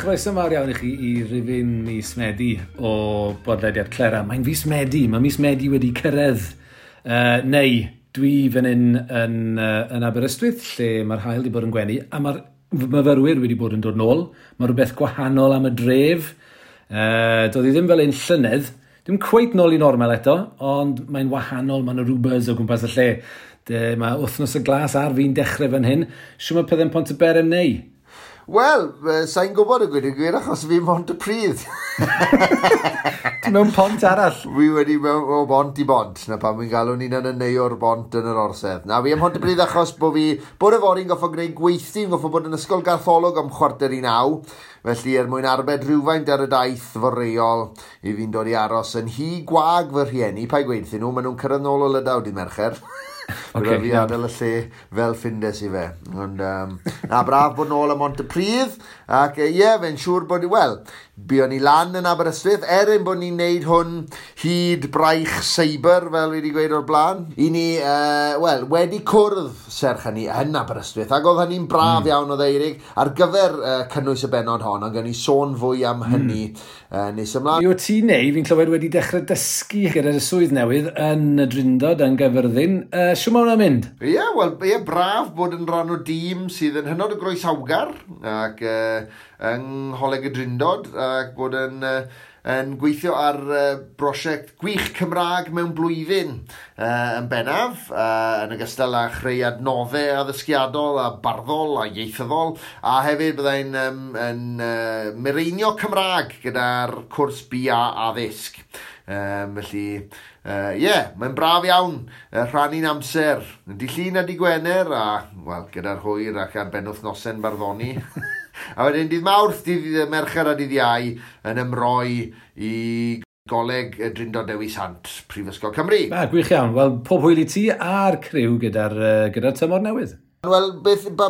chroeso mawr iawn i chi i rifyn mis Medi o bodlediad Clera. Mae'n fis Medi, mae mis Medi wedi cyrraedd. Neu, dwi fan hyn yn Aberystwyth, lle mae'r haul wedi bod yn gwenu, a mae'r myfyrwyr wedi bod yn dod nôl. Mae rhywbeth gwahanol am y dref. Doedd hi ddim fel un llynedd. Dim cweit nôl i normal eto, ond mae'n wahanol, mae'n rhywbeth o gwmpas y lle. Mae wythnos y glas ar fi'n dechrau fan hyn. Shwt mae pethau'n Pontyberem neu? Wel, sa'n gwybod y gwir y gwir achos fi Mhontypridd. Ti mewn pont arall? Fi wedi mewn o bont i bont, na pam fi'n galw ni'n yn y neu o'r bont yn yr orsedd. Na, fi ym Mhontypridd achos bod fi, bod yfory'n goffo gwneud gweithdy, yn goffo bod yn ysgol Gartholwg am 8:15, felly er mwyn arbed rhywfaint ar y daith foreol i fi'n dod i aros yn nhŷ gwag fy rhieni, paid gweud wrthyn nhw, maen nhw'n cyrraedd nôl o Lydaw dydd Mercher. Okay, fi adael y lle fel ffindes i fe. Ond, na, braf bod nôl ym Mhontypridd, ac ie, yeah, fe'n siŵr bod, wel, buon ni lan yn Aberystwyth, er ein bod ni'n neud hwn hyd braich cyber, fel fi wedi gweud o'r blaen. I ni, wel, wedi cwrdd serch hynny yn Aberystwyth, ac oedd hynny'n braf iawn o Eirig ar gyfer cynnwys y bennod hon, ond gawn ni sôn fwy am hynny nes ymlaen. Wyt ti neu, fi'n clywed wedi dechrau dysgu gyda'r swydd newydd yn y Drindod yn Gaerfyrddin. Shwt mae hwnna'n mynd? Ie, yeah, wel, ie, braf bod yn rhan o dîm sydd yn hynod o groesawgar ac yng Ngholeg y Drindod ac bod yn gweithio ar brosiect gwych Cymraeg mewn blwyddyn yn bennaf, yn ogystal â chreu adnoddau addysgiadol a barddol a ieithyddol, a hefyd byddai'n yn mireinio Cymraeg gyda'r cwrs BA Addysg. Felly, ie, yeah, mae'n braf iawn rhannu'n amser, dydd Llun a dydd Gwener, a, wel, gyda'r hwyr ac ar benwythnosau'n barddoni. A wedyn dydd Mawrth, dydd Mercher a dydd Iau yn ymroi i Goleg y Drindod Dewi Sant, Prifysgol Cymru. Ah, gwych iawn. Wel, pob hwyl i ti a'r criw gyda'r tymor newydd. Wel, beth, pa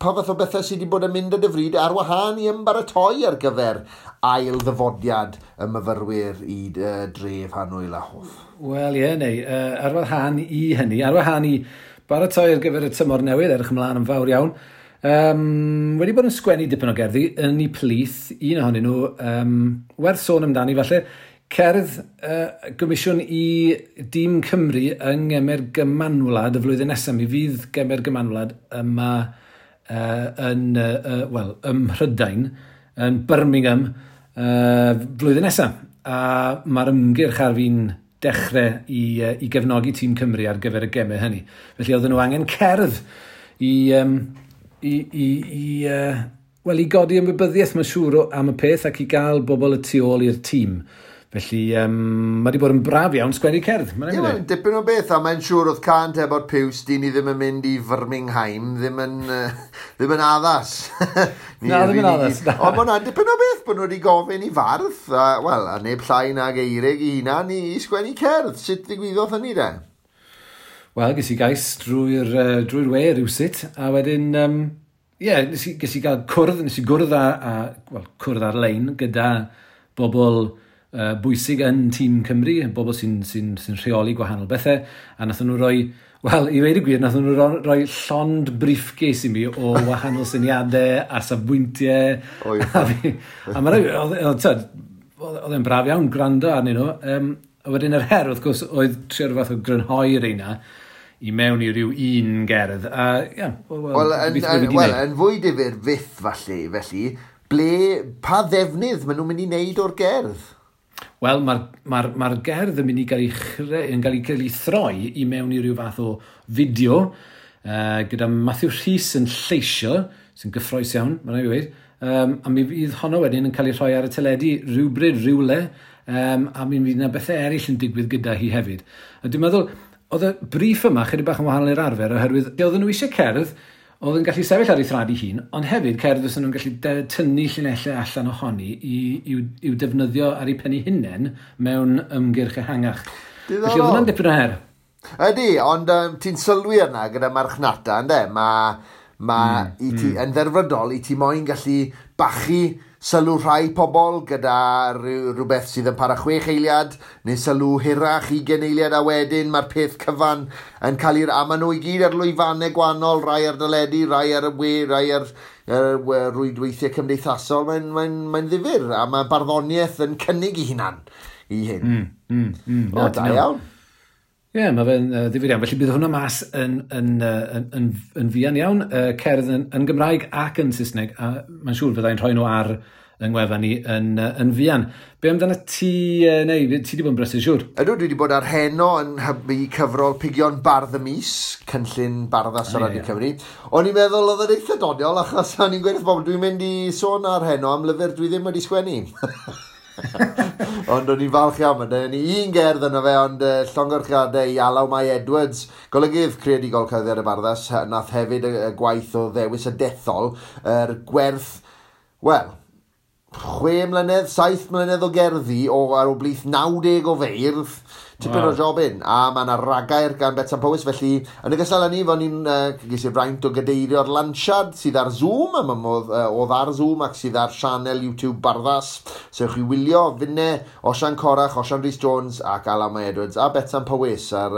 fath o bethau sydd wedi bod yn mynd â dy fryd ar wahân i ymbaratoi ar gyfer ail ddyfodiad y myfyrwyr i dref annwyl a hoff? Wel, ie, neu, ar wahân i hynny, ar wahân i baratoi ar gyfer y tymor newydd, edrych ymlaen yn fawr iawn, wedi bod yn sgwennu dipyn o gerddi yn ei plith, un ohonyn nhw, werth sôn amdani falle, cerdd gomisiwn i Dîm Cymru yng Ngemau'r Gymanwlad y flwyddyn nesaf. Mi fydd Gemau'r Gymanwlad yma yn, well, ym Mhrydain, yn Birmingham, flwyddyn nesaf. A mae'r ymgyrch ar fin dechrau i gefnogi Tîm Cymru ar gyfer y gemau hynny. Felly oedden nhw angen cerdd i godi ymwybyddiaeth, mae'n siŵr, am y peth ac i gael bobl y tu ôl i'r tîm. Felly, mae wedi bod yn braf iawn sgwennu cerdd. Ie, mae'n dipyn o beth, a mae'n siŵr oedd cân Tebot Piws, dyn ni ddim yn mynd i Firmingham, ddim yn addas. Na, ddim yn addas. Ond mae hwnna'n dipyn o beth bod nhw wedi gofyn i fardd, a, wel, a neb llai nag Eirig i hunan i sgwennu cerdd. Sut ddigwyddodd hynny de? Wel, ges i gais drwy'r we rywsut, a wedyn, ie, nes i gael cwrdd, nes i gwrdd well, cwrdd ar-lein gyda bobl bwysig yn Tîm Cymru, bobl sy'n rheoli gwahanol bethau, a nathon nhw roi, wel, i ddweud y gwir, nathon nhw roi llond briefcase i mi o wahanol syniadau a safbwyntiau. A ma' rai, oedd e'n braf iawn gwrando arnyn nhw. A wedyn yr her, wrth gwrs, oedd trio rhyw fath o grynhoi reina i mewn i ryw un gerdd. A, ie, wel, Wel, gobeithio bod fi 'di wel, neud. yn fwy difyr fyth, falle, felly, pa ddefnydd maen nhw'n mynd i wneud o'r gerdd? Wel, ma gerdd yn mynd i gael ei chreu, yn cael ei throi i mewn i ryw fath o fideo, gyda Matthew Rhys yn lleisio, sy'n gyffrous iawn, mae'n rhaid i weud. A mi fydd honno wedyn yn cael ei rhoi ar y teledu rhywbryd, rhywle, a mi fydd yna bethau eraill yn digwydd gyda hi hefyd. A dwi'n meddwl, oedd y briff yma chydig bach yn wahanol i'r arfer, oherwydd oedden nhw eisiau cerdd oedd yn gallu sefyll ar ei thraed ei hun, ond hefyd cerdd fysen nhw'n gallu tynnu llinellau allan ohoni i'w defnyddio ar ei pen ei hunain mewn ymgyrch ehangach. Diddorol. Felly oedd hwnna'n dipyn o her. Ydy, ond ti'n sylwi arna gyda marchnata, ynde? Ma i ti, yn dderfydol, i ti moyn gallu bachu sylw rhai pobl gyda rhywbeth sydd yn para 6 eiliad, neu sylw hirach 20 eiliad, a wedyn mae'r peth cyfan yn cael ei... A maen nhw i gyd ar lwyfannau gwahanol, rai ar deledu, rai ar y we, rai ar rwydweithiau cymdeithasol. Mae'n ddifyr, a mae barddoniaeth yn cynnig i hunan i hyn. O, da iawn. Ie, yeah, mae fe'n ddifyr iawn. Felly bydd hwnna mas yn fuan iawn, cerdd yn Gymraeg ac yn Saesneg, a mae'n siŵr fyddai'n rhoi nhw ar yng ngwefan ni yn fuan. Be amdano ti, neu, ti wedi bod yn brysur, siŵr? Ydw, dwi wedi bod ar heno yn hybu cyfrol Pigion Bardd y Mis, cynllun Barddas o Radio Cymru. O'n i'n meddwl oedd yn eitha doniol, achos o'n i'n gweud wrth bobl, dwi'n mynd i sôn ar heno am lyfr dwi ddim wedi sgwennu. Ond o'n i'n falch iawn, mae ni un gerdd yno fe, ond llongyfarchiadau i Alaw Mai Edwards, golygydd creadigol Cyhoeddiad y Barddas, nath hefyd y gwaith o ddewis y dethol, yr gwerth, wel, 6 mlynedd, 7 mlynedd o gerddi ar o blith 90 o feirdd, tipyn o jobyn, a mae yna ragair gan Betsan Powys, felly yn ogystal â ni, fo ni'n ges i'r braint o gadeirio'r lansiad sydd ar Zoom, a mae oedd ar Zoom ac sydd ar sianel YouTube Barddas, so ewch i wylio finne Osian Corach, Osian Rhys Jones ac Alaw Mai Edwards a Betsan Powys ar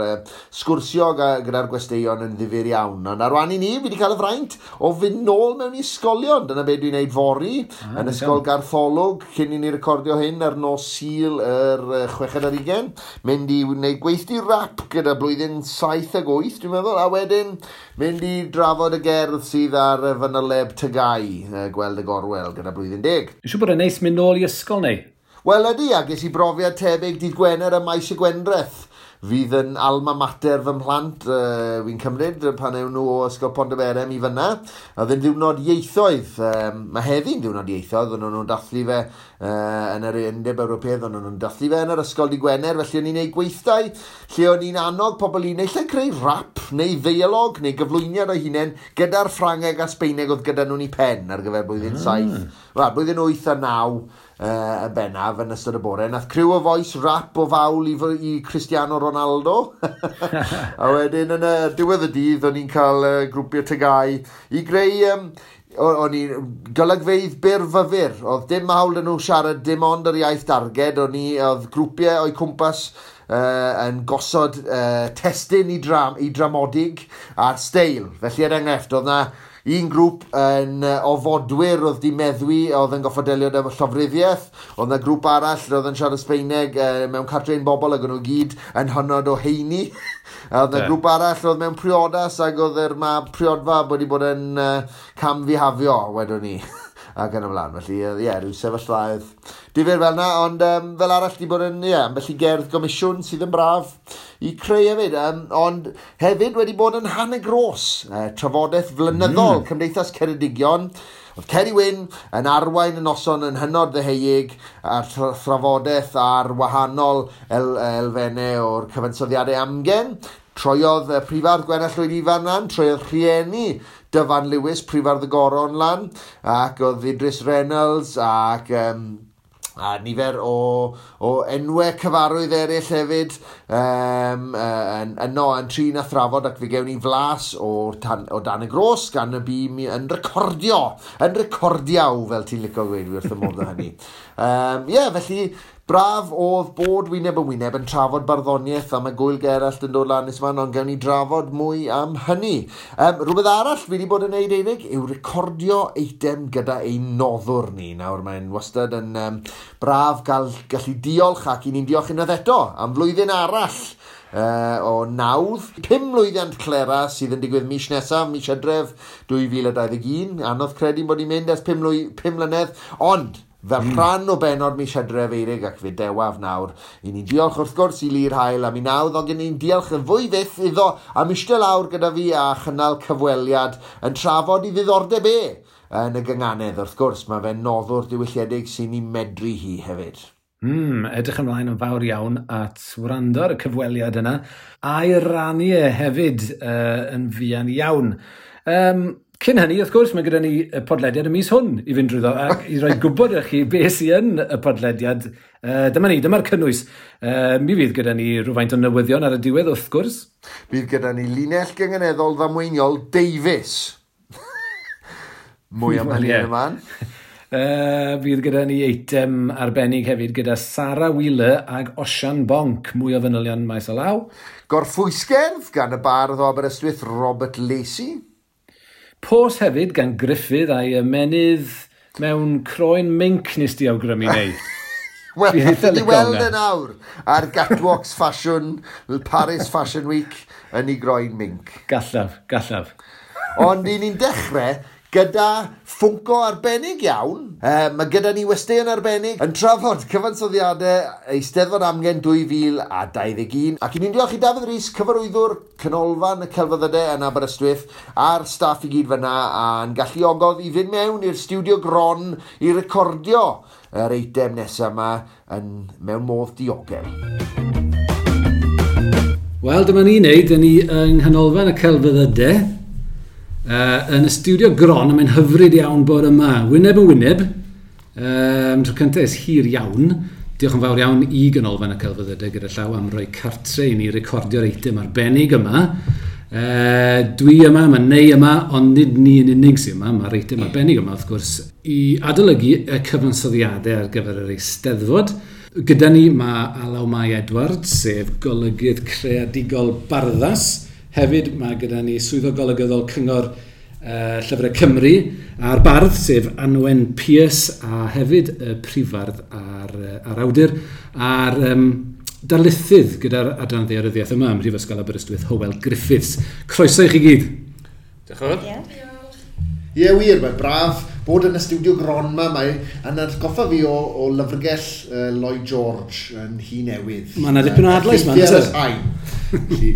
sgwrsio gyda'r gwesteion yn ddifyr iawn. Ond ar wan i ni, fi wedi cael y fraint o fynd nôl mewn i ysgolion, dyna be dwi'n neud fory, yn Ysgol Gartholwg, cyn i ni recordio hyn ar nos Sul yr 26, mynd i wneud gweithdy rap gyda blwyddyn 7 ac 8, dwi'n meddwl, a wedyn mynd i drafod y gerdd sydd ar y fanyleb Tygau, gweld y gorwel gyda blwyddyn 10. Dwi'n siŵr bod e'n neis mynd nôl i ysgol neu? Wel ydy, a ges i brofiad tebyg dydd Gwener ym Maes y Gwendraeth. Fydd yn alma mater fy mhlant, fi'n cymryd, pan ewn nhw o Ysgol Pontyberem i fyna. Oedd yn ddiwrnod ieithoedd, mae heddi'n ddiwrnod ieithoedd, o'n nhw'n dathlu fe yn yr Undeb Ewropeaidd, o'n nhw'n dathlu fe yn yr ysgol dydd Gwener, felly o'n i'n neud gweithdai lle o'n i'n annog pobl i neu creu rap, neu ddeialog, neu gyflwyniad o'i hunain gyda'r Ffrangeg a Sbeineg oedd gyda nhw'n i pen ar gyfer blwyddyn 7. Wel, blwyddyn 8 a 9 y bennaf yn ystod y bore. Nath criw o voice rap o fawl i Cristiano Ronaldo. A wedyn yn y diwedd y dydd o'n i'n cael grwpiau tygau i greu o'n i'n golygfeydd byrfyfyr. Oedd dim hawl yn nhw siarad dim ond yr iaith darged. Oedd grwpiau o'i cwmpas yn gosod testun i dramodig a'r steil. Felly er enghraifft, oedd na un grŵp yn ofodwyr oedd di meddwi, oedd yn goffod delio efo llofruddiaeth. Oedd na grŵp arall oedd yn siarad Sbeineg mewn cartre'n bobl ac o'n nhw gyd yn hynod o heini. Oedd na grŵp arall oedd mewn priodas ac oedd yr mab priodfa wedi bod yn camfihafio, wedwn ni. Ac yn ymlaen. Felly, ie, rhyw sefyllfaoedd difyr fel yna, ond fel arall di bod yn, ie, ambell i gerdd gomisiwn sydd yn braf i creu hefyd. Ond hefyd wedi bod yn Hanegros, trafodaeth flynyddol Cymdeithas Ceredigion. Oedd Ceri Wyn yn arwain y noson yn hynod ddeheuig a'r trafodaeth ar wahanol elfennau o'r cyfansoddiadau amgen. Troiodd y prifardd Gwenallt Llwyd Ifan lan, troiodd rhieni Dyfan Lewis, prifardd y Goron lan, ac oedd Idris Reynolds ac a nifer o enwau cyfarwydd eraill hefyd yno yn trin a thrafod, ac fe gewn ni flas o Dan y Gros gan y bîm yn recordiaw, fel ti'n licio gweud, wrth y modd o hynny. Felly braf oedd bod wyneb yn wyneb yn trafod barddoniaeth am y Gwyl Gerallt yn dod lan nes yma, ond gewn ni drafod mwy am hynny. Rhywbeth arall fi wedi bod yn neud, Eirig, yw recordio eitem gyda ein noddwr ni. Nawr mae'n wastad yn braf gallu diolch, ac i ni'n diolch unwaith eto am flwyddyn arall o nawdd. 5 mlwyddiant Clera sydd yn digwydd mis nesaf, mis Hydref 2021. Anodd credu bod ni'n mynd ers 5 mlynedd, ond fel rhan o benod mis Hydref, Eirig, ac fe dewaf nawr. I ni'n diolch wrth gwrs i Lir Hael am ei nawdd, ond ni'n diolch yn fwy fyth iddo am eistedd lawr gyda fi a chynnal cyfweliad yn trafod i ddiddordeb e yn y gynganedd. Wrth gwrs, mae fe'n noddwr diwylliedig sy'n ei medru hi hefyd. Edrych ymlaen yn fawr iawn at wrando ar y cyfweliad yna, a'i rannu e hefyd yn fuan iawn. Cyn hynny, wrth gwrs, mae gyda ni y podlediad y mis hwn i fynd drwyddo ac i roi gwybod i chi beth sydd yn y podlediad. Dyma ni, dyma'r cynnwys. Mi fydd gyda ni rhywfaint o newyddion ar y diwedd, wrth gwrs. Bydd gyda ni linell gynganeddol ddamweiniol Davies. Mwy am hynny yn y man. Fydd gyda ni eitem arbennig hefyd gyda Sarah Wheeler ag Osian Bonc. Mwy o fanylion maes o law. Gorffwysgerdd gan y bardd o Aberystwyth Robert Lacey. Pos hefyd gan Gruffydd a'i ymenydd mewn croen minc nes di awgrymu neu. Wel, allan ni weld yn awr ar Catwalks Fashion, Paris Fashion Week yn ei groen minc. Gallaf, gallaf. Ond i ni'n dechrau gyda ffwnco arbennig iawn. Mae gyda ni westeion arbennig yn trafod cyfansoddiadau Eisteddfod Amgen 2021. Ac i ni'n diolch i Dafydd Rhys, cyfarwyddwr Canolfan y Celfyddydau yn Aberystwyth, a'r staff i gyd fyna, a'n galluogodd i fynd mewn i'r stiwdio gron i recordio yr eitem nesaf yma yn mewn modd diogel. Wel, dyma ni'n neud, dyn ni yng Nghanolfan y Celfyddydau, yn y stiwdio gron, a mae'n hyfryd iawn bod yma, wyneb yn wyneb, tro cyntaf ers hir iawn. Diolch yn fawr iawn i Ganolfan y Celfyddydau gyda llaw am roi cartre i ni recordio'r eitem arbennig yma. Dwi yma, mae Neu yma, ond nid ni yn unig sydd yma, mae'r eitem arbennig yma wrth gwrs i adolygu y cyfansoddiadau ar gyfer yr Eisteddfod. Gyda ni mae Alaw Mai Edwards, sef golygydd creadigol Barddas. Hefyd mae gyda ni swyddog golygyddol Cyngor Llyfrau Cymru a'r bardd, sef Anwen Pierce, a hefyd y prifardd a'r awdur, a'r darlithydd gyda'r adran ddaearyddiaeth yma ym Mhrifysgol Aberystwyth, Hywel Griffiths. Croeso i chi gyd. Diolch yn fawr. Ie, wir, mae'n braf bod yn y stiwdio gron yma. Mae yn atgoffa fi o lyfrgell Lloyd George yn Nhŷ Newydd. Mae yna dipyn o adlais ma'n oes?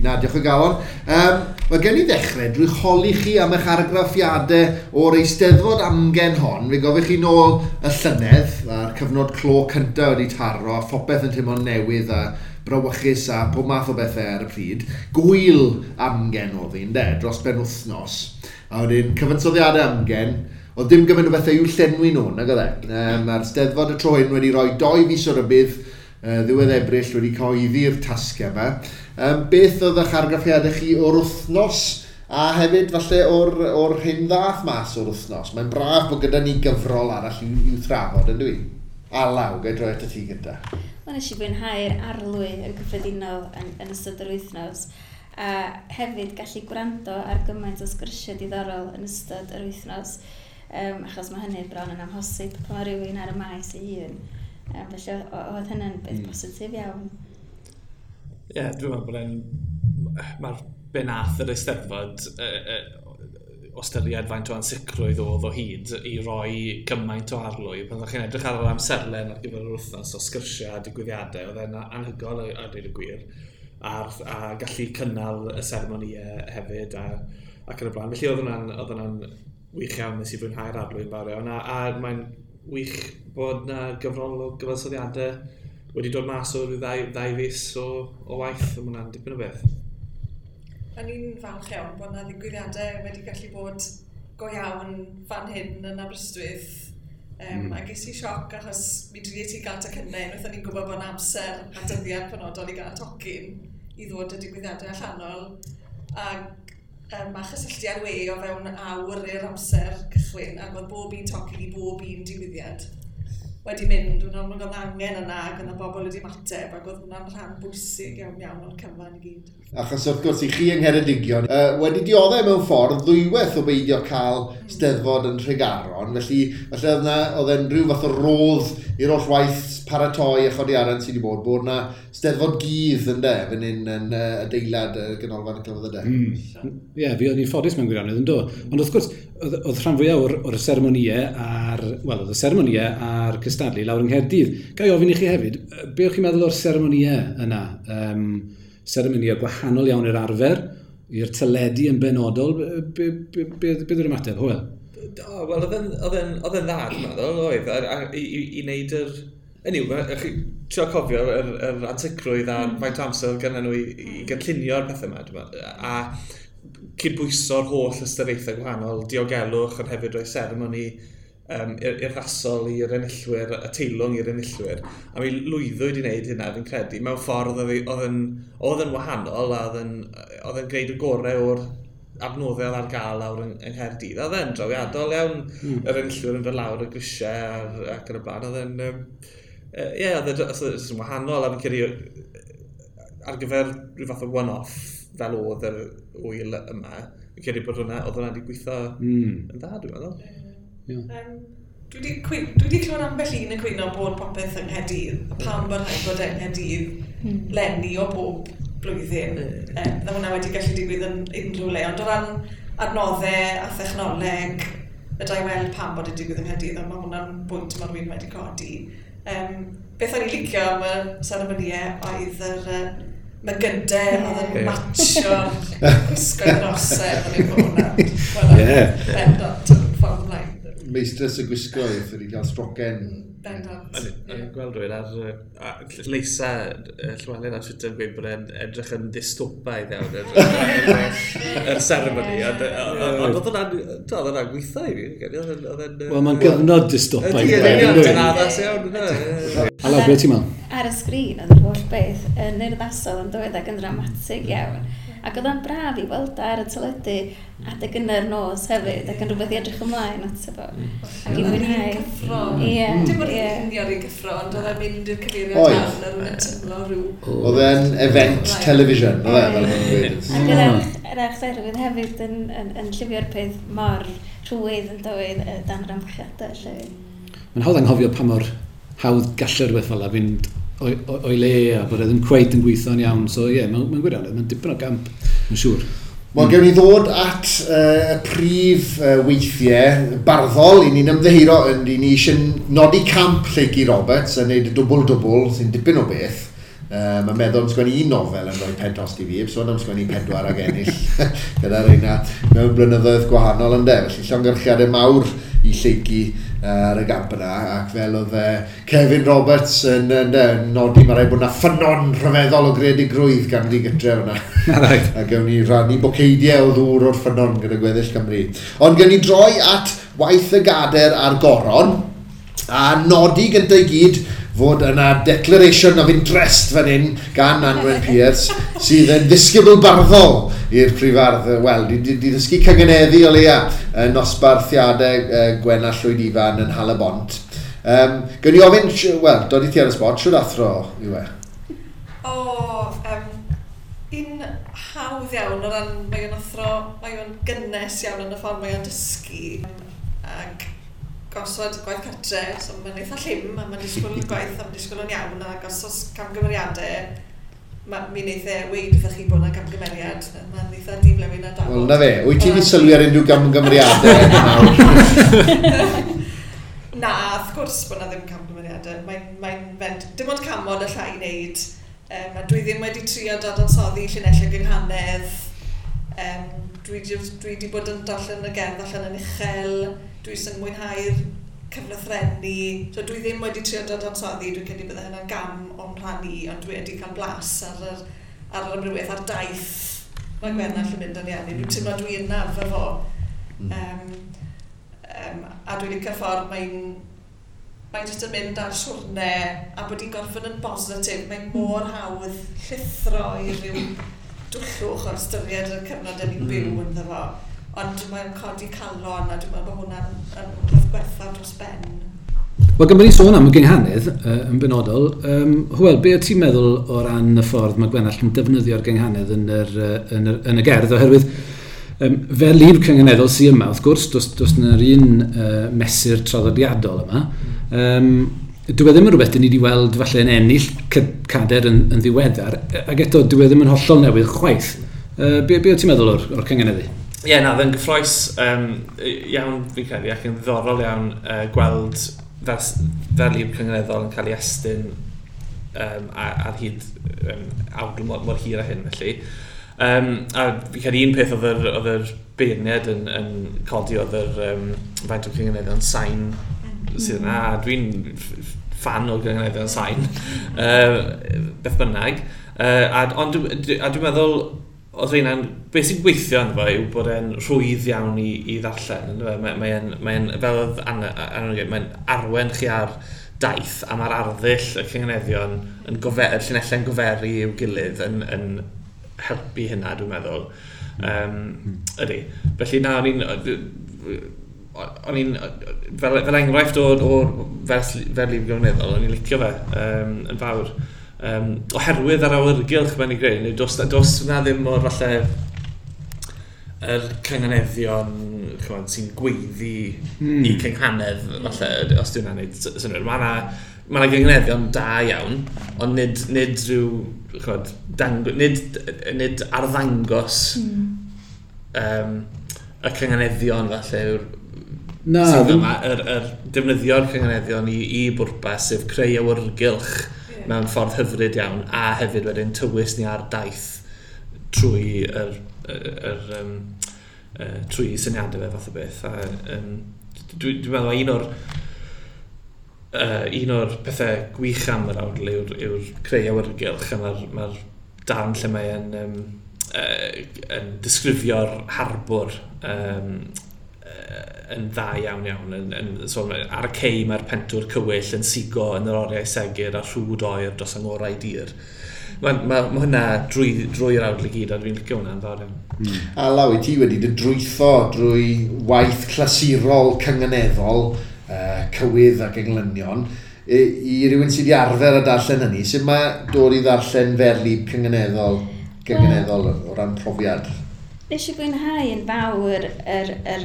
Na, diolch o galon. Mae gen i ddechrau drwy holi chi am eich argraffiadau o'r Eisteddfod Amgen hon. Fe gofio chi nôl y llynedd, a'r cyfnod clo cyntaf wedi taro, a phopeth yn teimlo'n newydd a brawychus a pob math o bethau ar y pryd. Gwyl amgen oedd hi'n de, dros ben wythnos. A wedyn cyfansoddiadau amgen, oedd dim gymaint o bethau i'w llenwi nhw, nag oedd e. Mae'r Steddfod y tro hyn wedi rhoi 2 fis o rybudd, ddiwedd Ebrill wedi cyhoeddi'r tasgau yma. Beth oedd eich argraffiadau chi o'r wythnos a hefyd falle o'r hyn ddath mas o'r wythnos? Mae'n braf bod gyda ni gyfrol arall i'w thrafod, yn dwi? Alaw, gai droi at y ti gyda. Wel, nes i fwynhau'r arlwy yn gyffredinol yn ystod yr wythnos, a hefyd gallu gwrando ar gymaint o sgyrsiau diddorol yn ystod yr wythnos, achos mae hynny bron yn amhosib pan mae rhywun ar y maes ei hun. Felly oedd hynny'n beth positif iawn. Ie, yeah, dwi'n meddwl bod e'n... Mae'r be nath yr Eisteddfod o ystyried faint o ansicrwydd oedd o hyd i roi gymaint o arlwy. Pan ddech chi'n edrych ar yr amserlen ar gyfer yr wythnos o sgyrsiau a digwyddiadau, oedd e'n anhygoel a dweud y gwir, a gallu cynnal y seremonïau hefyd ac yn y blaen. Felly oedd hwnna'n wych iawn, nes i fwynhau'r arlwy yn fawr iawn, a mae'n wych bod na gyfrol o gyfansoddiadau wedi dod mas o ryw ddau fis o waith, a ma' hwnna'n dipyn o beth. O'n i'n falch iawn bod yna ddigwyddiadau wedi gallu bod go iawn fan hyn yn Aberystwyth. A ges i sioc achos mi dries i gael tocynnau, unwaith o'n i'n gwybod bod yna amser a dyddiad penodol i gael tocyn i ddod y digwyddiadau allanol. Ac a chysylltu ar we o fewn awr i'r amser cychwyn, ac oedd bob un tocyn i bob un digwyddiad wedi mynd. O'n amlwg oedd angen yna, ac oedd bobl wedi ymateb, ac oedd hwnna'n rhan bwysig iawn iawn o'r cyfan i gyd. Achos wrth gwrs i chi yng Ngheredigion, wedi dioddef mewn ffordd ddwywaith o beidio cael Steddfod yn Nhregaron, felly falle oedd e'n rhyw fath o rodd i'r holl waith paratoi a chodi arian sydd wedi bod yna Steddfod gudd ynde, fan hyn yn adeilad y Ganolfan y Celfyddydau. Ie, fi oedd ni'n ffodus mewn gwirionedd yn do. Ond wrth gwrs, oedd rhan fwyaf o'r seremonïau a'r, wel, oedd y seremonïau a'r cystadlu lawr yng Nghaerdydd. Ga i ofyn i chi hefyd, be o'ch chi'n meddwl o'r seremonïau yna? Seremonïau gwahanol iawn i'r arfer, i'r teledu yn benodol, be oedd yr ymateb, Hywel? Wel, oedd e'n dda, dwi'n meddwl, oedd, i wneud yr... Anyway, trio cofio yr ansicrwydd a faint o amser oedd gynnon nhw i gynllunio'r pethau yma, dwi'n meddwl, a cydbwyso'r holl ystyriaethau gwahanol, diogelwch, ond hefyd rhoi seremoni urddasol i'r enillwyr, y teilwng i'r enillwyr. A mi lwyddwyd i wneud hynna, fi'n credu, mewn ffordd oedd yn wahanol a oedd yn gwneud y gorau o'r adnoddau ar gael lawr yng Nghaerdydd. Oedd e'n drawiadol iawn, yr enillwyr yn dod lawr y grisiau ac yn y blaen. Oedd e'n, ie, oedd e'n wahanol, a fi'n credu ar gyfer rhyw fath o one-off fel oedd yr wyl yma, fi'n credu bod hwnna, oedd hwnna wedi gweithio yn dda, dwi'n meddwl. Yeah. Dwi wedi clywed ambell un yn cwyno bod popeth yng Nghaerdydd, a pam bod rhaid bod yng Nghaerdydd leni o bob blwyddyn. Dda hwnna wedi gallu digwydd yn unrhyw le, ond o ran adnoddau a thechnoleg, fedra i weld pam bod yn digwydd yng Nghaerdydd, ond mae hwnna'n bwynt mae rhywun wedi codi. Beth o'n i licio am y seremonïau oedd yr mygydau oedd yn matcho'r gwisgoedd nosau, o'n i'n bod hwnna'n bendant yn ffordd ymlaen. Meistres y gwisgoedd wedi cael strocen. Bendant. O'n i'n gweld rhywun ar Leisa Llywelyn ar Twitter yn gweud bod e'n edrych yn dystopaidd iawn yr seremoni. Ond oedd hwnna'n gweithio i fi. Wel, mae'n gyfnod dystopaidd. Yn addas iawn. Alaw, beth ti'n meddwl? Ar y sgrin oedd yr holl beth yn urddasol yn dod ac yn ddramatig iawn. Ac oedd o'n braf i weld ar y teledu adeg gynnar nos hefyd, ac yn rhywbeth i edrych ymlaen ato fo. Ac i fwynhau. Cyffro. Ie. Dim o'r union i'n cyffro, ond oedd e'n mynd i'r cyfeiriad iawn, a rhywun yn teimlo rhyw... Oedd e'n event television, oedd e, fel ma'n dweud. Ac yr archdderwydd hefyd yn llifio'r peth mor rhwydd yn dweud dan yr amgylchiadau, lle. Mae'n hawdd anghofio pa mor hawdd gallai rhywbeth fel 'na fynd o'i le a bod e ddim cweit yn gweithio'n iawn. So ie, yeah, mae'n gwirionedd, mae'n dipyn o gamp, yn siŵr. Wel, gewn ni ddod at y prif weithiau barddol i ni'n ymddiheuro, i ni eisiau nodi camp Lleucu Roberts yn neud y dwbl-dwbl, sy'n dipyn o beth. Mae'n meddwl am sgwennu un nofel yn rhoi pen tost i fi, sôn am sgwennu 4 ag ennill gyda'r reina mewn blynyddoedd gwahanol ynde. Felly llongyfarchiadau mawr i Lleucu ar y gamp yna, ac fel oedd Kevin Roberts yn nodi, mae rhaid bod yna ffynnon rhyfeddol o greadigrwydd gan di gytre yna. A gewn ni rannu boceidiau o ddŵr o'r ffynnon gyda gweddill Cymru. Ond gewn ni droi at waith y gader a'r goron, a nodi gyntaf i gyd fod yna declaration of interest fan hyn gan Anwen Pierce, sydd yn ddisgybl barddol i'r prifardd. Wel, di ddysgu cyngeneddu o leia yn nosbarthiadau Gwenna Llwyd Ifan yn Halabont. Gawn ni ofyn, wel, dod i ti ar y spot, siwr athro yw e? O, un hawdd iawn o ran mae o'n athro, mae o'n gynnes iawn yn y ffordd mae o'n dysgu. Ac gosod gwaith cartre, so mae'n eitha llym, a mae'n disgwyl gwaith, a mae'n disgwyl yn iawn, ac os oes camgymeriadau, mi wneith e weud wrthych chi bod yna camgymeriad, mae'n eitha diflewyn a dafod. Wel, na fe, wyt ti wedi sylwi ar unrhyw gamgymeriadau nawr? Na, wrth gwrs bod yna ddim camgymeriadau, mae'n fend, dim ond camod allai i wneud, a dwi ddim wedi trio dadansoddi llinellau gynghanedd, dwi wedi bod yn darllen y gerdd allan yn uchel, dwi sy'n mwynhau'r cyflythrennu. So dwi ddim wedi trio dadansoddi, dwi'n credu bydde hynna'n gam o'n rhan i, ond dwi wedi cael blas ar yr amrywiaeth, ar daith mae Gwenallt yn mynd yn iawn. Dwi'n teimlo dwi yna efo fo. A dwi'n licio'r ffordd mae'n jyst yn mynd ar siwrne a bod hi'n gorffen yn bositif. Mae'n mor hawdd llithro i ryw dwllwch o'r ystyried y cyfnod yn ni'n byw ynddo fo. Ond mae'n codi calon a dwi'n meddwl bod hwnna'n rhywbeth gwerthfawr dros ben. Wel, gan bod ni'n sôn am y gynghanedd yn benodol, Hywel, be wyt ti'n meddwl o ran y ffordd mae Gwenallt yn defnyddio'r gynghanedd yn y gerdd? Oherwydd, fel un cynghaneddol sydd yma, wrth gwrs, does yna'r un mesur traddodiadol yma. Dyw e ddim yn rhywbeth dyn ni wedi weld falle yn ennill cader yn ddiweddar, ac eto dyw e ddim yn hollol newydd chwaith. Be wyt ti'n meddwl o'r cynghaneddu? Ie, na, oedd yn gyffrous iawn fi'n credu ac yn ddiddorol iawn gweld fel i'r cynghaneddol yn cael ei estyn ar hyd awdl mor hir a hyn felly. A fi'n credu un peth oedd yr beirniad yn codi oedd yr faint o cynghaneddion sain sydd yna, a dwi'n fan o gynghaneddion sain, beth bynnag. Ond dwi'n meddwl oedd rheina'n, beth sy'n gweithio ynddo fo yw bod e'n rhwydd iawn i ddarllen. Mae'n, fel oedd Anna, mae'n arwen chi ar daith, a mae'r arddull y cynganeddion, y llinellau'n goferu i'w gilydd yn helpu hynna, dwi'n meddwl. Ydy. Felly na, o'n i'n fel enghraifft o'r fel i gyfneddol, o'n i'n licio fe yn fawr. Oherwydd yr awyrgylch mae'n ei greu, neu does na ddim o'r falle yr cynganeddion sy'n gweiddi i cynghanedd, falle, os dwi'n gwneud synnwyr. Mae yna gynganeddion da iawn, ond nid rhyw, chymod, nid arddangos y cynganeddion falle yw'r yr defnyddio'r cynganeddion i bwrpas, sef creu awyrgylch mewn ffordd hyfryd iawn, a hefyd wedyn tywys ni ar daith trwy trwy syniadau fe fath o beth. A, dwi'n meddwl un o'r pethau gwych am yr awdl yw'r creu awyrgylch, a mae'r darn lle mae'n yn disgrifio'r harbwr yn dda iawn iawn. So, ar y cei mae'r pentwr cywyll yn sigo yn yr oriau segur a rhwd oer dros angorau dir. Mae hwnna drwy'r awdl i gyd, a dwi'n licio hwnna'n fawr iawn. A Lawi, ti wedi dy drwytho drwy waith clasurol cynganeddol, cywydd ac englynion, i rywun sydd wedi arfer a darllen hynny, sut mae dod i ddarllen ferlib cynganeddol o ran profiad? Nes i fwynhau yn fawr yr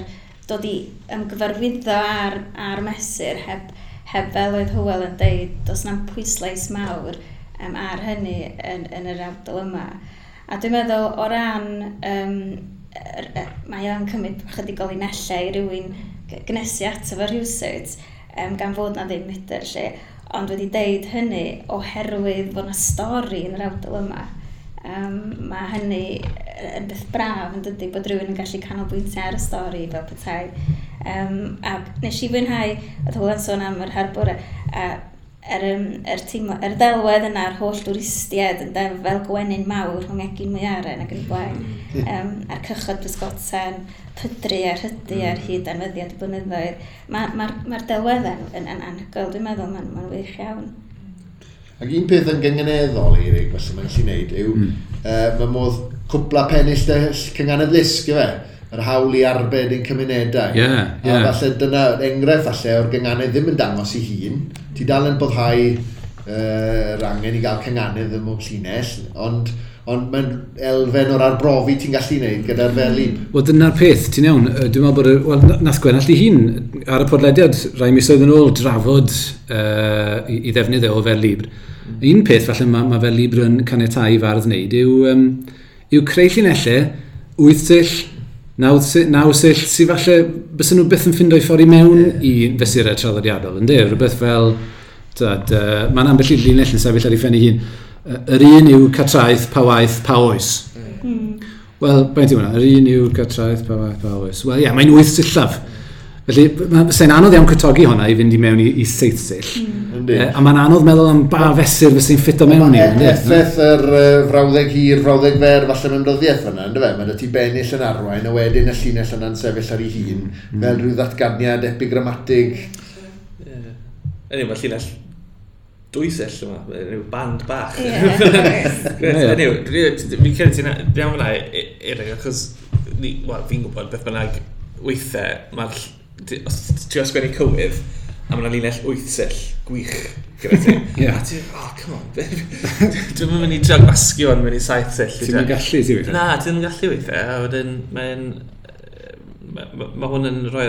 dod i ymgyfarwyddo ar mesur heb fel oedd Hywel yn deud, does na'm pwyslais mawr ar hynny yn yr awdl yma. A dwi'n meddwl o ran, mae o'n cymryd chydig o linellau i rywun gnesu ato fo rhywsut, gan fod na ddim medr lle, ond wedi deud hynny oherwydd fod na stori yn yr awdl yma. Mae hynny yn beth braf yn dydy, bod rhywun yn gallu canolbwyntio ar y stori fel petai. A nes i fwynhau, oedd Hywel yn sôn am yr harbwr, a yr ddelwedd yna, yr holl dwristiaid yn fel gwenyn mawr rhwng egin mwyaren ac yn y blaen, a'r cychod pysgota yn pydru a rhydu ar hyd anfyddiad y blynyddoedd. Mae'r delweddau yn anhygoel, dwi'n meddwl, mae'n wych iawn. Ac un peth yn gynganeddol, Eirig, felly mae'n gallu gwneud, yw mae modd cwpla pennill cynganedd lusg, yw e? Yr hawl i arbed ein cymunedau. Yeah. A falle dyna enghraifft falle o'r gynganedd ddim yn dangos ei hun. Ti dal yn boddhau yr angen i gael cynganedd ym mhob llinell, ond mae'n elfen o'r arbrofi ti'n gallu gwneud gyda'r ferlib. Wel, dyna'r peth, ti'n iawn. Dwi'n meddwl bod, wel, nath Gwenallt ei hun ar y podlediad rai misoedd yn ôl drafod i ddefnydd o ferlib. Un peth falle mae ferlib yn caniatáu i fardd wneud yw creu llinellau 8 sill, 9 sill, sydd falle bysen nhw byth yn ffindo'i ffordd i mewn i fesurau traddodiadol, ynddi? Rhywbeth fel, mae'n ambell i linell yn sefyll ar ei phen ei hun. Yr un yw catraeth, pa waith, pa oes. Wel, faint yw hwnna? Yr un yw catraeth, pa waith, pa oes. Wel, ie, mae'n 8 sillaf. Felly, sy'n anodd iawn cwtogi hwnna i fynd i mewn i 7 sill. A mae'n anodd meddwl am ba fesur fysy'n ffito mewn i. Effaith yr frawddeg hir, frawddeg fer, falle mewn ryddiaeth fyna, ynddo fe? Mae 'da ti bennill yn arwain, a wedyn y llinell yna'n sefyll ar ei hun, fel rhyw ddatganiad epigramatig. Anyway, mae llinell 2 sill yma, rhyw band bach. Anyway, fi'n credu ti'n iawn fyna, Eirig, achos fi'n gwybod beth bynnag weithiau, mae'r os ti'n ysgrifennu cywydd, a mae yna linell 8 sill gwych gyda ti. A ti'n, oh, come on. Dwi'n mynd i trio gwasgu hwn mewn i 7 sill. Ti'n mynd gallu ti weithiau? Na, ti'n mynd gallu weithiau. A wedyn, mae hwn yn rhoi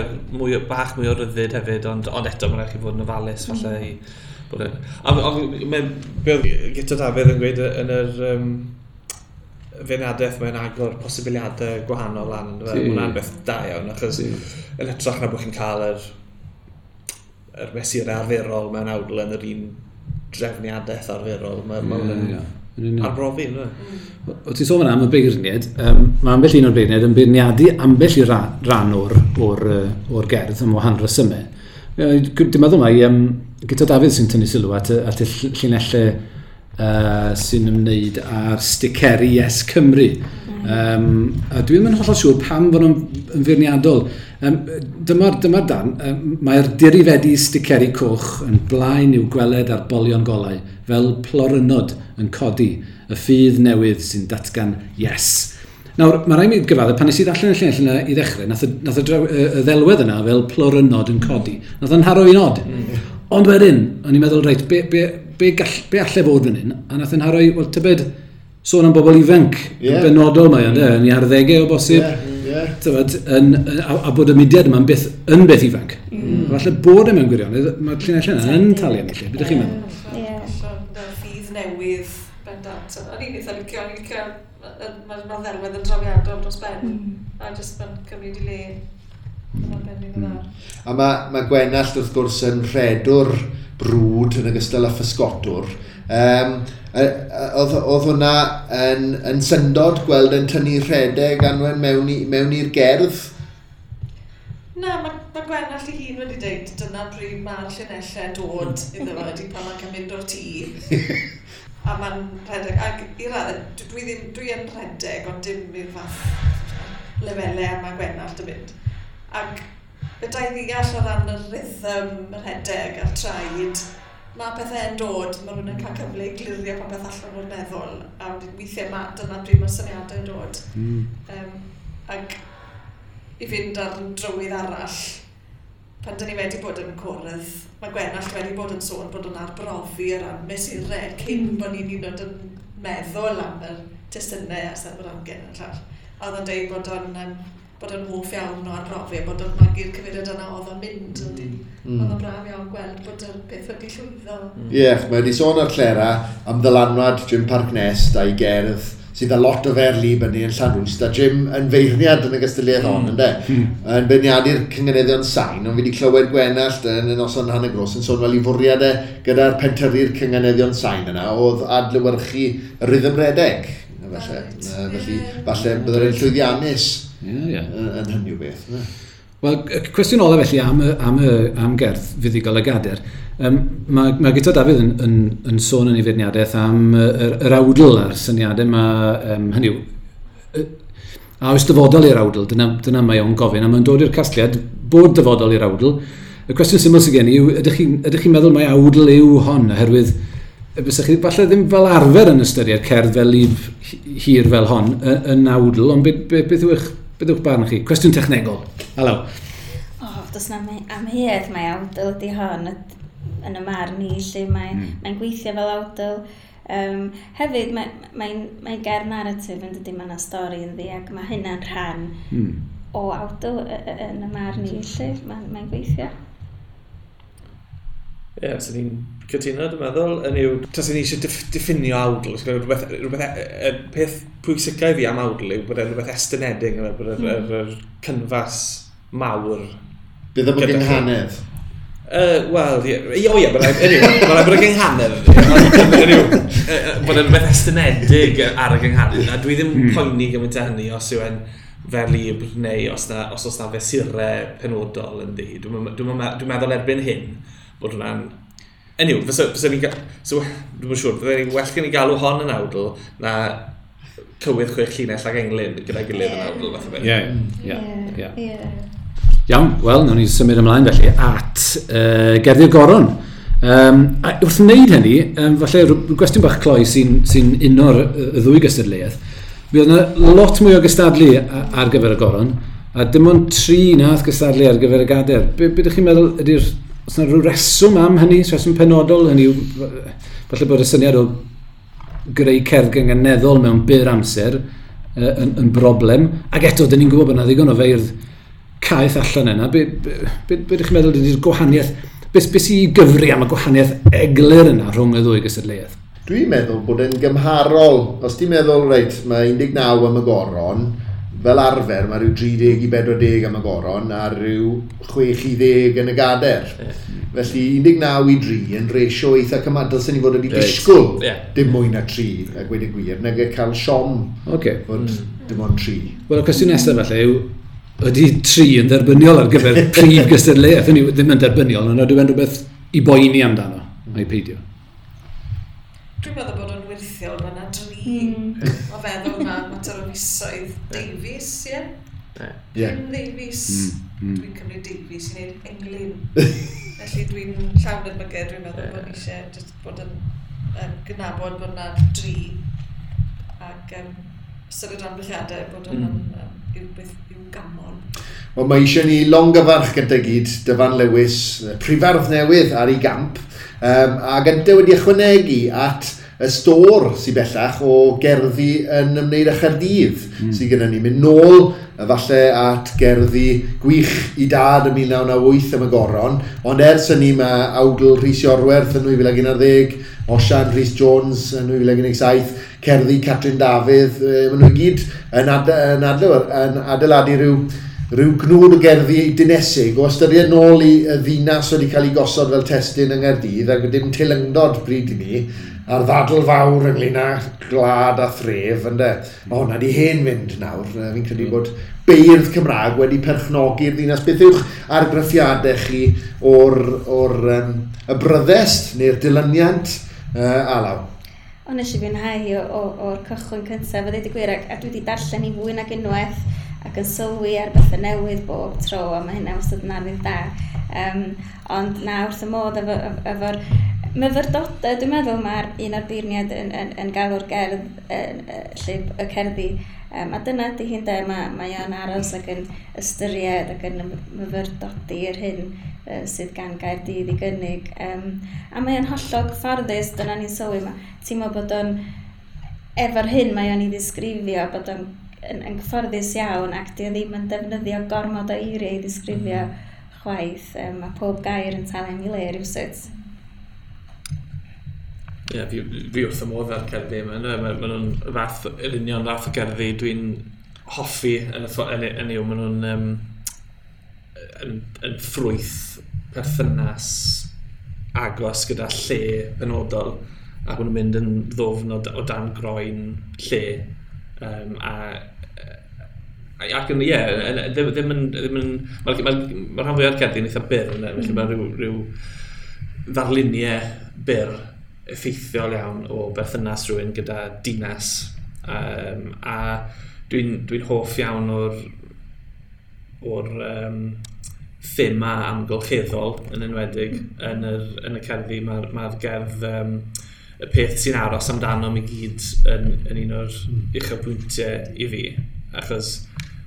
bach mwy o ryddid hefyd, ond eto mae'n rhaid chi fod yn ofalus falle i bod yn. A be oedd Guto Dafydd yn gweud yn yr feirniadaeth, mae'n agor posibiliadau gwahanol lan. Mae hwnna'n beth da iawn, achos yn hytrach na bod chi'n cael yr mesurau arferol mewn awdl yn yr un drefniadaeth arferol, mae hwnna'n arbrofi. O ti'n sôn am y beirniad, mae ambell un o'r beirniad yn beirniadu ambell i ran o'r gerdd am wahanol resymau. Dwi'n meddwl mai Guto Dafydd sy'n tynnu sylw at y llinellau sy'n ymwneud â'r sticeri Yes Cymru. A dwi ddim yn hollol siŵr pam fod nhw'n yn feirniadol. Dyma'r darn, mae'r dirifedi sticeri coch yn blaen i'w gweled ar bolion golau, fel plorynod yn codi y ffydd newydd sy'n datgan yes. Nawr, mae rhaid mi gyfadde, pan nes i ddarllen y llinell yna i ddechrau, nath y ddelwedd yna fel plorynod yn codi. Nath o'n nharo i'n od. Ond wedyn, o'n i'n meddwl, reit, be allai fod fan hyn? A nath yn nharo i, wel, tybed, sôn am bobl ifanc, yn benodol mae o'n, yn ei arddegau o bosib, tybed, a bod y mudiad yma'n beth ifanc. Falle bod e mewn gwirionedd, mae'r llinell yna yn talu am y lle. Be ydych chi'n meddwl? Ffydd newydd, bendant. O'n i'n eitha licio, o'n i'n licio, mae'r ddelwedd yn drawiadol dros ben, a jyst mae'n cymryd i le yn arbennig o dda. A mae Gwenallt wrth gwrs yn rhedwr brwd yn ogystal â physgotwr. Oedd hwnna yn syndod gweld yn tynnu rhedeg Anwen mewn i'r gerdd? Na, mae Gwenallt ei hun wedi dweud dyna pryd mae'r llinellau dod iddo fo, ydy pan mae'n cael mynd o'r tŷ. A mae'n rhedeg, ac i raddau, dwi yn rhedeg, ond dim i'r fath lefelau mae Gwenallt yn mynd. Ac fedra i ddeall o ran y rhythm, y rhedeg a'r traed, mae pethau yn dod, mae rhywun yn cael cyfle i glirio popeth allan o'r meddwl, a weithiau dyna pryd mae syniadau yn dod. Ac i fynd ar drywydd arall, pan dyn ni wedi bod yn cwrdd, mae Gwenallt wedi bod yn sôn bod o'n arbrofi o ran mesurau cyn bod ni'n hyd yn oed yn meddwl am yr testunau a sef yr amgen a'r llall. A oedd o'n dweud bod o'n hoff iawn o arbrofi a bod o'n magu'r cyfeiriad yna oedd o'n mynd. Oedd o'n braf iawn gweld bod y peth wedi llwyddo. Ie, mae wedi sôn ar Clera am ddylanwad Jim Parc Nest a'i gerdd sydd â lot o ferlib yn Llanrwst, a Jim yn feirniad yn y gystadleuaeth hon, ynde? Yn beirniadu'r cynganeddion sain, ond fi wedi clywed Gwenallt yn y noson Hanner Gros yn sôn fel i fwriad e gyda'r pentyrru'r cynganeddion sain yna, oedd adlewyrchu y rhythm redeg. Felly, falle byddai'n un llwyddiannus yn hynny o beth. Wel, cwestiwn ola felly am gerdd fuddugol y gader. Mae Guto Dafydd yn sôn yn ei feirniadaeth am yr awdl a'r syniadau mae, hynny yw, a oes dyfodol i'r awdl, dyna mae o'n gofyn, a mae'n dod i'r casgliad bod dyfodol i'r awdl. Y cwestiwn syml sydd gen i yw, ydych chi'n meddwl mai awdl yw hon, oherwydd bysach chi falle ddim fel arfer yn ystyried cerdd fel lif hir fel hon yn awdl, ond beth yw eich barn chi? Cwestiwn technegol. Helo. O, does na amheuaeth mai awdl ydy hon yn y marn i, lle mae'n gweithio fel awdl. Hefyd, mae'n gerdd narratif yn dydy, mae yna stori ynddi, ac mae hynna'n rhan o awdl yn y marn i, lle mae'n gweithio. Ie, so ni'n cytuno, dwi'n meddwl, yn yw, tas ni eisiau diffinio awdl, rhywbeth, peth pwysicau fi am awdl yw bod e'n rhywbeth estynedig, bod yr cynfas mawr. Bydd am y gynghanedd? Wel, ie, bod e'n bod y gynghanedd. Bod e'n rhywbeth estynedig ar y gynghanedd, a dwi ddim poeni gymaint o hynny os yw e'n ferlibr neu os oes na fesurau penodol ynddi. Dwi'n meddwl erbyn hyn bod hwnna'n... Anyway, fysa ni'n... So, dwi'n siŵr, fydde ni'n well gen i galw hon yn awdl na cywydd 6 llinell ag englyn gyda'i gilydd yn awdl, fath o beth. Ie. Iawn, wel, nawn ni symud ymlaen felly at Gerddi'r Goron. A wrth wneud hynny, falle gwestiwn bach cloi sy'n uno'r y ddwy gystadleuaeth, mi oedd yna lot mwy o gystadlu ar gyfer y Goron, a dim ond 3 nath gystadlu ar gyfer y gader. Be ydych chi'n meddwl ydy'r... Oes yna rhyw reswm am hynny, reswm penodol, hynny yw, falle bod y syniad o greu cerdd gynganeddol mewn byr amser yn broblem, ac eto, dyn ni'n gwybod bod yna ddigon o feirdd caeth allan yna. Be ydych chi'n meddwl ydy'r gwahaniaeth, be sy'n gyfri am y gwahaniaeth eglur yna rhwng y ddwy gystadleuaeth? Dwi'n meddwl bod e'n gymharol. Os ti'n meddwl, reit, mae 19 am y Goron, fel arfer mae rhyw 30 i 40 am y Goron a rhyw 6 i 10 yn y gader. Felly 19 i 3 yn ratio eitha cymaint, dylsen ni fod wedi disgwyl dim mwy na 3, a gweud y gwir, nag cael siom fod dim ond 3. Wel, y cwestiwn nesaf falle yw, ydy 3 yn dderbyniol ar gyfer prif gystadleuaeth? Hynny yw, ddim yn derbyniol, ond ydy e'n rhywbeth i boeni amdano, a'i peidio? Dwi'n meddwl bod o'n wirthiol, mae yna 3 o feddwl na mater o fisoedd. Davies, ie? Jim Davies. Dwi'n cymryd Davies i wneud englyn. Felly dwi'n llawn edmygedd, dwi'n meddwl bod eisiau just bod yn gydnabod bod yna 3. Ac ystod y amgylchiadau bod hwnna'n yw beth yw gamol. Wel, mae eisiau ni longyfarch gyda gyd Dyfan Lewis, prifardd newydd ar ei gamp, a gyntaf wedi ychwanegu at y stôr sydd bellach o gerddi yn ymwneud â Chaerdydd sydd gyda ni. Mynd nôl falle at gerddi gwych i dad ym 1998 am y Goron, ond ers hynny mae awdl Rhys Iorwerth yn 2011, Osian Rhys Jones yn 2017, cerddi Catrin Dafydd, maen nhw i gyd yn adeiladu rhyw gnwd o gerddi dinesig o ystyried nôl i y ddinas wedi cael ei gosod fel testun yng Nghaerdydd ac dim teilyngdod bryd i ni a'r ddadl fawr ynglyn â gwlad a thref, ynde. Mae hwnna di hen fynd nawr. Fi'n credu bod beirdd Cymraeg wedi perchnogi'r ddinas. Beth yw'ch argraffiadau chi o'r y bryddest neu'r dilyniant, Alaw? O, nes i fwynhau o'r cychwyn cyntaf, a dweud y gwir, a dwi wedi darllen i fwy nag unwaith ac yn sylwi ar bethau newydd bob tro, a mae hynna wastad yn arwydd da. Ond na, wrth y modd efo'r myfyrdodau, dwi'n meddwl mae'r un o'r beirniad yn galw'r gerdd, lle y cerddi, a dyna ydy hi'n de, mae o'n aros ac yn ystyried ac yn myfyrdodi yr hyn sydd gan Gaerdydd i gynnig. A mae o'n hollol gyfforddus, dyna ni'n sylwi, ti'n meddwl bod o'n, efo'r hyn mae o'n i ddisgrifio, bod o'n yn gyfforddus iawn ac di o ddim yn defnyddio gormod o eiriau i ddisgrifio chwaith. Mae pob gair yn talu am ei le rywsut. Ie, yeah, fi wrth y modd ar cerddi yma. Maen nhw'n fath, yr union fath o gerddi dwi'n hoffi yn yw. Maen nhw'n yn ffrwyth perthynas agos gyda lle penodol ac maen nhw'n mynd yn ddwfn o dan groen lle. Ac yn, ie, ddim yn, mae'r rhan fwyaf o'r cerddi'n eitha byr, felly mae rhyw ddarluniau byr effeithiol iawn o berthynas rhywun gyda dinas. A dwi'n hoff iawn o'r thema amgylcheddol yn enwedig yn y cerddi. Mae'r gerdd y peth sy'n aros amdano i gyd yn un o'r uchelbwyntiau i fi, achos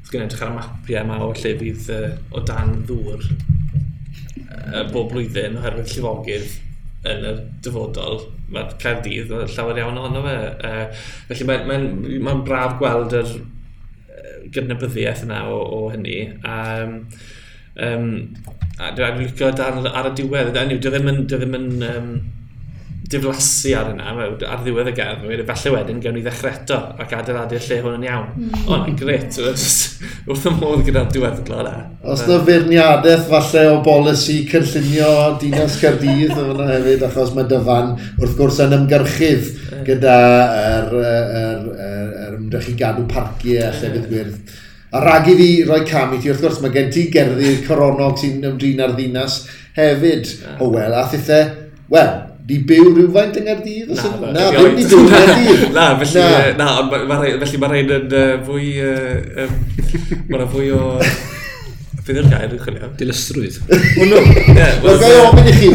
wrth gwrs edrych ar y mapiau yma o lle fydd o dan ddŵr bob blwyddyn oherwydd llifogydd yn y dyfodol. Mae'r Caerdydd yn llawer iawn ohono fe. Felly mae'n braf gweld yr gydnabyddiaeth yna o hynny. A dwi'n licio ar y diwedd. Dwi ddim yn diflasu ar yna, ar ddiwedd y gerdd, falle wedyn gawn ni ddechrau eto ac adeiladu'r lle hwn yn iawn. O, na, gret. Wrth y modd gyda'r diweddglo yna. Os na feirniadaeth falle o bolisi cynllunio Dinas Caerdydd yna hefyd, achos mae Dyfan wrth gwrs yn ymgyrchydd gyda yr ymdrech i gadw parciau a llefydd gwyrdd. A rhag i fi roi cam i ti, wrth gwrs, mae gen ti gerddi coronog sy'n ymdrin â'r ddinas hefyd. Hywel, a thithe, wel, di byw rhywfaint yng Nghaerdydd? Na, ddim di byw yng Nghaerdydd. Na, felly, na, ond felly mae rhain yn fwy... Mae fwy o... Beth yw'r gair yn chwilio? Dilysrwydd. Hwnnw, ie. Wel, gai ofyn i chi,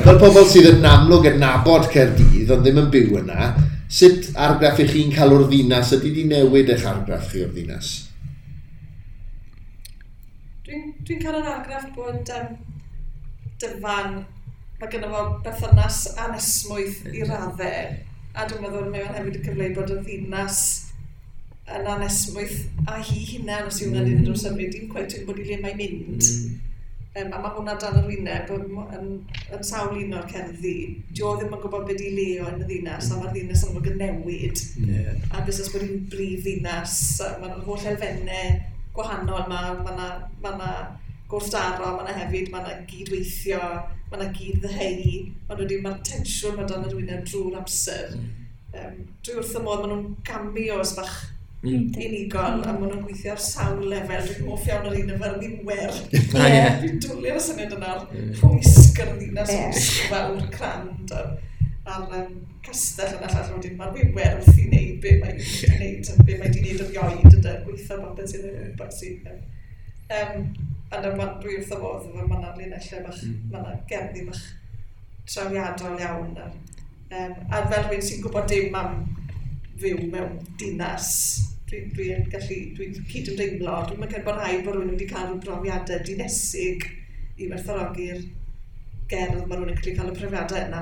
fel pobl sydd yn amlwg yn nabod Caerdydd, ond ddim yn byw yna, sut argraff i chi'n cael o'r ddinas? Ydy di newid eich argraff chi o'r ddinas? Dwi'n cael yr argraff bod Dyfan, mae gynno fo berthynas anesmwyth i raddau, a dwi'n meddwl mae o'n hefyd yn cyfleu bod y ddinas yn anesmwyth a hi hunan, os yw hwnna'n unrhyw symud, dim cweit yn gwybod i le mae'n mynd. A mae hwnna dan yr wyneb yn sawl un o'r cerddi. Dio ddim yn gwybod beth i le o yn y ddinas, a mae'r ddinas yn amlwg yn newid. A busnes bod hi'n brif ddinas, mae'n holl elfennau gwahanol, mae yna gwrthdaro, mae yna hefyd, mae yna gydweithio, mae yna gyd-ddyheu, ond wedyn mae'r tensiwn mae dan yr wyneb drwy'r amser. Dwi wrth y modd, maen nhw'n cameos bach unigol, a maen nhw'n gweithio ar sawl lefel. Dwi'n hoff iawn yr un efo'r wiwer. Dwi'n dwlu ar y syniad yna'r rhwysg ar y ddinas fawr crand a'r castell yna llall wedyn. Mae'r wiwer wrth i wneud be mae'n wneud, be mae di wneud erioed, ydy, gweithio bopeth sydd yn gwybod sydd. A dwi wrth y modd, mae yna linellau bach, mae yna gerddi bach trawiadol iawn. A fel rhywun sy'n gwybod dim am fyw mewn dinas. Dwi'n gallu, dwi'n cydymdeimlo, dwi'n credu bod rhaid bod rhywun wedi cael rhyw brofiadau dinesig i werthfawrogi'r gerdd, mae rhywun yn gallu cael y profiadau yna,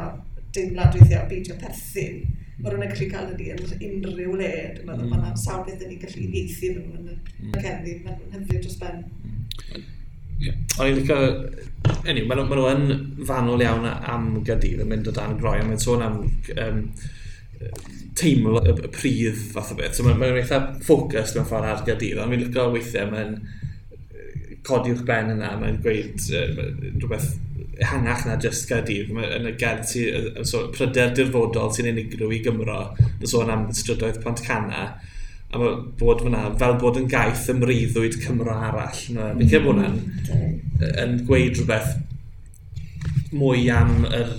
deimlad weithiau o beidio perthyn. Mae rhywun yn gallu cael hynny yn unrhyw le. Dwi'n meddwl mae yna sawl beth yn ni'n gallu uniaethu efo nhw yn y cerddi, mae'n hyfryd dros ben. Yeah. O'n i'n licio... Anyway, maen nhw yn fanwl iawn am Gaerdydd yn mynd o dan groen, mae'n sôn am teimlo y pridd fath o beth. So mae'n eitha focus mewn ffordd ar Gaerdydd, ond fi'n licio weithiau mae'n codi uwch ben yna, mae'n gweud rhywbeth ehangach na jyst Gaerdydd. Mae yn y gerdd sy'n so, pryder dirfodol sy'n unigryw i Gymro, yn sôn am strydoedd Pontcanna, a mae bod fyna fel bod yn gaeth ymreuddwyd Cymro arall. Fi'n credu bod hwnna'n yn gweud rhywbeth mwy am yr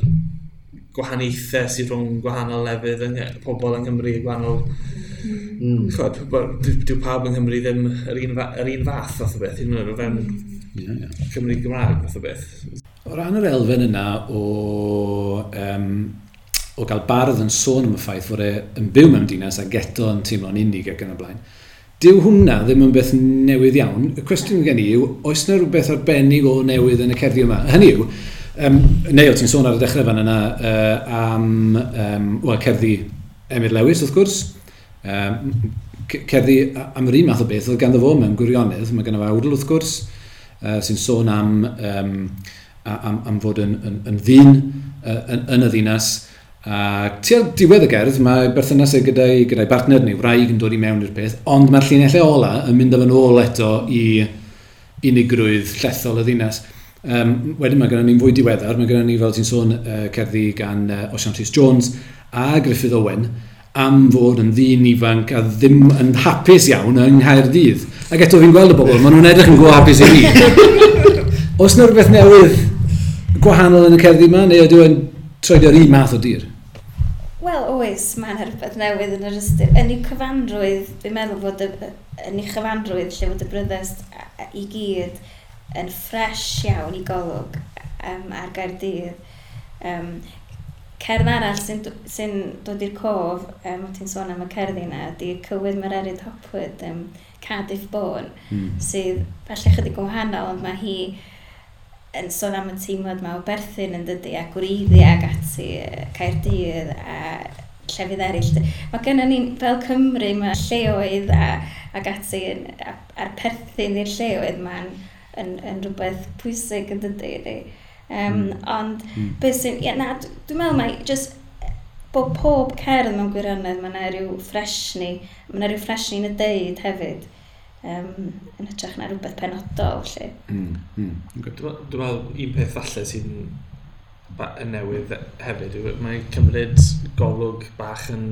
gwahaniaethau sydd rhwng gwahanol lefydd yng pobl yng Nghymru, gwahanol... Chod, dyw pawb yng Nghymru ddim yr un fath fath o beth, hyd yn oed o fewn Cymru Gymraeg fath o beth. O ran yr elfen yna o gael bardd yn sôn am y ffaith fod e yn byw mewn dinas ac eto yn teimlo'n unig ac yn y blaen, dyw hwnna ddim yn beth newydd iawn. Y cwestiwn gen i yw, oes yna rhywbeth arbennig o newydd yn y cerddi yma? Hynny yw, neu o ti'n sôn ar y dechrau fan yna am cerddi Emyr Lewis, wrth gwrs. Cerddi am yr un math o beth oedd ganddo fo mewn gwirionedd. Mae ganddo fo awdl, wrth gwrs, sy'n sôn am fod yn ddyn yn y ddinas. A tua'r diwedd y gerdd, mae berthynas e gyda'i bartner neu wraig yn dod i mewn i'r peth, ond mae'r llinellau ola yn mynd â fo'n ôl eto i unigrwydd llethol y ddinas. Wedyn mae gennym ni'n fwy diweddar, mae gennym ni, fel ti'n sôn, cerddi gan Osian Rhys Jones a Gruffydd Owen am fod yn ddyn ifanc a ddim yn hapus iawn yng Nghaerdydd. Ac eto fi'n gweld y bobl, maen nhw'n edrych yn go hapus i fi. Oes yna rhywbeth newydd gwahanol yn y cerddi yma, neu ydyw e'n troedio'r un math o dir? Wel, oes, mae yna rhywbeth newydd yn yr ystyr. Yn ei cyfanrwydd, fi'n meddwl fod yn ei chyfanrwydd lle fod y bryddest i gyd yn ffres iawn i golwg ar Gaerdydd. Cerdd arall sy'n dod i'r cof, ti'n sôn am y cerddi yna, ydy Cywydd Mererid Hopwood, Cardiff Born, sydd falle chydig yn wahanol, ond mae hi yn sôn am y teimlad yma o berthyn yn dydy, a gwreiddiau ag ati, Caerdydd a llefydd eraill. Mae gennym ni, fel Cymru, mae lleoedd ag ati, a'r perthyn i'r lleoedd mae'n yn rhywbeth pwysig yn dydy. Ond beth sy'n... Ie, na, dwi'n meddwl mai jyst bod pob cerdd mewn gwirionedd, mae yna rhyw ffresni, mae yna rhyw ffresni yn y deud hefyd, yn hytrach na rhywbeth penodol, lle. Okay. Dwi'n meddwl un peth falle sy'n yn newydd hefyd yw mae'n cymryd golwg bach yn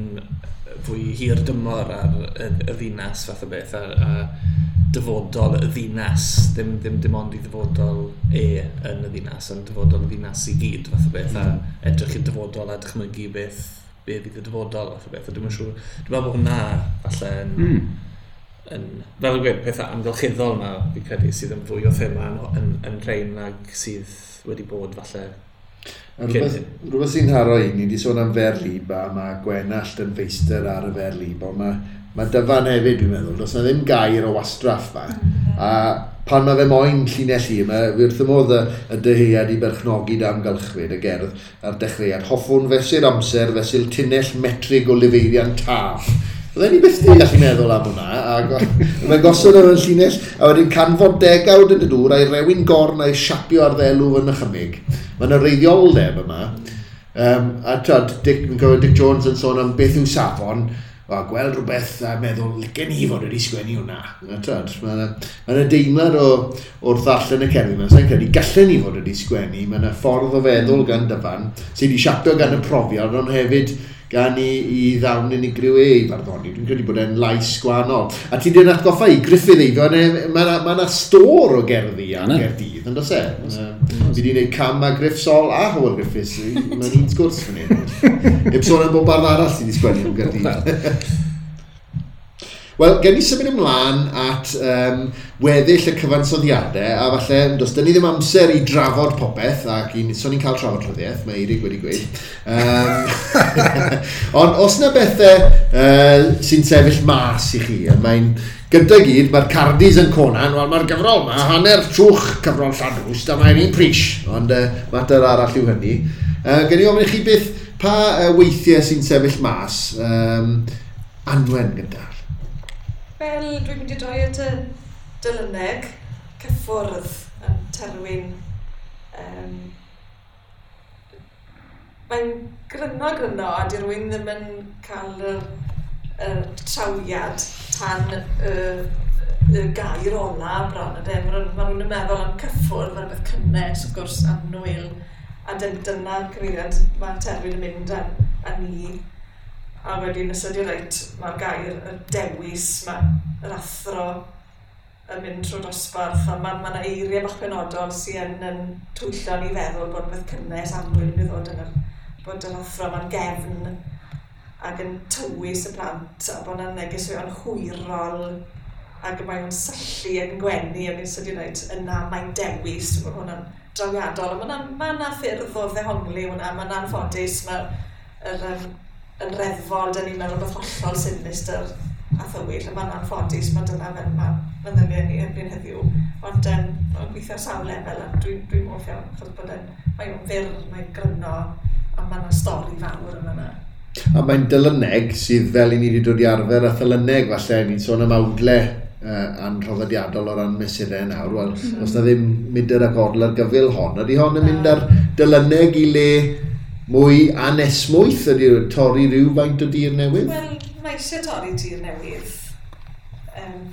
fwy hir dymor ar y ddinas fath o beth, a dyfodol y ddinas, ddim dim ond i ddyfodol e yn y ddinas, ond dyfodol y ddinas i gyd fath o beth, a edrych i'r dyfodol a dychmygu beth be fydd y dyfodol fath o beth, a dwi'n siŵr, dwi'n meddwl bod hwnna falle yn fel yn gweud, pethau amgylcheddol yma, fi'n credu, sydd yn fwy o thema yn rhain nag sydd wedi bod falle. Rhywbeth sy'n haro i, ni wedi sôn am Ferlib a mae Gwenallt yn feistr ar y Ferlib, ond mae Dyfan hefyd, dwi'n meddwl, does na ddim gair o wastraff ma. A pan mae fe moyn llinell i, mae fi wrth y modd y dyheuad i berchnogi da amgylchfyd y gerdd a'r dechreuad. Hoffwn fesur amser, fesul tunnell metrig o lifeirian taf. Fydden ni byth di gallu meddwl am hwnna, a mae'n gosod ar y llinell, a wedyn canfod degawd yn y dŵr a'i rewyn gorn a'i siapio ar ddelw yn y chymig. Mae'n reiddioldeb yma. A twad, fi'n cofio Dick Jones yn sôn am beth yw safon, a gweld rhywbeth a meddwl, licen i fod wedi sgwennu hwnna. Mae yna deimlad o'r ddarllen y cerddi yma. Sa'n credu, gallen ni fod wedi sgwennu. Mae yna ffordd o feddwl gan Dyfan, sydd wedi siapio gan y profiad, ond hefyd gan i ddawn unigryw e i farddoni. Dwi'n credu bod e'n lais gwahanol. A ti'n dyn atgoffa i Gruffydd Eifion, mae yna stôr o gerddi am Gaerdydd, yn does e? Fi wedi gwneud cam a Gruff Sol a Hywel Griffiths, mae'n un sgwrs fan hyn. Heb sôn am bob bardd arall sydd wedi sgwennu am Gaerdydd. Wel, gen i symud ymlaen at weddill y cyfansoddiadau, a falle, does dyn ni ddim amser i drafod popeth, ac so ni'n cael trafod rhyddiaeth, mae Eirig wedi gweud. Ond os yna bethau sy'n sefyll mas i chi, mae'n gyda gyd, mae'r Cardis yn Conan, wel mae'r gyfrol yma, hanner trwch cyfrol Llanrwst, a mae'n un pris, ond mater arall yw hynny. Gen i ofyn i chi beth, pa weithiau sy'n sefyll mas, Anwen gyda? Wel, dwi'n mynd i droi at y dylyneg, cyffwrdd yn terwyn. Mae'n gryno, a di rhywun ddim yn cael y trawiad tan y gair ola bron. Mae rhywun yn meddwl am cyffwrdd, fel rhywbeth cynnes, wrth gwrs, annwyl. A dyna'r cyfeiriad mae terwyn yn mynd â ni. A wedyn ysyd i reit, mae'r gair, y dewis, mae'r athro yn mynd trwy dosbarth, a mae yna eiriau bach penodol sy'n yn twyllo ni feddwl bod rhywbeth cynnes annwyl yn mynd i ddod yn yr, bod yr athro ma'n gefn ac yn tywys y plant, a bod yna negeseuon hwyrol, ac mae o'n syllu ac yn gwenu, ac yn sydyn reit, yna mae'n dewis, mae hwnna'n drawiadol, a mae yna ffyrdd o ddehongli hwnna, mae'n anffodus, mae'r yn reddfol, dyn ni'n meddwl beth hollol sinister a thywyll, a mae'n anffodus, mae dyna fel mae meddyliau ni erbyn heddiw. Ond mae'n gweithio ar sawl lefel, a dwi'n hoff iawn, achos bod mae o'n fyr, mae'n gryno, a mae yna stori fawr yma yna. A mae'n dylyneg sydd fel i ni wedi dod i arfer â thylyneg, falle, ni'n sôn am awdle anhraddodiadol o ran mesurau nawr. Wel, os na ddim mydr ac odl ar gyfyl hon, ydy hon yn mynd ar dylyneg i le mwy anesmwyth, ydy torri rhywfaint o dir newydd? Wel, mae eisiau torri tir newydd.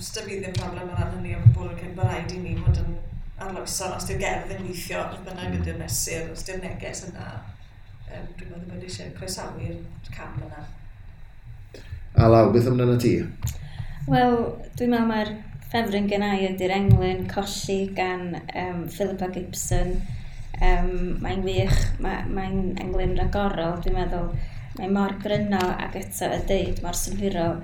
Sda fi ddim problem o ran hynny o gwbl, yn bod rhaid i ni fod yn arloesol, os di'r gerdd yn gweithio, os bynnag ydy'r mesur, os di'r neges yna. Dwi'n meddwl bod eisiau croesawu'r cam yna. Alaw, beth amdano ti? Wel, dwi'n meddwl mae'r ffefryn gen i ydy'r englyn Colli gan Philippa Gibson. Mae'n wych, mae'n englyn ragorol, dwi'n meddwl. Mae mor gryno ac eto y deud mor synhwyrol.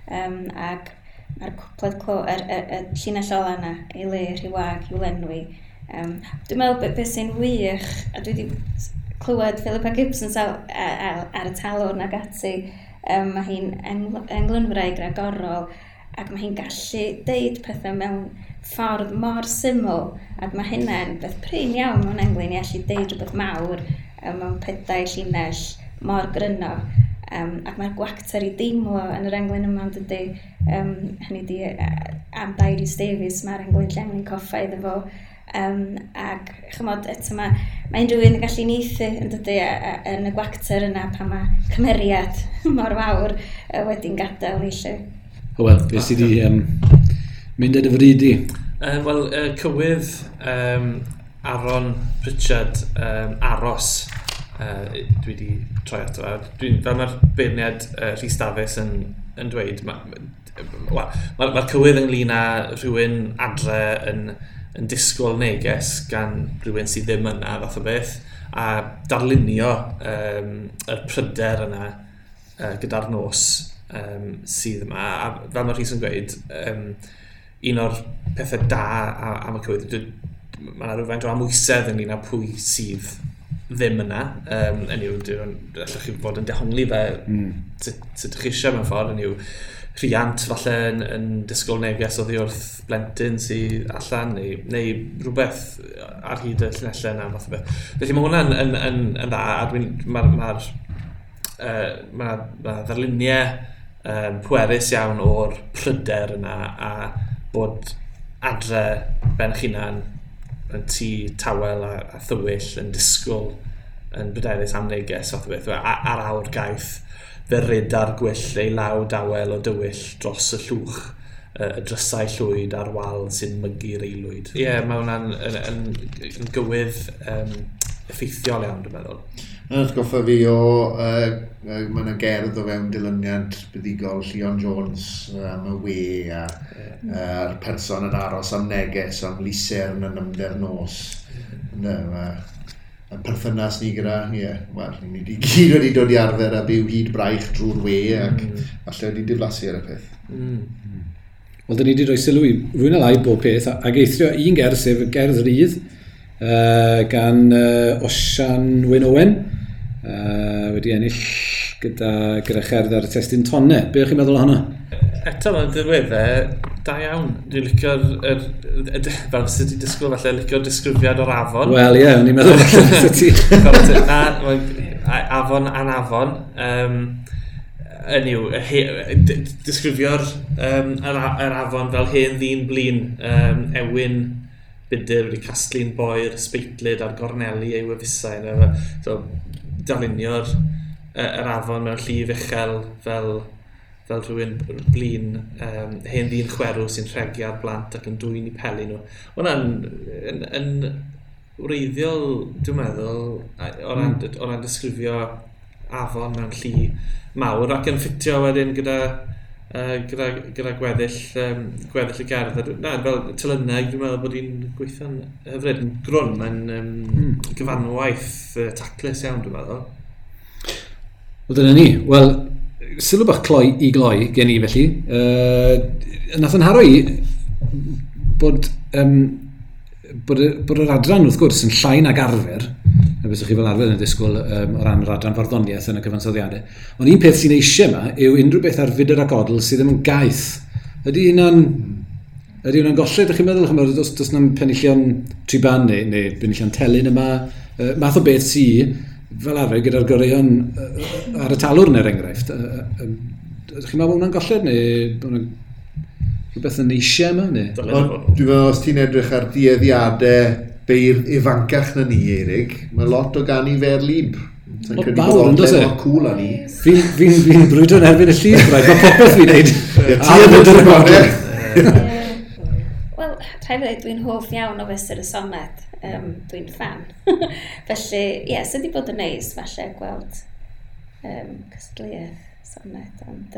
Ac mae'r cwpled clo, y llinell ola yna, ei le rhy wag i'w lenwi. Dwi'n meddwl beth sy'n wych, a dwi wedi clywed Philippa Gibson ar y talwrn ac ati, mae hi'n englynwraig ragorol, ac mae hi'n gallu deud pethau mewn ffordd mor syml, ac mae hynna'n beth prin iawn mewn englyn i allu deud rhywbeth mawr mewn pedair llinell mor gryno. Ac mae'r gwacter i deimlo yn yr englyn yma, dydy, hynny di am Dai Rhys Davies, mae'r englyn llenglyn coffa iddo fo. Ac chymod, eto mae unrhyw un yn gallu nieithu yn dydy yn y gwacter yna pan mae cymeriad mor fawr wedi'n gadael i lle. Wel, beth sydd wedi mynd ar y fryd i? Wel, cywydd Aaron Pritchard, Aros, dwi wedi troi ato fe. Fel mae'r beirniad Rhys Dafis yn dweud, mae'r cywydd ynglyn â rhywun adre yn disgwyl neges gan rhywun sydd ddim yna, fath o beth, a darlunio yr pryder yna gyda'r nos sydd yma. A fel mae Rhys yn gweud, un o'r pethau da am y cywydd, mae yna rhywfaint o amwysedd ynglyn â pwy sydd ddim yna. Hynny yw, allwch chi fod yn dehongli fe sut ydych chi eisiau mewn ffordd, hynny yw, rhiant falle yn disgwyl neges oddi wrth blentyn sydd allan, neu rhywbeth ar hyd y llinellau yna, fath o beth. Felly mae hwnna'n yn dda, a mae ddarluniau pwerus iawn o'r pryder yna, a bod adre ben eich hunan yn tŷ tawel a thywyll yn disgwyl yn bryderus am neges fath o beth. Ar awr gaeth fe reda'r gwyll ei law dawel o dywyll dros y llwch, y drysau llwyd a'r wal sy'n mygu'r aelwyd. Ie, mae hwnna'n yn gywydd effeithiol iawn, dwi'n meddwl. Yn atgoffa fi o, mae yna gerdd o fewn dilyniant buddugol Llion Jones am y we a'r person yn aros am neges, am lisern yn ymder nos. y perthynas ni gyda, ie, yeah, wel, ni wedi gyd wedi dod i arfer a byw hyd braich drwy'r we ac falle wedi diflasu ar y peth. Wel, dyn ni wedi rhoi sylw i fwy na lai bob peth, ac eithrio un gerdd, sef gerdd rydd, gan Osian Wyn Owen, wedi ennill gyda cherdd ar y testun Tonne. Be o'ch chi'n meddwl o hwnna? Eto, mae'n ddirweddau da iawn. Dwi'n licio'r, fel fysa ti'n disgwyl falle, licio'r disgrifiad o'r afon. Wel, ie, yeah, o'n i'n meddwl falle fysa ti. Na, afon anafon. Ynyw, disgrifio'r yr afon fel hen ddyn blin, ewyn budur wedi casglu'n boer sbeitlyd ar gorneli ei wefusau. So, darlunio'r yr afon mewn llif uchel fel rhywun blin, hen ddyn chwerw sy'n rhegi ar blant ac yn dwyn i peli nhw. Hwna'n yn wreiddiol, dwi'n meddwl, o ran disgrifio afon mewn lli mawr ac yn ffitio wedyn gyda gweddill y gerdd. Na, fel telyneg, dwi'n meddwl bod hi'n gweithio'n hyfryd, yn grwn, mae'n gyfanwaith taclus iawn, dwi'n meddwl. Wel, dyna ni. Wel, sylw bach cloi i gloi gen i felly. Nath yn haro i bod yr adran wrth gwrs yn llai nag arfer, na beth chi fel arfer yn y disgwyl o ran yr adran farddoniaeth yn y cyfansoddiadau. Ond un peth sy'n eisiau yma yw unrhyw beth ar fudr ac odl sydd ddim yn gaeth. Ydy hwnna'n golled, ydych chi'n meddwl? Does na'm penillion triban neu penillion telyn yma? Math o beth sy fel arfer gyda'r goreuon ar y talwrn er enghraifft. Ydych chi'n meddwl bod hwnna'n golled neu bod hwnna'n rhywbeth yn eisiau yma? Neu? Ond dwi'n meddwl os ti'n edrych ar dueddiadau beirdd ifancach na ni, Eirig, mae lot o ganu fer lib. Lot fawr, yn does e? Lot cool â ni. Fi'n brwydro yn erbyn y llif, rhaid. Mae popeth fi'n neud. Ti yn brwydro yn erbyn. Wel, rhaid fi ddweud, dwi'n hoff iawn o fesur y sonet. Dwi'n fan. Felly, ie, yeah, sydd wedi bod yn neis, falle, gweld cystadleuaeth sonet, ond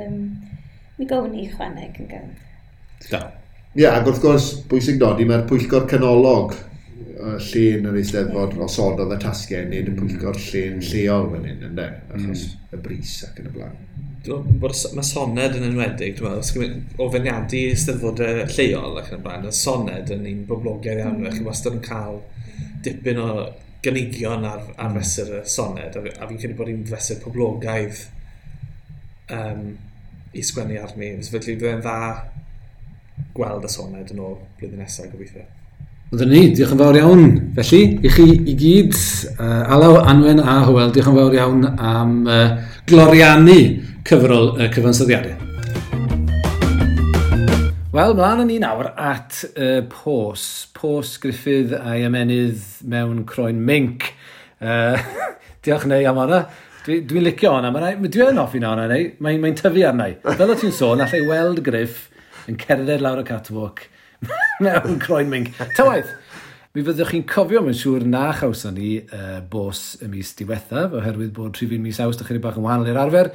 mi gown ni chwaneg yn gawn. Da. Ie, yeah, ac wrth gwrs, bwysig nodi, mae'r pwyllgor canolog llên yr Eisteddfod osododd y tasgau nid y pwyllgor llên lleol fan hyn, ynde? Achos y bris ac yn y blaen. Mae soned yn enwedig, dwi'n meddwl, o feirniadu eisteddfodau lleol ac yn y blaen, y soned yn un boblogaidd iawn, chi wastad yn cael dipyn o gynigion ar fesur y soned, a fi'n credu bod hi'n fesur poblogaidd i sgwennu arni. Felly byddai'n dda gweld y soned yn ôl blwyddyn nesaf, gobeithio. Wel, dyna ni, diolch yn fawr iawn. Felly, i chi i gyd, Alaw, Anwen a Hywel, diolch yn fawr iawn am gloriannu cyfrol y cyfansoddiadau. Wel, mlaen â ni nawr at pos. Pos Gruffydd a'i ymennydd mewn croen minc. Diolch Neu am hwnna. Dwi'n licio hwnna. Dwi yn hoffi hwnna, Neu. Mae'n tyfu arna i. Fel o ti'n sôn, allai weld Gruff yn cerdded lawr y catwalk mewn croen minc. Ta waith, mi fyddwch chi'n cofio mae'n siŵr na chawson ni bos y mis diwethaf, oherwydd bod rhifyn mis Awst ychydig bach yn wahanol i'r arfer.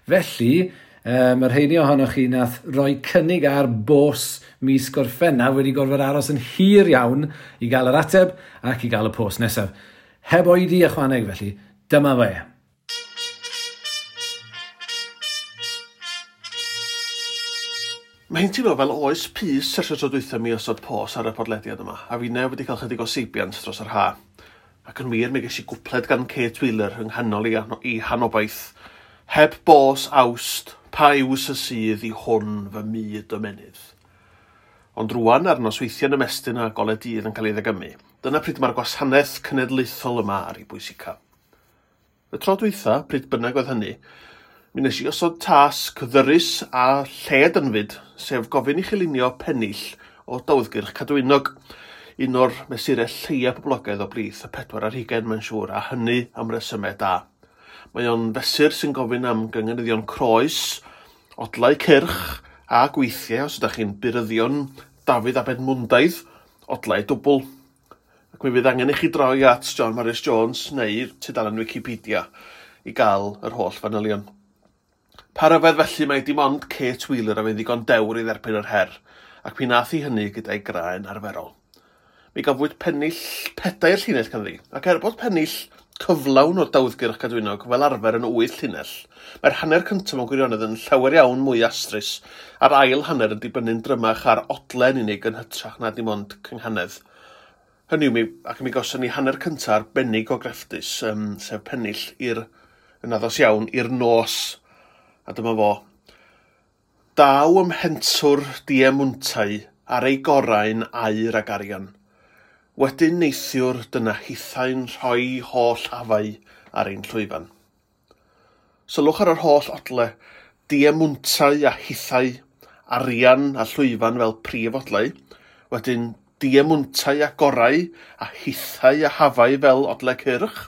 Felly, mae'r rheini ohonoch chi nath roi cynnig ar bos mis Gorffennaf wedi gorfod aros yn hir iawn i gael yr ateb ac i gael y pos nesaf. Heb oedi ychwaneg felly, dyma fe. Mae hi'n teimlo fel oes pys ers y tro dwytha mi osod pos ar y podlediad yma, a finne wedi cael chydig o seibiant dros yr ha. Ac yn wir, mi ges i gwpled gan Kate Wheeler yng nghanol i hanobaith. Heb bos Awst, pa iws y sydd i hwn fy myd ymenydd. Ond rwan ar nosweithiau'n ymestyn a golau dydd yn cael ei ddegymu, dyna pryd mae'r gwasanaeth cenedlaethol yma ar ei bwysica. Y tro dwytha, pryd bynnag oedd hynny, mi nes i osod tasg ddyrus a lled ynfyd, sef gofyn i chi lunio pennill o dawddgyrch cadwynog, un o'r mesurau lleia poblogaidd o blith y 24 mae'n siŵr, a hynny am resymau da. Mae o'n fesur sy'n gofyn am gyngenyddion croes, odlau cyrch a gweithiau os ydych chi'n buryddion Dafydd ap Edmwndaidd, odlau dwbl. Ac mi fydd angen i chi droi at John Morris Jones neu'r tudalen Wikipedia i gael yr holl fanylion. Pa ryfedd felly mae dim ond Kate Wheeler a fydd ddigon dewr i dderbyn yr her, ac mi nath hi hynny gyda'i graen arferol. Mi gafwyd pennill 4 llinell ganddi, ac er bod pennill cyflawn o dawddgyrch Cadwynog fel arfer yn 8 llinell, mae'r hanner cyntaf mewn gwirionedd yn llawer iawn mwy astrus, a'r ail hanner yn dibynnu'n drymach ar odlen unig yn hytrach na dim ond cynghanedd. Hynny yw, mi gawson ni hanner cyntaf arbennig o grefftus, sef pennill i'r, yn addas iawn, i'r nos, a dyma fo. Daw ymhentwr diemwntau ar ei gorau'n aur ag arian. Wedyn neithiwr dyna hithau'n rhoi holl afau ar ein llwyfan. Sylwch ar yr holl odle, diemwntau a hithau, arian a llwyfan fel prif odlau, wedyn diemwntau a gorau a hithau a hafau fel odle cyrch,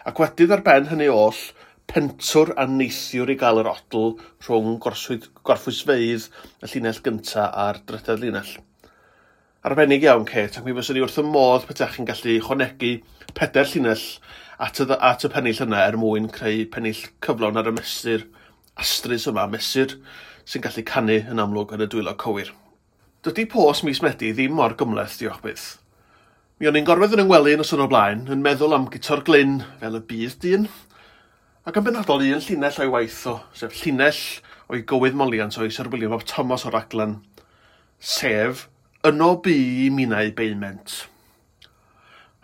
ac wedyn ar ben hynny oll, pentwr a neithiwr i gael yr odl rhwng gorffwysfeydd y llinell gynta a'r drydedd linell. Arbennig iawn, Kate, ac mi fyswn i wrth y modd petach chi'n gallu ychwanegu 4 llinell at y pennill yna er mwyn creu pennill cyflawn ar y mesur astrus yma, mesur sy'n gallu canu yn amlwg yn y dwylo cywir. Dydy pos mis Medi ddim mor gymhleth, diolch byth. Mi o'n i'n gorwedd yn yngwely noson o'r blaen yn meddwl am Guto'r Glyn fel y bydd dyn, ac yn benodol un llinell o'i waith o, sef llinell o'i gywydd moliant o'i Sir William ap Thomas o'r Raglan, sef Yno bu i minnau beiment.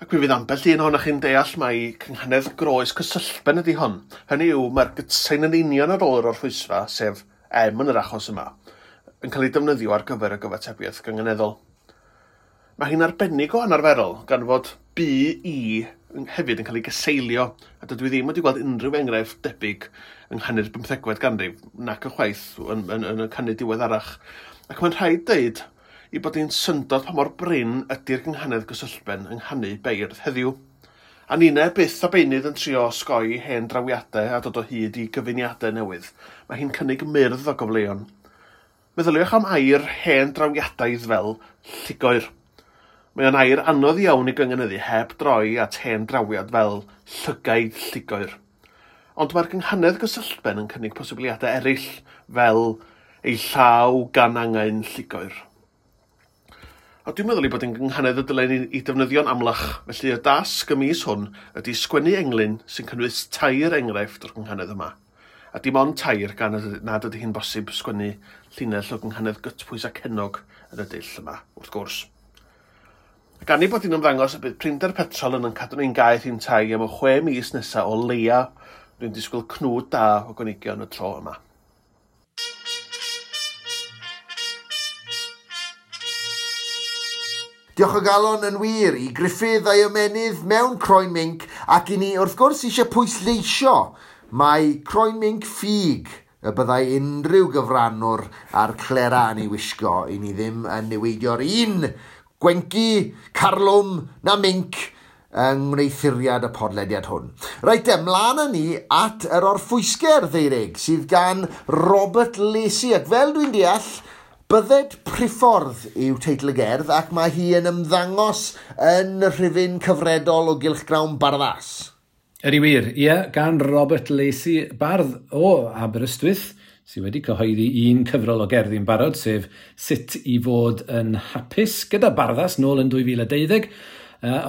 Ac mi fydd ambell un ohonoch chi'n deall mai cynghanedd groes cysylltben ydy hon. Hynny yw, mae'r gytsain yn union ar ôl yr orffwysfa, sef M yn yr achos yma, yn cael ei defnyddio ar gyfer y gyfatebiaeth gynganeddol. Mae hi'n arbennig o anarferol gan fod B I hefyd yn cael ei gyseilio, a dydw i ddim wedi gweld unrhyw enghraifft debyg yng nghannu'r 15fed ganrif, nac ychwaith yn y canu diweddarach. Ac mae'n rhaid deud i bod hi'n syndod pa mor brin ydy'r gynghanedd gysylltben yng nghanu beirdd heddiw. A ninne byth a beunydd yn trio osgoi hen drawiadau a dod o hyd i gyfuniadau newydd. Mae hi'n cynnig myrdd o gyfleon. Meddyliwch am air hen drawiadaidd fel llugoer. Mae o'n air anodd iawn i gynganeddu heb droi at hen drawiad fel llygaid llugoer. Ond mae'r gynghanedd gysylltben yn cynnig posibiliadau eraill fel ei llaw gan angen llugoer. A dwi'n meddwl ei bod yn gynghanedd y dylen ni i defnyddio'n amlach, felly y dasg y mis hwn ydy sgwennu englyn sy'n cynnwys 3 enghraifft o'r gynghanedd yma. A dim ond 3 gan nad ydy hi'n bosib sgwennu llinell o gynghanedd gytpwys a cennog yn y dull yma, wrth gwrs. Gan ei bod hi'n ymddangos y bydd prinder petrol yn cadw ni'n gaeth i'n tai am y 6 mis nesaf o leia, dwi'n disgwyl cnwd da o gynigion y tro yma. Diolch o galon yn wir i Gruffydd a'i ymenydd mewn croen minc, ac i ni wrth gwrs eisiau pwysleisio mae croen minc ffug y byddai unrhyw gyfrannwr a'r clera yn ei wisgo i ni ddim yn niweidio'r un gwenci, carlwm na minc yng ngwneuthuriad y podlediad hwn. Reit te, mlaen â ni at yr orffwysgerdd Eirig sydd gan Robert Lacey, ac fel dwi'n deall, Bydded Priffordd yw teitl y gerdd, ac mae hi yn ymddangos yn y rhifyn cyfredol o gylchgrawn Barddas. Ydy wir, ie, gan Robert Lacey, bardd o Aberystwyth, sydd wedi cyhoeddi un cyfrol o gerddi'n barod, sef Sut i fod yn hapus, gyda Barddas nôl yn 2012,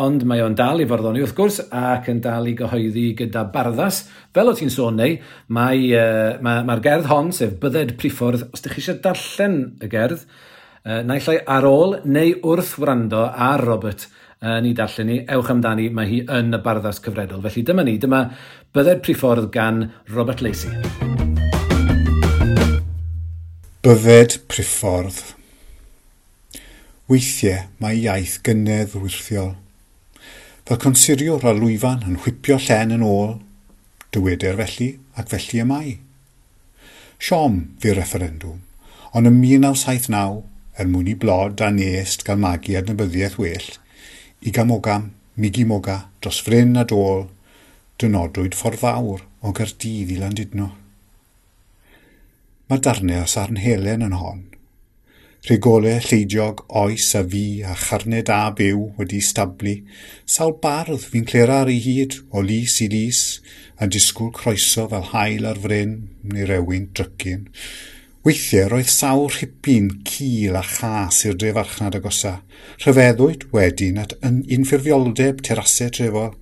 ond mae o'n dal i farddoni wrth gwrs ac yn dal i gyhoeddi gyda Barddas. Fel o ti'n sôn neu, mae'r gerdd hon, sef Bydded Priffordd, os ydych chi eisiau darllen y gerdd, naill ai ar ôl neu wrth wrando ar Robert yn ei darllen ni, ewch amdani, mae hi yn y Barddas cyfredol. Felly dyma ni, dyma Bydded Priffordd gan Robert Lacey. Bydded Priffordd. Weithiau mae iaith gynedd wyrthiol. Fel consuriwr ar lwyfan yn whipio llen yn ôl, dyweder felly ac felly y mae. Siom fu'r refferendwm, ond ym 1979, er mwyn i blod a nest gael magu adnabyddiaeth well, i gamogam, migi moga, dros fryn a dôl, dynodwyd ffordd fawr o Gaerdydd i Landudno. Mae darnau o Sarn Helen yn hon. Rhigole lleidiog oes a fi a charned a byw wedi stablu, sawl bardd fi'n clera ar ei hyd o lys i lys, yn disgwyl croeso fel haul ar fryn neu rewyn drycin, Weithiau roedd sawl rhipyn cul a chas i'r dref farchnad agosa. Rhyfeddwyd wedyn at unffurfioldeb terasau trefol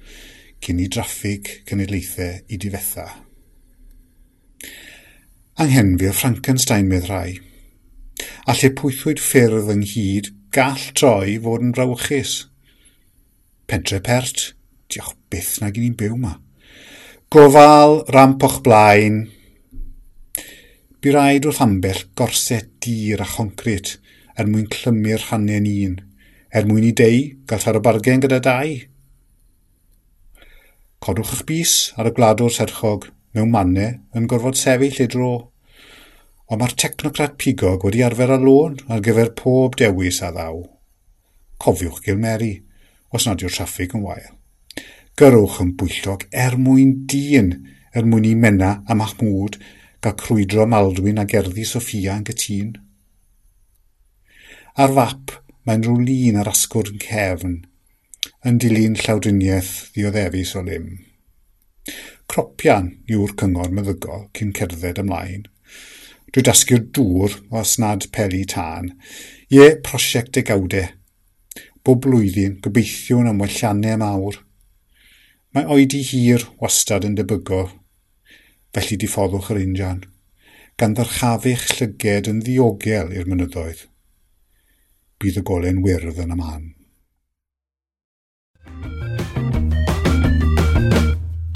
cyn i draffig cenedlaethau i difetha. Anghenfil Frankenstein, medd rhai. A lle pwythwyd ffyrdd ynghyd, gall troi fod yn frawychus. Pentre pert, diolch byth nag i ni'n byw ma. Gofal, ramp o'ch blaen. Bu raid wrth ambell gorset dir a choncrit er mwyn clymu'r rhannau'n un, er mwyn i dei gael taro bargen gyda dau. Codwch eich bys ar y gwladwr serchog mewn mannau yn gorfod sefyll ei dro. Ond mae'r technocrat pigog wedi arfer â lôn ar gyfer pob dewis a ddaw. Cofiwch Gilmeri, os nad yw'r traffig yn wael. Gyrwch yn bwyllog er mwyn dyn, er mwyn i Menna a Mahmoud gael crwydro Maldwyn a gerddi Soffia yn gytûn. Ar fap, mae'n rhyw lun ar asgwrn cefn, yn dilyn llawdriniaeth ddioddefus o lym. Cropian yw'r cyngor meddygol cyn cerdded ymlaen. Drwy dasgu'r dŵr os nad peli tân. Ie, prosiect degawdau. Bob blwyddyn gobeithiwn am welliannau mawr. Mae oedi hir wastad yn debygol. Felly diffoddwch yr injan, gan ddyrchafu'ch llyged yn ddiogel i'r mynyddoedd. Bydd y gole'n wyrdd yn y man.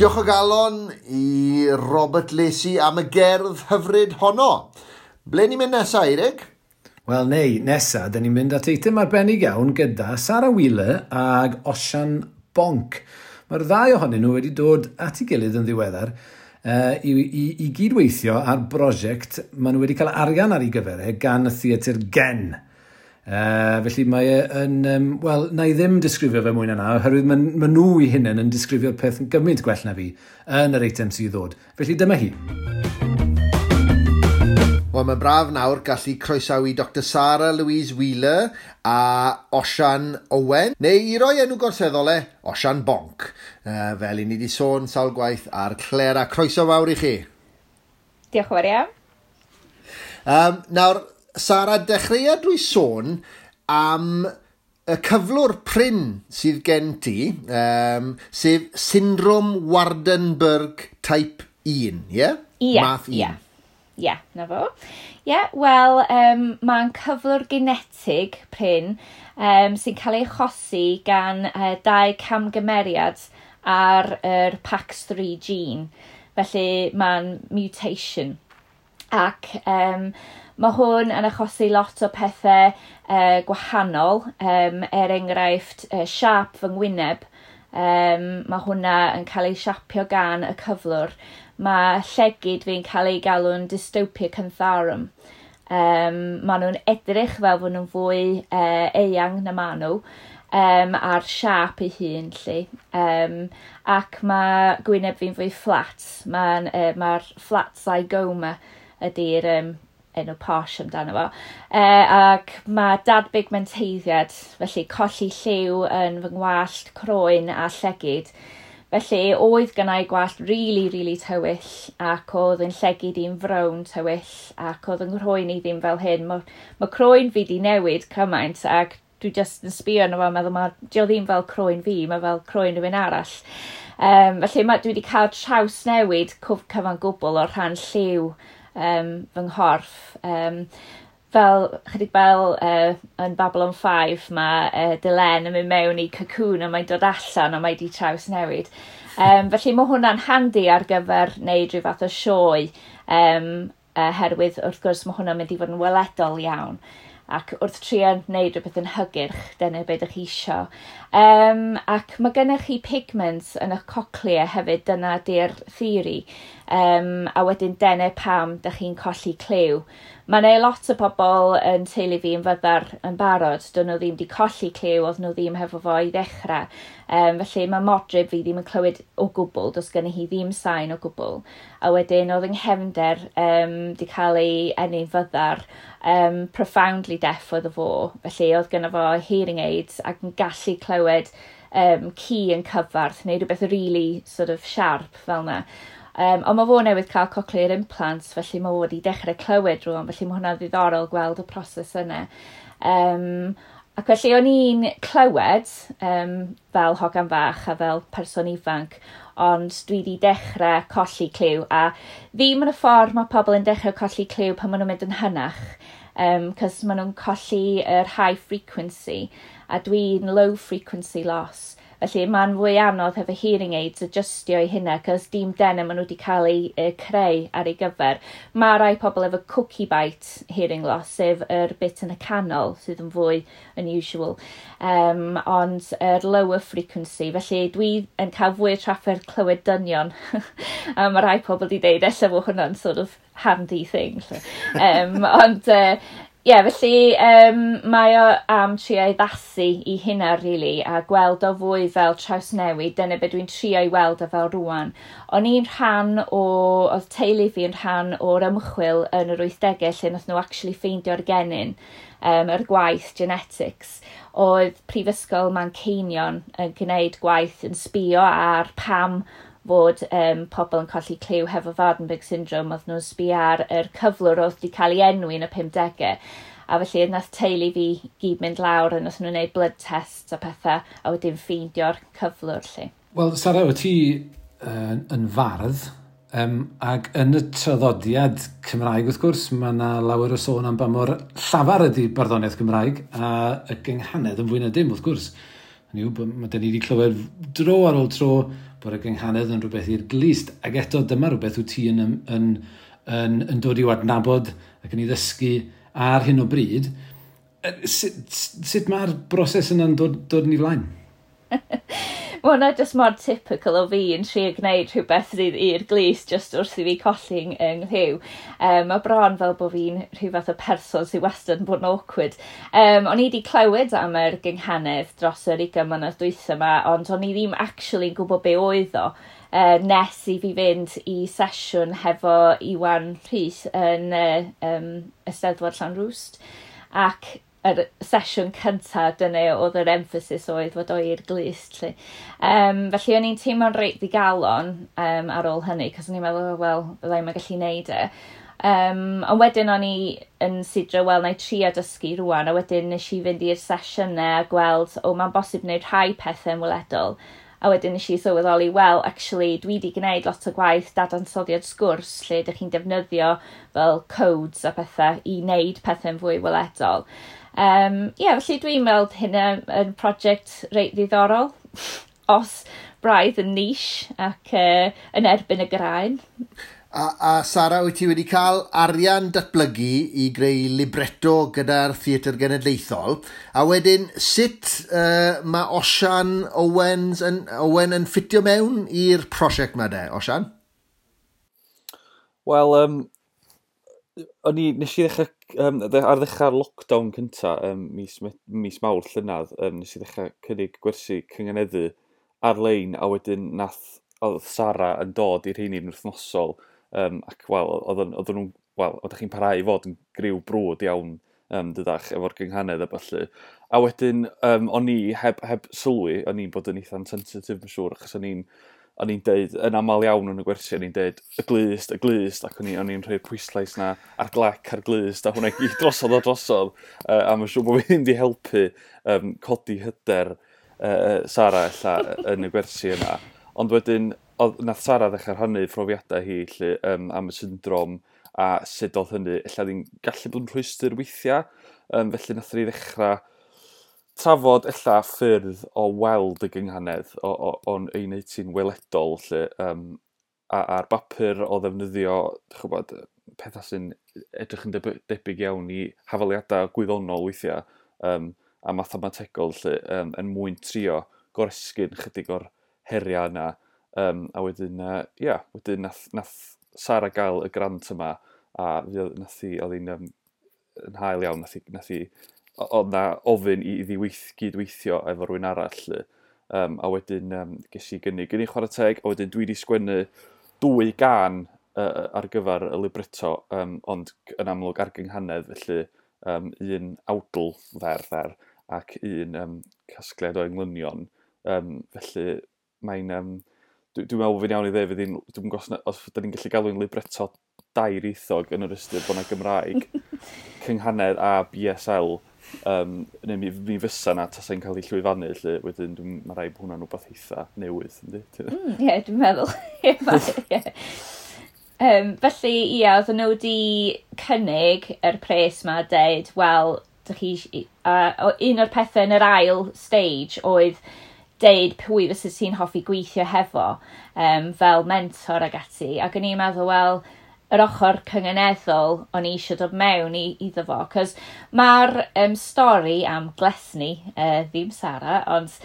Diolch o galon i Robert Lacey am y gerdd hyfryd honno. Ble ni'n mynd nesaf, Eirig? Wel, neu, nesa, dyn ni'n mynd at eitem arbennig iawn gyda Sarah Wheeler ag Osian Bonc. Mae'r ddau ohonyn nhw wedi dod at ei gilydd yn ddiweddar i gydweithio ar brosiect maen nhw wedi cael arian ar ei gyfer e gan y Theatr Gen. Felly mae e yn, wel, na i ddim disgrifio fe mwy na na, oherwydd ma nhw i hunain yn disgrifio'r peth yn gymaint gwell na fi yn yr eitem sydd i ddod. Felly dyma hi. Wel, mae'n braf nawr gallu croesawu Dr Sarah Louise Wheeler a Osian Owen, neu i roi enw gorseddol e, Osian Bonc, fel i ni wedi sôn sawl gwaith ar Clera. Croeso fawr i chi. Diolch yn fawr iawn. Nawr, Sarah, dechreuad drwy sôn am y cyflwr prin sydd gen ti, sef syndrom Waardenburg type 1, ie? Ie, Math 1. ie. Ie, na fo. Ie, wel, mae'n cyflwr genetig prin sy'n cael ei achosi gan dau camgymeriad ar yr PAX3 gene. Felly mae'n mutation. Ac mae hwn yn achosi lot o pethau gwahanol, er enghraifft siâp fy ngwyneb. Mae hwnna yn cael ei siapio gan y cyflwr. Mae llegid fi'n cael ei galw'n dystopia cantharum. Maen nhw'n edrych fel fod nhw'n fwy eang na maen nhw, a'r siâp ei hun, lly. Ac mae gwyneb fi'n fwy fflat. Mae'r flat zygoma ydy'r enw posh amdano fo. Ac mae dadbigmenteiddiad, felly colli lliw yn fy ngwallt, croen a llegid. Felly oedd gynna i gwallt really, really tywyll, ac oedd yn llegid i'n frown tywyll, ac oedd yng nghroen i ddim fel hyn. Mae croen fi di newid cymaint, ac dwi just yn sbio arno fo a meddwl, dio ddim fel croen fi, mae fel croen rhywun arall. Felly dwi wedi cael trawsnewid cyfan gwbl o'r rhan lliw fy nghorff. Fel, chydig fel yn Babylon 5, mae Delenn yn mynd mewn i cocoon a mae'n dod allan a mae di trawsnewid. Felly mae hwnna'n handi ar gyfer wneud rhyw fath o sioe, herwydd wrth gwrs mae hwnna'n mynd i fod yn weledol iawn. Ac wrth trio wneud rhywbeth yn hygyrch, dyna beth ydych chi isio. Ac mae gennych chi pigments yn eich cochlea hefyd, dyna di'r theori. A wedyn dyna pam dych chi'n colli clyw. Mae yna lot o bobl yn teulu fi yn fyddar yn barod, dyn nhw ddim wedi colli clyw, oedd nhw ddim hefo fo i ddechrau. Felly mae modryb fi ddim yn clywed o gwbl, does gen hi ddim sain o gwbl. A wedyn oedd yng nghefnder wedi cael ei eni'n fyddar, profoundly deaf oedd fo, felly oedd gynno fo hearing aids ac yn gallu clywed ci yn cyfarth neu rhywbeth really sort of sharp fel yna. Ond mae fo newydd cael cochlear implant, felly mae fo wedi dechrau clywed rwan, felly mae hwnna'n ddiddorol gweld y proses yna. Ac felly o'n i'n clywed fel hogan fach a fel person ifanc, ond dwi wedi dechrau colli clyw, a ddim yn y ffordd mae pobl yn dechrau colli clyw pan maen nhw'n mynd yn hynach, cos maen nhw'n colli yr high frequency, a dwi'n low frequency loss. Felly mae'n fwy anodd hefo hearing aids adjustio i hynna, cos dim dyna maen nhw wedi cael eu creu ar ei gyfer. Mae rai pobl efo cookie bite hearing loss, sef yr bit yn y canol sydd yn fwy unusual. Ond yr lower frequency, felly dwi yn cael fwy o trafferth clywed dynion. A mae rai pobl wedi deud, ella fod hwnna'n sort of handy thing. Ond ie, felly mae o am trio ei addasu i hynna, really, a gweld o fwy fel trawsnewid. Dyna be dwi'n trio i weld o fel rwan. O'n i'n rhan o, oedd teulu fi yn rhan o'r ymchwil yn yr 80au lle nath nhw actually ffeindio'r genyn, yr gwaith genetics. Oedd Prifysgol Manceinion yn gwneud gwaith yn sbio ar pam fod pobl yn colli clyw hefo Waardenburg syndrome, oedd nhw'n sbio ar yr cyflwr oedd wedi cael ei enwi yn y 50au. A felly nath teulu fi gyd mynd lawr a nath nhw'n gwneud blood tests a pethau, a wedyn ffeindio'r cyflwr lle. Wel, Sara, wyt ti yn fardd, ac yn y traddodiad Cymraeg, wrth gwrs, mae yna lawer o sôn am ba mor llafar ydy barddoniaeth Gymraeg, a y gynghanedd yn fwy na dim, wrth gwrs. Hynny yw, mae dyn ni wedi clywed dro ar ôl tro bod y gynghanedd yn rhywbeth i'r glust, ac eto dyma rhywbeth wyt ti yn dod i'w adnabod ac yn ei ddysgu ar hyn o bryd. Sut mae'r broses yna'n dod yn ei flaen? Mae hwnna jyst mor typical o fi yn trio gwneud rhywbeth sydd i'r glust just wrth i fi colli yng nghlyw. Mae bron fel bod fi'n rhyw fath o person sydd wastad yn bod yn awkward. O'n i wedi clywed am yr gynghanedd dros yr 20 mlynedd dwytha yma, ond o'n i ddim actually yn gwybod be oedd o. Nes i fi fynd i sesiwn hefo Iwan Rhys yn Eisteddfod Llanrwst. Ac yr sesiwn cynta, dyna oedd yr emphasis oedd fod o i'r glust. Lle. Felly o'n i'n teimlo'n reit ddigalon ar ôl hynny, cos o'n i'n meddwl, "Oh, wel, fydda i'm yn gallu neud e." Ond wedyn o'n i yn sidro, wel, na i trio dysgu rwan, a wedyn nes i fynd i'r sesiynau a gweld, o, mae'n bosib wneud rhai pethau yn weledol. A wedyn nes i sylweddoli, wel, actually, dwi wedi gwneud lot o gwaith dadansoddiad sgwrs, lle ydych chi'n defnyddio fel codes a pethau i wneud pethau'n fwy weledol. Yeah, felly dwi'n meddwl hynna yn prosiect reit ddiddorol, os braidd yn niche ac yn erbyn y graen. A Sara, wyt ti wedi cael arian datblygu i greu libretto gyda'r Theatr Genedlaethol? A wedyn, sut mae Osian Owen yn ffitio mewn i'r prosiect yma de, Osian? Wel, o'n i, nes i ddechrau, ar ddechrau'r lockdown cynta, mis Mawrth llynedd, nes i ddechrau cynnig gwersi cynganeddu ar-lein, a wedyn oedd Sara yn dod i'r rheini'n wythnosol, ac wel, oedden nhw'n, wel, oeddech chi'n parhau i fod yn griw brwd iawn, dydach, efo'r gynghanedd a ballu. A wedyn, o'n i heb sylwi, o'n i'n bod yn eitha sensitif, yn siŵr, achos o'n i'n deud, yn aml iawn yn y gwersi, o'n i'n deud, "Y glust, y glust," ac o'n i'n rhoi'r pwyslais na ar glec ar glust, a hwnna i gyd drosodd a drosodd, a mae'n siŵr bod fi ddim wedi helpu codi hyder Sara ella yn y gwersi yna. Ond wedyn, nath Sara ddechrau rhannu phrofiadau hi lle, am y syndrom a sut oedd hynny, ella ddim gallu bod yn rhwystr weithiau. Felly nath ni ddechrau trafod ella ffyrdd o weld y gynghanedd, o'n ei wneud ti'n weledol, lle, a'r bapur o ddefnyddio, ch'bod, pethau sy'n edrych yn debyg iawn i hafaliadau gwyddonol weithiau, a mathemategol, lle, yn mwyn trio goresgyn chydig o'r heriau yna. A wedyn, ia, wedyn nath Sara gael y grant yma, a nath hi, oedd hi'n yn hael iawn, nath hi oedd na ofyn i iddi gydweithio efo rhywun arall. Lly. A wedyn ges i gynnig gynnig chwarae teg, a wedyn dwi wedi sgwennu dwy gan ar gyfer y libretto, ond yn amlwg ar gynghanedd, felly un awdl fer fer ac un casgliad o englynion. Felly mae'n Dwi'n meddwl bod fi'n iawn i ddeud, fydd hi'n, dwi'n gwybod os da ni'n gallu galw'n libreto dairieithog yn yr ystyr bod yna Gymraeg, cynghanedd a BSL, neu mi fysa na tasai'n cael ei llwyfannu, lle wedyn mae rhaid bod hwnna'n rhywbeth eitha newydd, yndi? Ie, dwi'n meddwl. Ie. Felly, ie, oedden nhw wedi cynnig yr pres ma, deud, wel, dych chi, un o'r pethau yn yr ail stage oedd deud pwy fysa ti'n hoffi gweithio hefo, fel mentor ag ati. Ac o'n i'n meddwl, wel, yr ochr cynganeddol o'n i eisiau dod mewn iddo fo. Cos mae'r stori am Glesni, ddim Sara, ond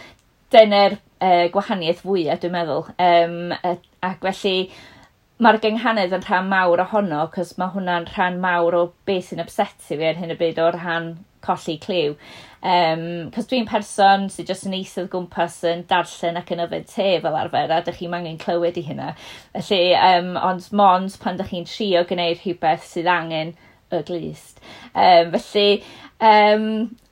dyna'r gwahaniaeth fwyaf, dwi'n meddwl. Ac felly mae'r gynghanedd yn rhan mawr ohono, cos mae hwnna'n rhan mawr o beth sy'n upsetio fi ar hyn o bryd o'r rhan colli clyw. Cos dwi'n person sydd jyst yn eistedd gwmpas yn darllen ac yn yfed te fel arfer, a dych chi'm angen clywed i hynna. Felly, ond mond pan dych chi'n trio gwneud rhywbeth sydd angen y glust. Felly,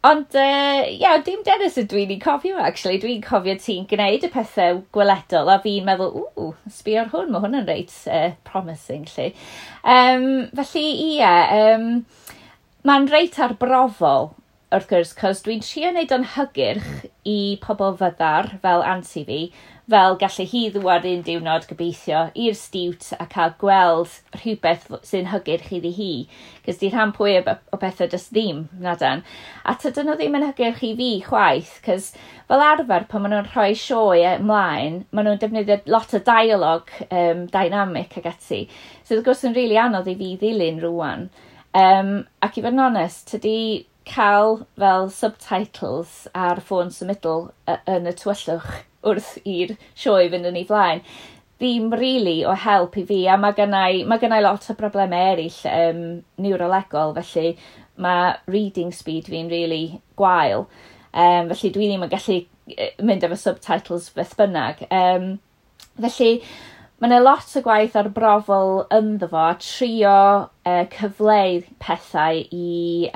ond, ia, dim dyna sydd dwi'n ei cofio, actually. Dwi'n cofio ti'n gwneud y pethau gweledol, a fi'n meddwl, ww, sbio ar hwn, mae hwn yn reit promising, lle. Felly, ie, mae'n reit arbrofol, wrth gwrs, cos dwi'n trio wneud o'n hygyrch i pobl fyddar, fel anti fi, fel gallu hi ddwad un diwrnod gobeithio i'r stiwt a cael gweld rhywbeth sy'n hygyrch iddi hi. Cos di rhan pwy o bethau jyst ddim, nadan. A tydyn nhw ddim yn hygyrch i fi chwaith, cos fel arfer pan maen nhw'n rhoi sioe ymlaen, maen nhw'n defnyddio lot o dialog dynamic ag ati. Sydd wrth gwrs yn rili anodd i fi ddilyn rŵan. Ac i fod yn onest, tydi cael fel subtitles ar ffôn symudol yn y tywyllwch wrth i'r sioe fynd yn ei flaen, ddim really o help i fi, a mae gynna i lot o broblemau eraill neurolegol, felly mae reading speed fi'n really gwael. Felly dwi ddim yn gallu mynd efo subtitles beth bynnag. Felly mae yna lot o gwaith arbrofol ynddo fo, a trio cyfleu pethau i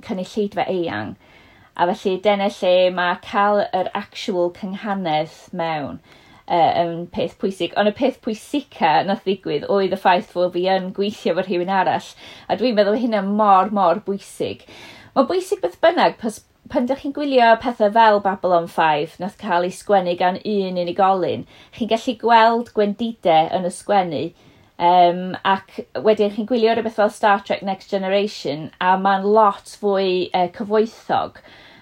cynulleidfa eang. A felly dyna lle mae cael yr actual cynghanedd mewn yn peth pwysig. Ond y peth pwysica nath ddigwydd oedd y ffaith fod fi yn gweithio efo rhywun arall. A dwi'n meddwl hynna mor, mor bwysig. Mae'n bwysig beth bynnag, pan ydych chi'n gwylio pethau fel Babylon 5, nath cael ei sgwennu gan un unigolyn, chi'n gallu gweld gwendidau yn y sgwennu, ac wedyn chi'n gwylio rhywbeth fel Star Trek Next Generation, a mae'n lot fwy cyfoethog,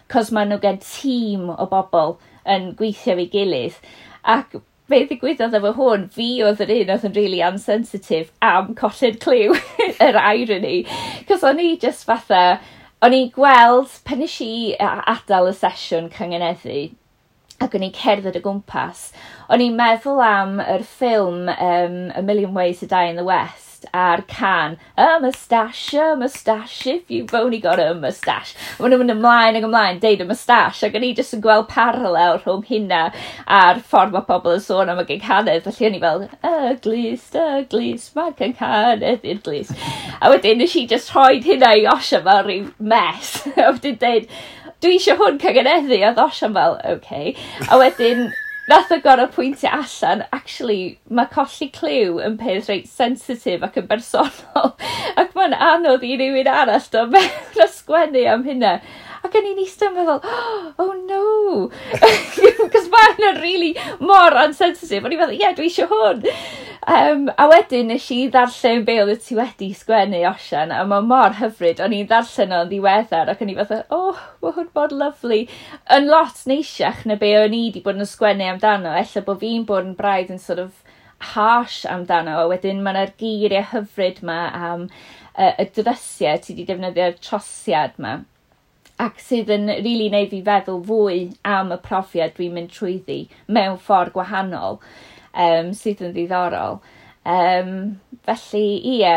cos maen nhw gen tîm o bobl yn gweithio efo'i gilydd. Ac be ddigwyddodd efo hwn, fi oedd yr un oedd yn really unsensitive am colled clyw, yr irony. Cos o'n i just fatha, o'n i'n gweld, pan nes i adael y sesiwn cyngeneddu, ac o'n i'n cerdded o gwmpas, o'n i'n meddwl am yr ffilm A Million Ways to Die in the West, a'r cân, "A moustache, a moustache, if you've only got a moustache." A maen nhw'n mynd ymlaen ac ymlaen, deud y moustache, ac o'n i jyst yn gweld parallel rhwng hynna a'r ffordd mae pobl yn sôn am y gynghanedd. Felly o'n i fel, "Y glust, y glust, mae cynghanedd i'r glust." A wedyn nes i just rhoi hynna i Osian fel rhyw mess. A wedyn deud, "Dwi eisiau hwn cynghaneddu," a oedd Osian fel, "Okay." A wedyn, nath o gorau pwyntio allan, actually, mae colli clyw yn peth reit sensitif ac yn bersonol. Ac mae'n anodd i rywun arall dod mewn a sgwennu am hynna. Ac o'n i'n eistedd yn meddwl, "Oh no." Cos mae hynna'n really mor unsensitive. O'n i'n meddwl, ie, yeah, dwi eisiau hwn. A wedyn nes i ddarllen be oedd ti wedi sgwennu, Osian, a mae mor hyfryd. O'n i'n ddarllen o'n ddiweddar, ac o'n i fatha, "Oh, mae hwn mor lovely." Yn lot neisiach na be o'n i wedi bod yn sgwennu amdano. Ella bod fi'n bod yn braidd yn sort of harsh amdano, a wedyn mae yna'r geiriau hyfryd ma am y drysiau ti wedi defnyddio'r trosiad ma ac sydd yn rili really neud fi feddwl fwy am y profiad dwi'n mynd trwyddi mewn ffordd gwahanol, sydd yn ddiddorol. Felly, ie,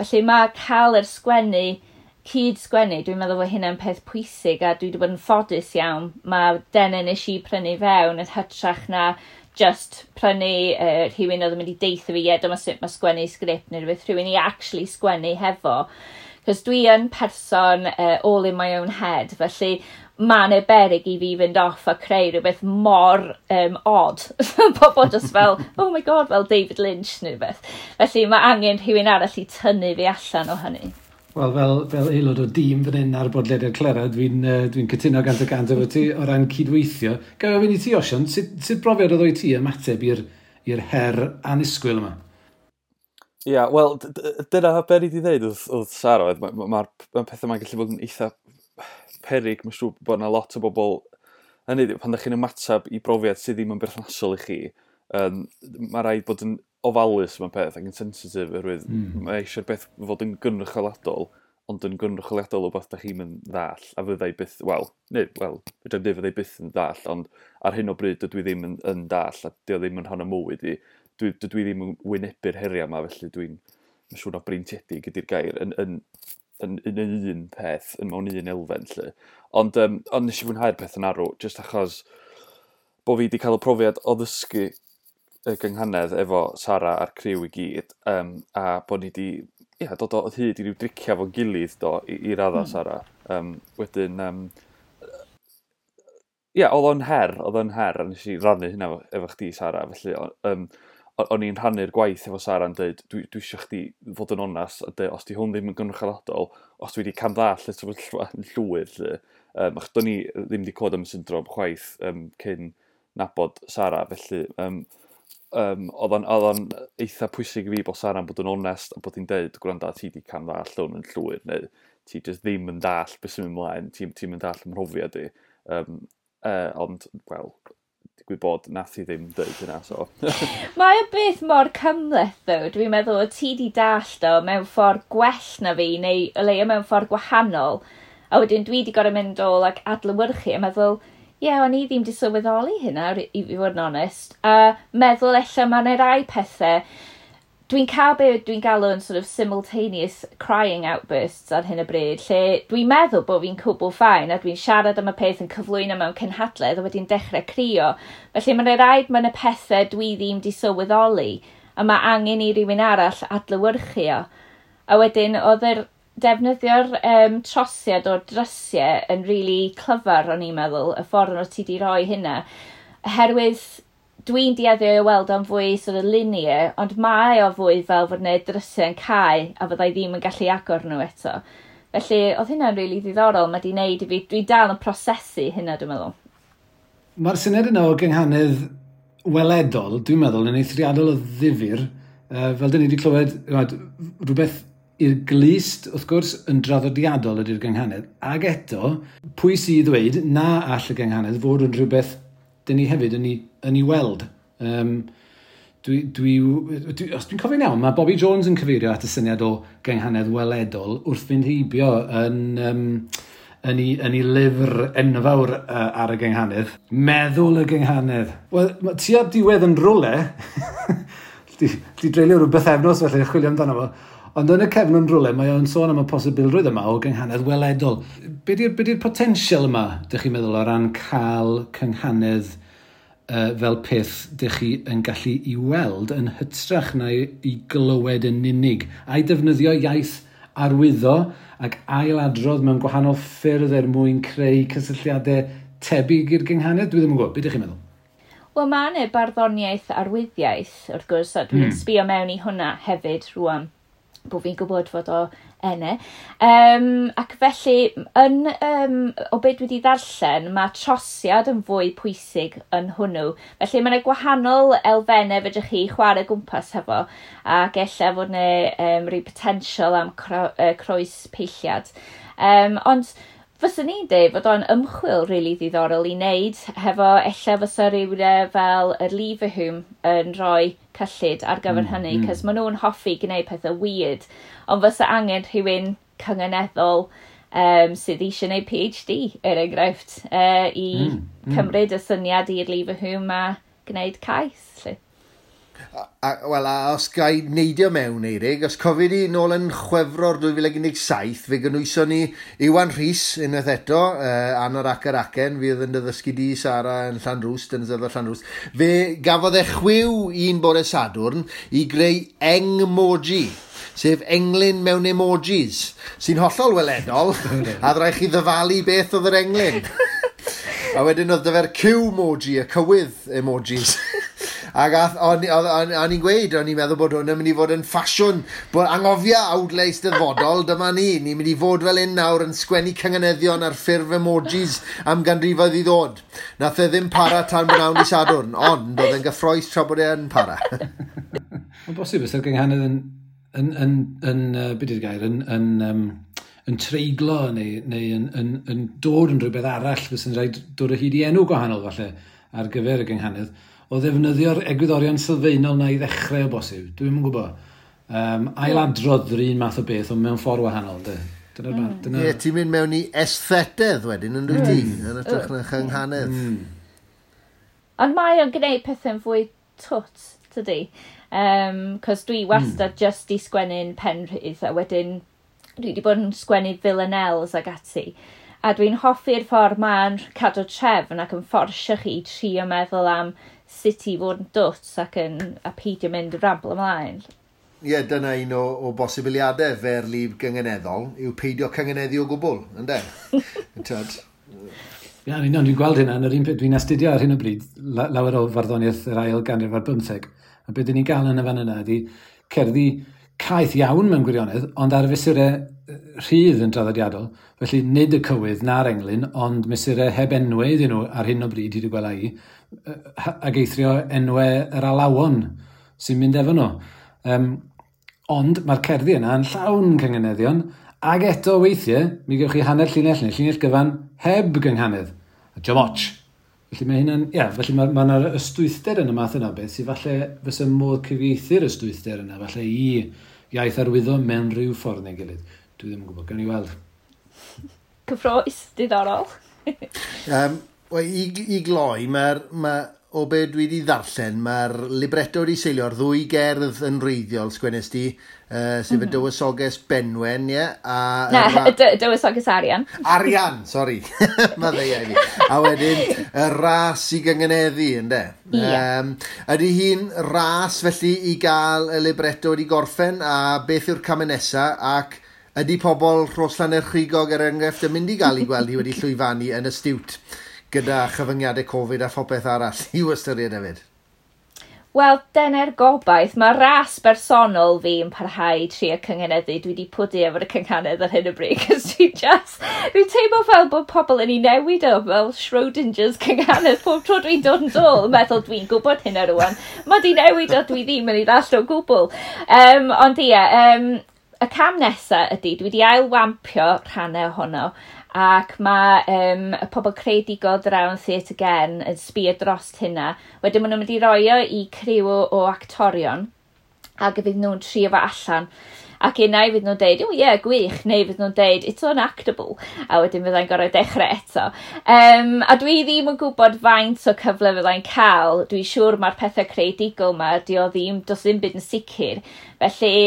felly mae cael yr sgwennu, cyd-sgwennu, dwi'n meddwl bod hynna'n peth pwysig a dwi wedi bod yn ffodus iawn. Mae dyna nes i prynu fewn yn hytrach na just prynu rhywun oedd yn mynd i deithio fi, ie, dyma sut mae sgwennu sgript neu rhywbeth, rhywun i actually sgwennu hefo. Cos dwi yn person all in my own head, felly Mae yna berig i fi fynd off a creu rhywbeth mor odd. Pobl just fel, oh my god, fel David Lynch neu rhywbeth. Felly mae angen rhywun arall i tynnu fi allan o hynny. Wel, fel aelod o dîm fan hyn ar bodlediad Clera, dwi'n dwi cytuno 100% efo ti o ran cydweithio. Ga i ofyn i ti, Osian, sut brofiad oedd o i ti ymateb i'r her annisgwyl yma? Ia, yeah, wel, dyna be ni wedi dweud wrth Sara, oedd mae'r pethau yma'n gallu bod yn eitha perig, mae'n siŵr bod yna lot o bobl, hynny yw, pan ydych chi'n ymateb i brofiad sydd ddim yn berthnasol i chi, mae rhaid bod yn ofalus mewn peth ac yn sensitif, oherwydd mae eisiau'r beth fod yn gynrychioladol, ond yn gynrychioliadol o beth da chi'n mynd ddall, a fyddai byth, wel, neu, wel, fedra i'm deud fyddai byth yn ddall, ond ar hyn o bryd dydw i ddim yn dall, a dio ddim yn rhan o mywyd i. Dydw i ddim yn wynebu'r heriau yma, felly dwi'n, mae'n siŵr na breintiedig ydy'r gair, yn un peth, yn mewn un elfen, lle. Ond nes i fwynhau'r peth yn arw, jyst achos bo fi wedi cael y profiad o ddysgu y gynghanedd efo Sara a'r criw i gyd, a bod ni wedi dod o hyd i ryw dricia fo'n gilydd do, i raddau Sara. Wedyn, ia, oedd o'n her, a nes i rannu hynna efo chdi, Sara, felly o'n i'n rhannu'r gwaith efo Sara yn dweud, dwi eisiau chdi fod yn onast, a dweud, os di hwn ddim yn gynrychioladol, os dwi wedi camddall y sefyllfa yn llwyr, lle. Achos do'n i ddim wedi clywed am y syndrom chwaith cyn nabod Sara, felly oedd o'n eitha pwysig i fi bod Sara'n bod yn onest a bod hi'n deud, gwranda, ti di camddall hwn yn llwyr, neu ti jyst ddim yn dall beth sy'n mynd ymlaen, ti'n mynd dall ym mhrofiad i. Ond, wel, digwydd bod nath i ddim dweud hynna, so. Mae o beth mor cymhleth, though. Dwi'n meddwl, o ti di dallt o mewn ffordd gwell na fi, neu o leia mewn ffordd gwahanol. A wedyn dwi di gorfod mynd ôl ac adlewyrchu a meddwl, ie, yeah, o'n i ddim di sylweddoli hynna, i fod yn onest. A meddwl ella mae yna rai pethau, dwi'n cael be dwi'n galw yn sort of simultaneous crying outbursts ar hyn o bryd, lle dwi'n meddwl bod fi'n cwbl fine a dwi'n siarad am y peth yn cyflwyno mewn cynhadledd a wedyn dechrau crio. Felly mae'n rhaid mae'n y pethau dwi ddim di sylweddoli a mae angen i rywun arall adlewyrchu o. A wedyn oedd yr defnyddio'r trosiad o'r drysiau yn really clyfar, o'n i'n meddwl, y ffordd o'n ti di roi hynna. Oherwydd dwi'n dueddu o weld o'n fwy sort of linear, ond mae o fwy fel fod yna drysau yn cau a fyddai ddim yn gallu agor nhw eto. Felly, oedd hynna'n really ddiddorol. Mae di wneud i fi, dwi'n dal yn prosesu hynna, dwi'n meddwl. Mae'r syniad yna o gynghanedd weledol, dwi'n meddwl, yn eithriadol o ddifyr. Fel dyn ni wedi clywed, rhywbeth i'r glust, wrth gwrs, yn draddodiadol ydy'r gynghanedd. Ac eto, pwy sydd ddweud na all y gynghanedd fod yn rhywbeth dyn ni hefyd yn ei weld. Os dwi'n cofio'n iawn, mae Bobby Jones yn cyfeirio at y syniad o gynghanedd weledol wrth fynd heibio yn ei lyfr enfawr ar y gynghanedd. Meddwl y gynghanedd. Wel, tua diwedd yn rwle, di dreulio rhyw bythefnos felly chwilio amdano fo, ond yn y cefn yn rwle, mae o'n sôn am y posibilrwydd yma o gynghanedd weledol. Be di'r potensial yma, dych chi'n meddwl, o ran cael cynghanedd fel peth dych chi yn gallu i weld yn hytrach na i glywed yn unig, a'i defnyddio iaith arwyddo ac ailadrodd mewn gwahanol ffyrdd er mwyn creu cysylltiadau tebyg i'r gynghanedd? Dwi ddim yn gwybod. Be dych chi'n meddwl? Wel, mae yna barddoniaeth arwyddiaeth, wrth gwrs, a dwi'n sbio mewn i hwnna hefyd rwan, bod fi'n gwybod fod o ene. Ac felly, o beth dwi wedi ddarllen, mae trosiad yn fwy pwysig yn hwnnw. Felly mae yna gwahanol elfennau fedrwch chi chwarae gwmpas hefo, ac ella fod yna rhyw potensial am croes peilliad. Ond fyswn i'n dweud fod o'n ymchwil really ddiddorol i wneud hefo ella fysa rhywle fel yr Leverhulme yn rhoi cyllid ar gyfer hynny, cos maen nhw'n hoffi gwneud pethau weird, ond fysa angen rhywun cynganeddol sydd eisiau gwneud PhD, er enghraifft, i cymryd y syniad i'r Leverhulme a gwneud cais. Lle. Wel, a os gai neidio mewn, Eirig, os cofi di nôl yn Chwefror 2017, fe gynwyson ni Iwan Rhys unwaith eto, anorac yr acen, fydd yn ddysgu di Sara yn Llanrwst, yn Eisteddfod Llanrwst. Fe gafodd e chwiw un bore Sadwrn i greu engmoji, sef englyn mewn emojis, sy'n hollol weledol, a ddra'i chi ddyfalu beth oedd yr englyn. A wedyn oedd dyfer Q emoji, y cywydd emojis. Ac o'n i'n gweud, o'n i'n meddwl bod hwn yn mynd i fod yn ffasiwn, bod anghofia awdlau eisteddfodol, dyma ni, ni'n mynd i fod fel un nawr yn sgwennu cynganeddion ar ffurf emojis am ganrifoedd i ddod. Nath e ddim para tan bnawn i Sadwrn, ond oedd e'n gyffrous tra bod e'n para. Mae'n bosib, fysa'r gynghanedd yn beth yw'r gair, yn treiglo neu yn dod yn rhywbeth arall, fysa'n rhaid dod o hyd i enw gwahanol falle ar gyfer y gynghanedd, o ddefnyddio'r egwyddorion sylfaenol na i ddechrau o bosib. Dwi'm yn gwybod. Ailadrodd yr un math o beth, ond mewn ffordd wahanol, de. Dyna'r dyna... Ie, ti'n mynd mewn i esthetedd wedyn, yn dwyt ti? Yn hytrach na chynghanedd. Ond mae o'n gwneud pethau'n fwy twt, tydi? Cos dwi wastad just i sgwennu'n penrhydd, a wedyn dwi wedi bod yn sgwennu villanelles ag ati. A dwi'n hoffi'r ffordd mae'n cadw trefn ac yn fforsio chi i trio meddwl am sut i fod yn dwt ac a peidio mynd yn ramble ymlaen. Ie, dyna un o bosibiliadau fer lif gynganeddol, yw peidio cynganeddu o gwbl, ynde? Tyd. Ie, yn union, dwi'n gweld hynna, yn yr un peth, dwi'n astudio ar hyn o bryd lawer o farddoniaeth yr ail ganrif ar bymtheg. A beth dyn ni'n gael yn y fan yna ydy cerddi caeth iawn mewn gwirionedd, ond ar fesurau rhydd yn draddodiadol. Felly nid y cywydd na'r englyn, ond mesurau heb enwau iddyn nhw ar hyn o bryd, hyd y gwela i, ag eithrio enwau yr alawon sy'n mynd efo nhw. Ond mae'r cerddi yna yn llawn cynganeddion, ag eto weithiau, mi gewch chi hanner llinell neu llinell gyfan heb gynghanedd. A diom ots. Felly mae hynna'n, ie, felly mae yna'r ystwythder yn y math yna o beth sydd falle fysa modd cyfieithu'r ystwythder yna, falle i iaith arwyddo mewn rhyw ffordd neu gilydd. Dwi ddim yn gwybod, gawn ni weld. Cyffrous, diddorol. Wel, i gloi, o be dwi wedi ddarllen, mae'r libretto wedi seilio ar ddwy gerdd yn wreiddiol, sgwennes di, sef y Dywysoges Benwen, ie? Na, y Dywysoges Arian. Arian, sori. Mae ddeia i fi. A wedyn, y ras i gynganeddu, ynde? Ie. Ydy hi'n ras, felly, i gael y libretto wedi gorffen, a beth yw'r camau nesaf, ac ydy pobl Rhosllannerchrugog, er enghraifft, yn mynd i gael ei gweld hi wedi llwyfannu yn y stiwt gyda chyfyngiadau Covid a phopeth arall i'w ystyried hefyd? Wel, dyna'r gobaith. Mae ras bersonol fi yn parhau trio cynganeddu. Dwi wedi pwdu efo'r cynghanedd ar hyn o bryd, cos dwi'n teimlo fel bod pobl yn ei newid o, fel Schrodinger's cynghanedd. Pob tro dwi'n dod yn dôl, yn meddwl dwi'n gwybod hynna rwan. Mae di newid o, dwi ddim yn ei ddallt o gwbl. Ond ie, y cam nesaf ydy, dwi wedi ailwampio rhannau ohono, ac mae y pobl creadigol draw yn Theatr Gen yn sbio drost hynna. Wedyn maen nhw'n mynd i roi o i criw o actorion, ac fydd nhw'n trio fo allan. Ac unai fydd nhw'n deud, o ie, yeah, gwych, neu fydd nhw'n deud, it's unactable. A wedyn fyddai'n gorfod dechrau eto. A dwi ddim yn gwybod faint o cyfle fyddai'n cael. Dwi'n siŵr mae'r pethau creadigol yma, di o ddim, does ddim byd yn sicr. Felly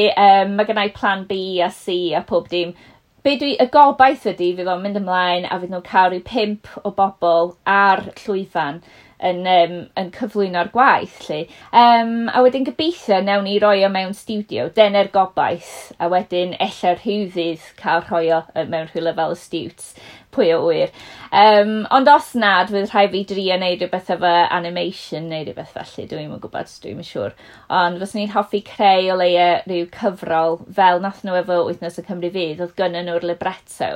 mae gennai plan B a C a pob dim. Y gobaith ydy fydd o'n mynd ymlaen a fydd nhw'n cael rhyw 5 o bobl ar llwyfan yn cyflwyno'r gwaith. Lly. A wedyn gobeithio newn ni roi o mewn studio, dyna'r gobaith, a wedyn ella rhyw ddydd cael rhoi o mewn rhywle fel y stiwt, pwy o ŵyr. Ond os nad, fydd rhaid fi drio neud rhywbeth efo animation neu rhywbeth felly, dwi'm yn gwybod, dwi'm yn siŵr. Ond fyswn i'n hoffi creu o leia rhyw cyfrol fel nath nhw efo Wythnos y Cymru Fydd, oedd gynnon nhw'r libretto.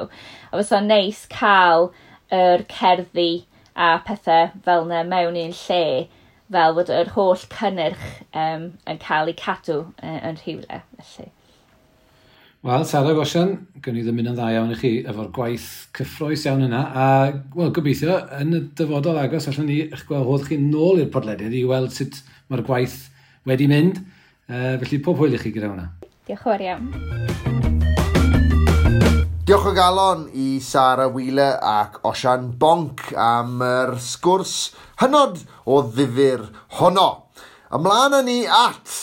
A fysa'n neis cael yr cerddi a pethau fel yna mewn un lle, fel fod yr holl cynnyrch yn cael ei cadw yn rhywle. Felly. Wel, Sara ac Osian, gawn ni ddymuno'n dda iawn i chi efo'r gwaith cyffrous iawn yna, a wel, gobeithio yn y dyfodol agos allwn ni eich gwahodd chi nôl i'r podlediad i weld sut mae'r gwaith wedi mynd. Felly pob hwyl i chi gyda hwnna. Diolch yn fawr iawn. Diolch o galon i Sara Wheeler ac Osian Bonc am yr sgwrs hynod o ddifyr honno. Ymlaen â ni at,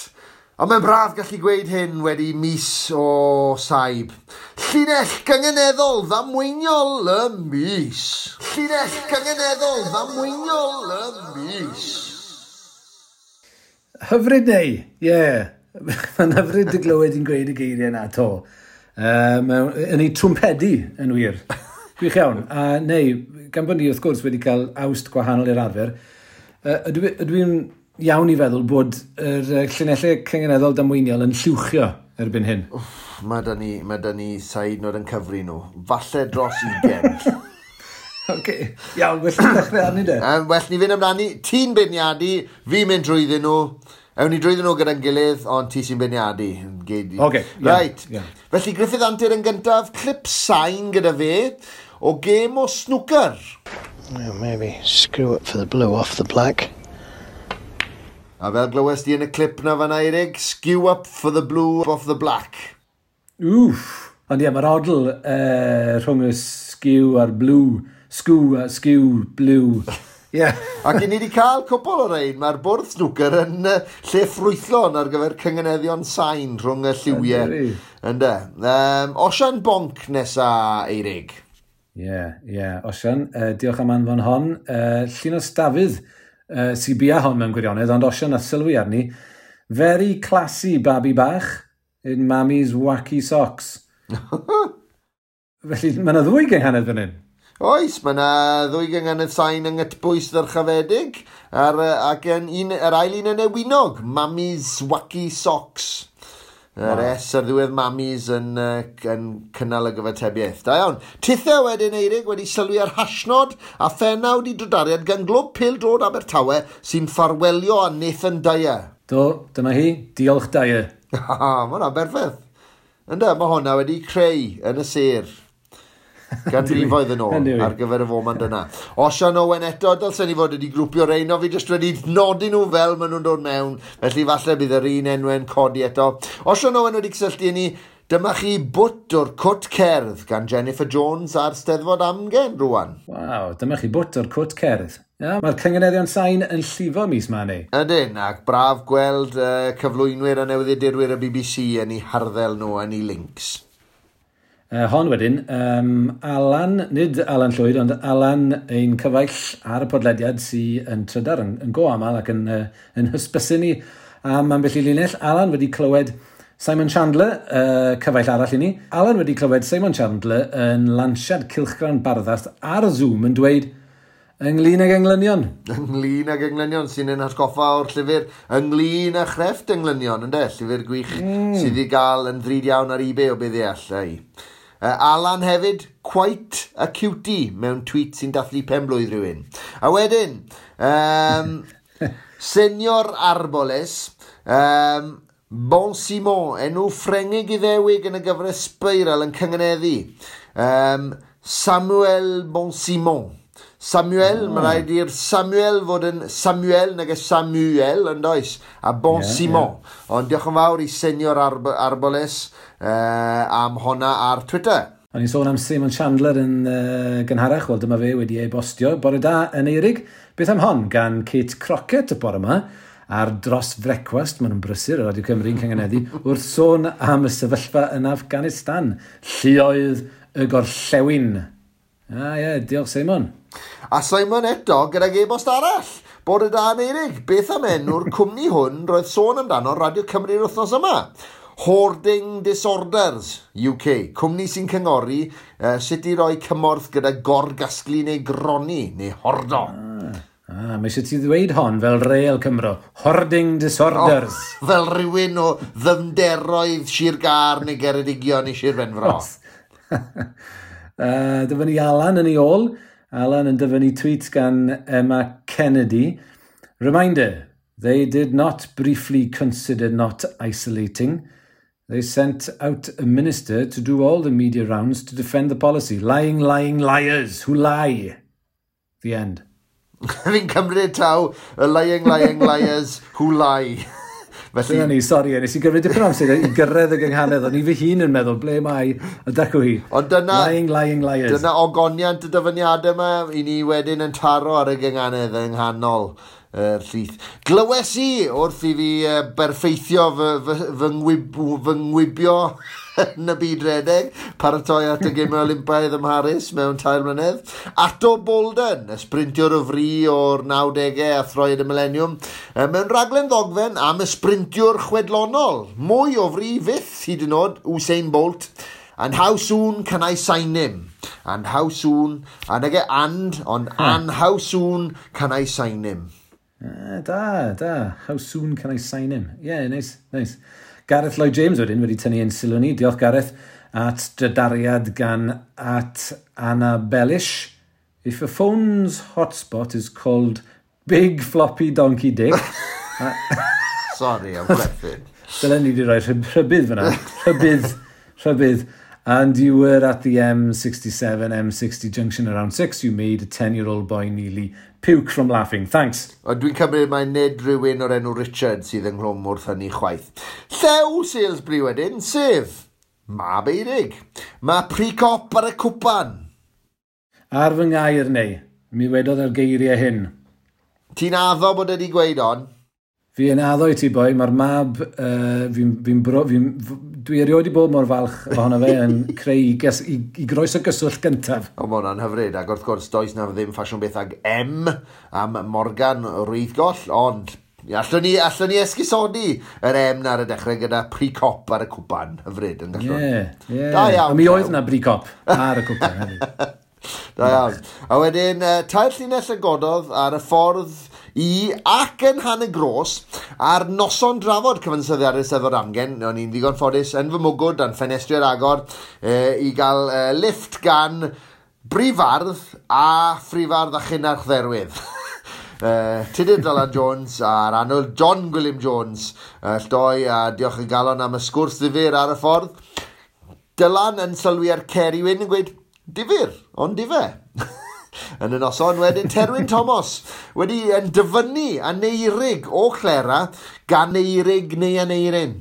a mae'n braf gallu gweud hyn wedi mis o saib, llinell gynganeddol ddamweiniol y mis. Llinell gynganeddol ddamweiniol y mis. Hyfryd neu? Ie. Yeah. Mae'n hyfryd dy glywed i'n gweud y geiriau yna to. Yn ei trwmpedi yn wir. Gwych iawn. A neu, gan bod ni wrth gwrs wedi cael Awst gwahanol i'r arfer, ydw i'n iawn i feddwl bod yr llinellau cynganeddol damweiniol yn lluwchio erbyn hyn? Wff, mae da ni said nod yn cyfri nhw. Falle dros 20. Oce, iawn, well ni ddechrau arni de. Well ni fynd amdani, ti'n beirniadu, fi'n mynd drwyddyn nhw. Ewn ni drwyddyn nhw gyda'n gilydd, ond ti sy'n beirniadu. Oce, iawn, Right. iawn. Felly Griffith Antur yn gyntaf, clip sain gyda fe o gêm o snooker. Well, maybe screw up for the blue off the black. A fel glywes di yn y clip na fan'na, Eirig, skew up for the blue off the black. Wff. Ond ie, mae'r odl rhwng y skew a'r blue. Skew, a skew, blue. Ie. Yeah. Ac i ni wedi cael cwpl o rein, mae'r bwrdd snooker yn lle ffrwythlon ar gyfer cynganeddion sain rhwng y lliwiau. Yndi. Ynde. Osian Bonc nesa, Eirig. Ie. Osian, diolch am anfon hon. Llinos Dafydd sy'n bia hon mewn gwirionedd, ond Osian a sylwi arni. Very classy babi bach in mammy's wacky socks. Felly, mae yna ddwy gynghanedd fan hyn. Oes, mae yna ddwy gynganedd sain yng Nghytbwys ddyrchafedig, ac yn un, yr ail un yn Ewinog, Mammy's Wacky Socks. Yr S ar ddiwedd Mammy's yn cynnal y gyfatebiaeth. Da iawn. Tithe wedyn, Eirig, wedi sylwi ar hashnod a phenawd i drydariad gan Glwb Pêl-droed Abertawe sy'n ffarwelio â Nathan Dyer. Do, dyma hi. Diolch, Dyer. Mae hwnna'n berffaith. Ynde, mae hwnna wedi creu yn y sêr. Ganrifoedd yn ôl Yndyw. ar gyfer y foment yna. Osian Owen eto, dylsen ni fod wedi grwpio rein, o fi jyst wedi nodi nhw fel maen nhw'n dod mewn, felly falle bydd yr un enwau'n codi eto. Osian Owen wedi cysylltu â ni, dyma chi bwt o'r Cwt Cerdd gan Jennifer Jones ar Steddfod Amgen rwan. Waw, dyma chi bwt o'r Cwt Cerdd. Ja, mae'r cynganeddion sain yn llifo mis ma neu. Ydyn, ac braf gweld cyflwynwyr a newyddiadurwyr y BBC yn eu harddel nhw yn eu links. Hon wedyn, Alan, nid Alan Llwyd, ond Alan ein cyfaill ar y podlediad sy'n yn trydar yn go aml ac yn hysbysu ni am ambell i linell. Alan wedi clywed Simon Chandler, cyfaill arall i ni. Alan wedi clywed Simon Chandler yn lansiad Cylchgrawn Barddas ar Zoom yn dweud ynglyn ag englynion. Ynglyn ag englynion sy'n ein hatgoffa o'r llyfr Ynglyn â Chrefft Englynion, ynde? Llyfr gwych sydd i gael yn ddrud iawn ar eBay o beth ddeall. Ei. Alan hefyd, quite a cutie mewn tweet sy'n dathlu penblwydd rhywun. A wedyn, Senior Arboles, Bon Simon, enw Ffrengig Iddewig yn y gyfres Spiral yn cynganeddu. Samuel Bon Simon. Samuel, mae rhaid i'r Samuel fod yn Samuel nag y Samuel, yn does? A Bon Simon. Ond diolch yn fawr i Senior Arboles am honna ar Twitter. O'n i'n sôn am Simon Chandler yn gynharach, wel dyma fe wedi ei bostio. Bore da yn Eirig. Beth am hon gan Kate Crockett y bore yma ar Dros Frecwast, maen nhw'n brysur ar Radio Cymru'n cynganeddu, wrth sôn am y sefyllfa yn Afghanistan, lluoedd y gorllewin. Ah ie, yeah, diolch Simon. A Simon eto gydag e-bost arall. Bore da yn Eirig, beth am enw'r cwmni hwn roedd sôn amdano Radio Cymru'r wythnos yma? Hoarding Disorders UK, cwmni sy'n cyngori sut i roi cymorth gyda gorgasglu neu gronni neu hordo. Ah, mae eisiau ti ddweud hon fel real Cymro. Hoarding Disorders. Oh, fel rhywun o ddyfnderoedd Sir Gâr neu Geredigion neu Sir Benfro. Dyfynnu Alan yn ei ôl. Alan yn dyfynnu tweet gan Emma Kennedy. Reminder, they did not briefly consider not isolating. They sent out a minister to do all the media rounds to defend the policy. Lying, lying, liars who lie. The end. Fi'n cymryd taw y lying, lying, liars who lie. Felly, Dyna ni, sori, nes i gymryd dipyn o amser i gyrraedd y gynghanedd, o'n i fy hun yn meddwl ble mae y dacw hi. Ond dyna, Lying, lying, liars. dyna ogoniant y dyfyniadau yma, i ni wedyn yn taro ar y gynghanedd yng nghanol yr llith. Glywes i wrth i fi berffeithio fy ngwibio yn y byd redeg, paratoi at y Gemau Olympaidd ym Mharis mewn 3 mlynedd. Ato Bolden, y sprintiwr o fri o'r 90au a throed y mileniwm, mewn raglen ddogfen am y sprintiwr chwedlonol. Mwy o fri fyth hyd yn oed, Usain Bolt. And how soon can I sign him? And how soon, and again, and, on, and how soon can I sign him? Da, da. How soon can I sign him? Yeah, nice, nice. Gareth Lloyd James wedyn wedi tynnu ein sylw ni. Diolch, Gareth. At drydariad gan at Anna Bellish. If a phone's hotspot is called Big Floppy Donkey Dick... Sorry, I'm chwerthin. Dylen ni wedi rhoi rhybudd fyna. Rhybudd, rhybudd. And you were at the M67, M60 junction around 6. You made a 10-year-old boy nearly puke from laughing. Thanks. Ond dwi'n cymryd mae nid rhywun o'r enw Richard sydd ynghlwm wrth hynny chwaith. Llew Salisbury wedyn, sef Mab Eirig. Mae pre-cop ar y cwpan. Ar fy ngair neu, mi wedodd yr geiriau hyn. Ti'n addo bod wedi gweud on? Fi yn addo i ti, boi, mae'r mab, fi bro, fi, dwi erioed i bod mor falch ohono fe yn creu i groeso gyswllt gyntaf. O, mae hwnna'n hyfryd, ac wrth gwrs does na ddim ffasiwn beth ag M am Morgan Reiddgoll, ond allwn ni esgusodi yr M na ar y dechrau gyda pre-cop ar y cwpan, hyfryd yn gallwn. Ie, ie. Da iawn. A mi oedd na pre-cop ar y cwpan hefyd. Da iawn. A wedyn, tair llinell y gododd ar y ffordd i ac yn Han y Gros ar noson drafod cyfansoddiadau Eisteddfod Amgen. O'n i'n ddigon ffodus yn fy mwgwd a'n ffenestri ar agor i gael lift gan brifardd a phrifardd a chynarch dderwydd. Tudur Dylan Jones a'r annwyl John Gwilym Jones. Lldoi, a diolch yn galon am y sgwrs ddifyr ar y ffordd. Dylan yn sylwi ar Ceri Wyn yn gweud, difyr, ond dife. Yn y noson wedyn, Terwyn Thomas wedi yn dyfynnu Aneirig o Clera gan Eirig neu Aneirin.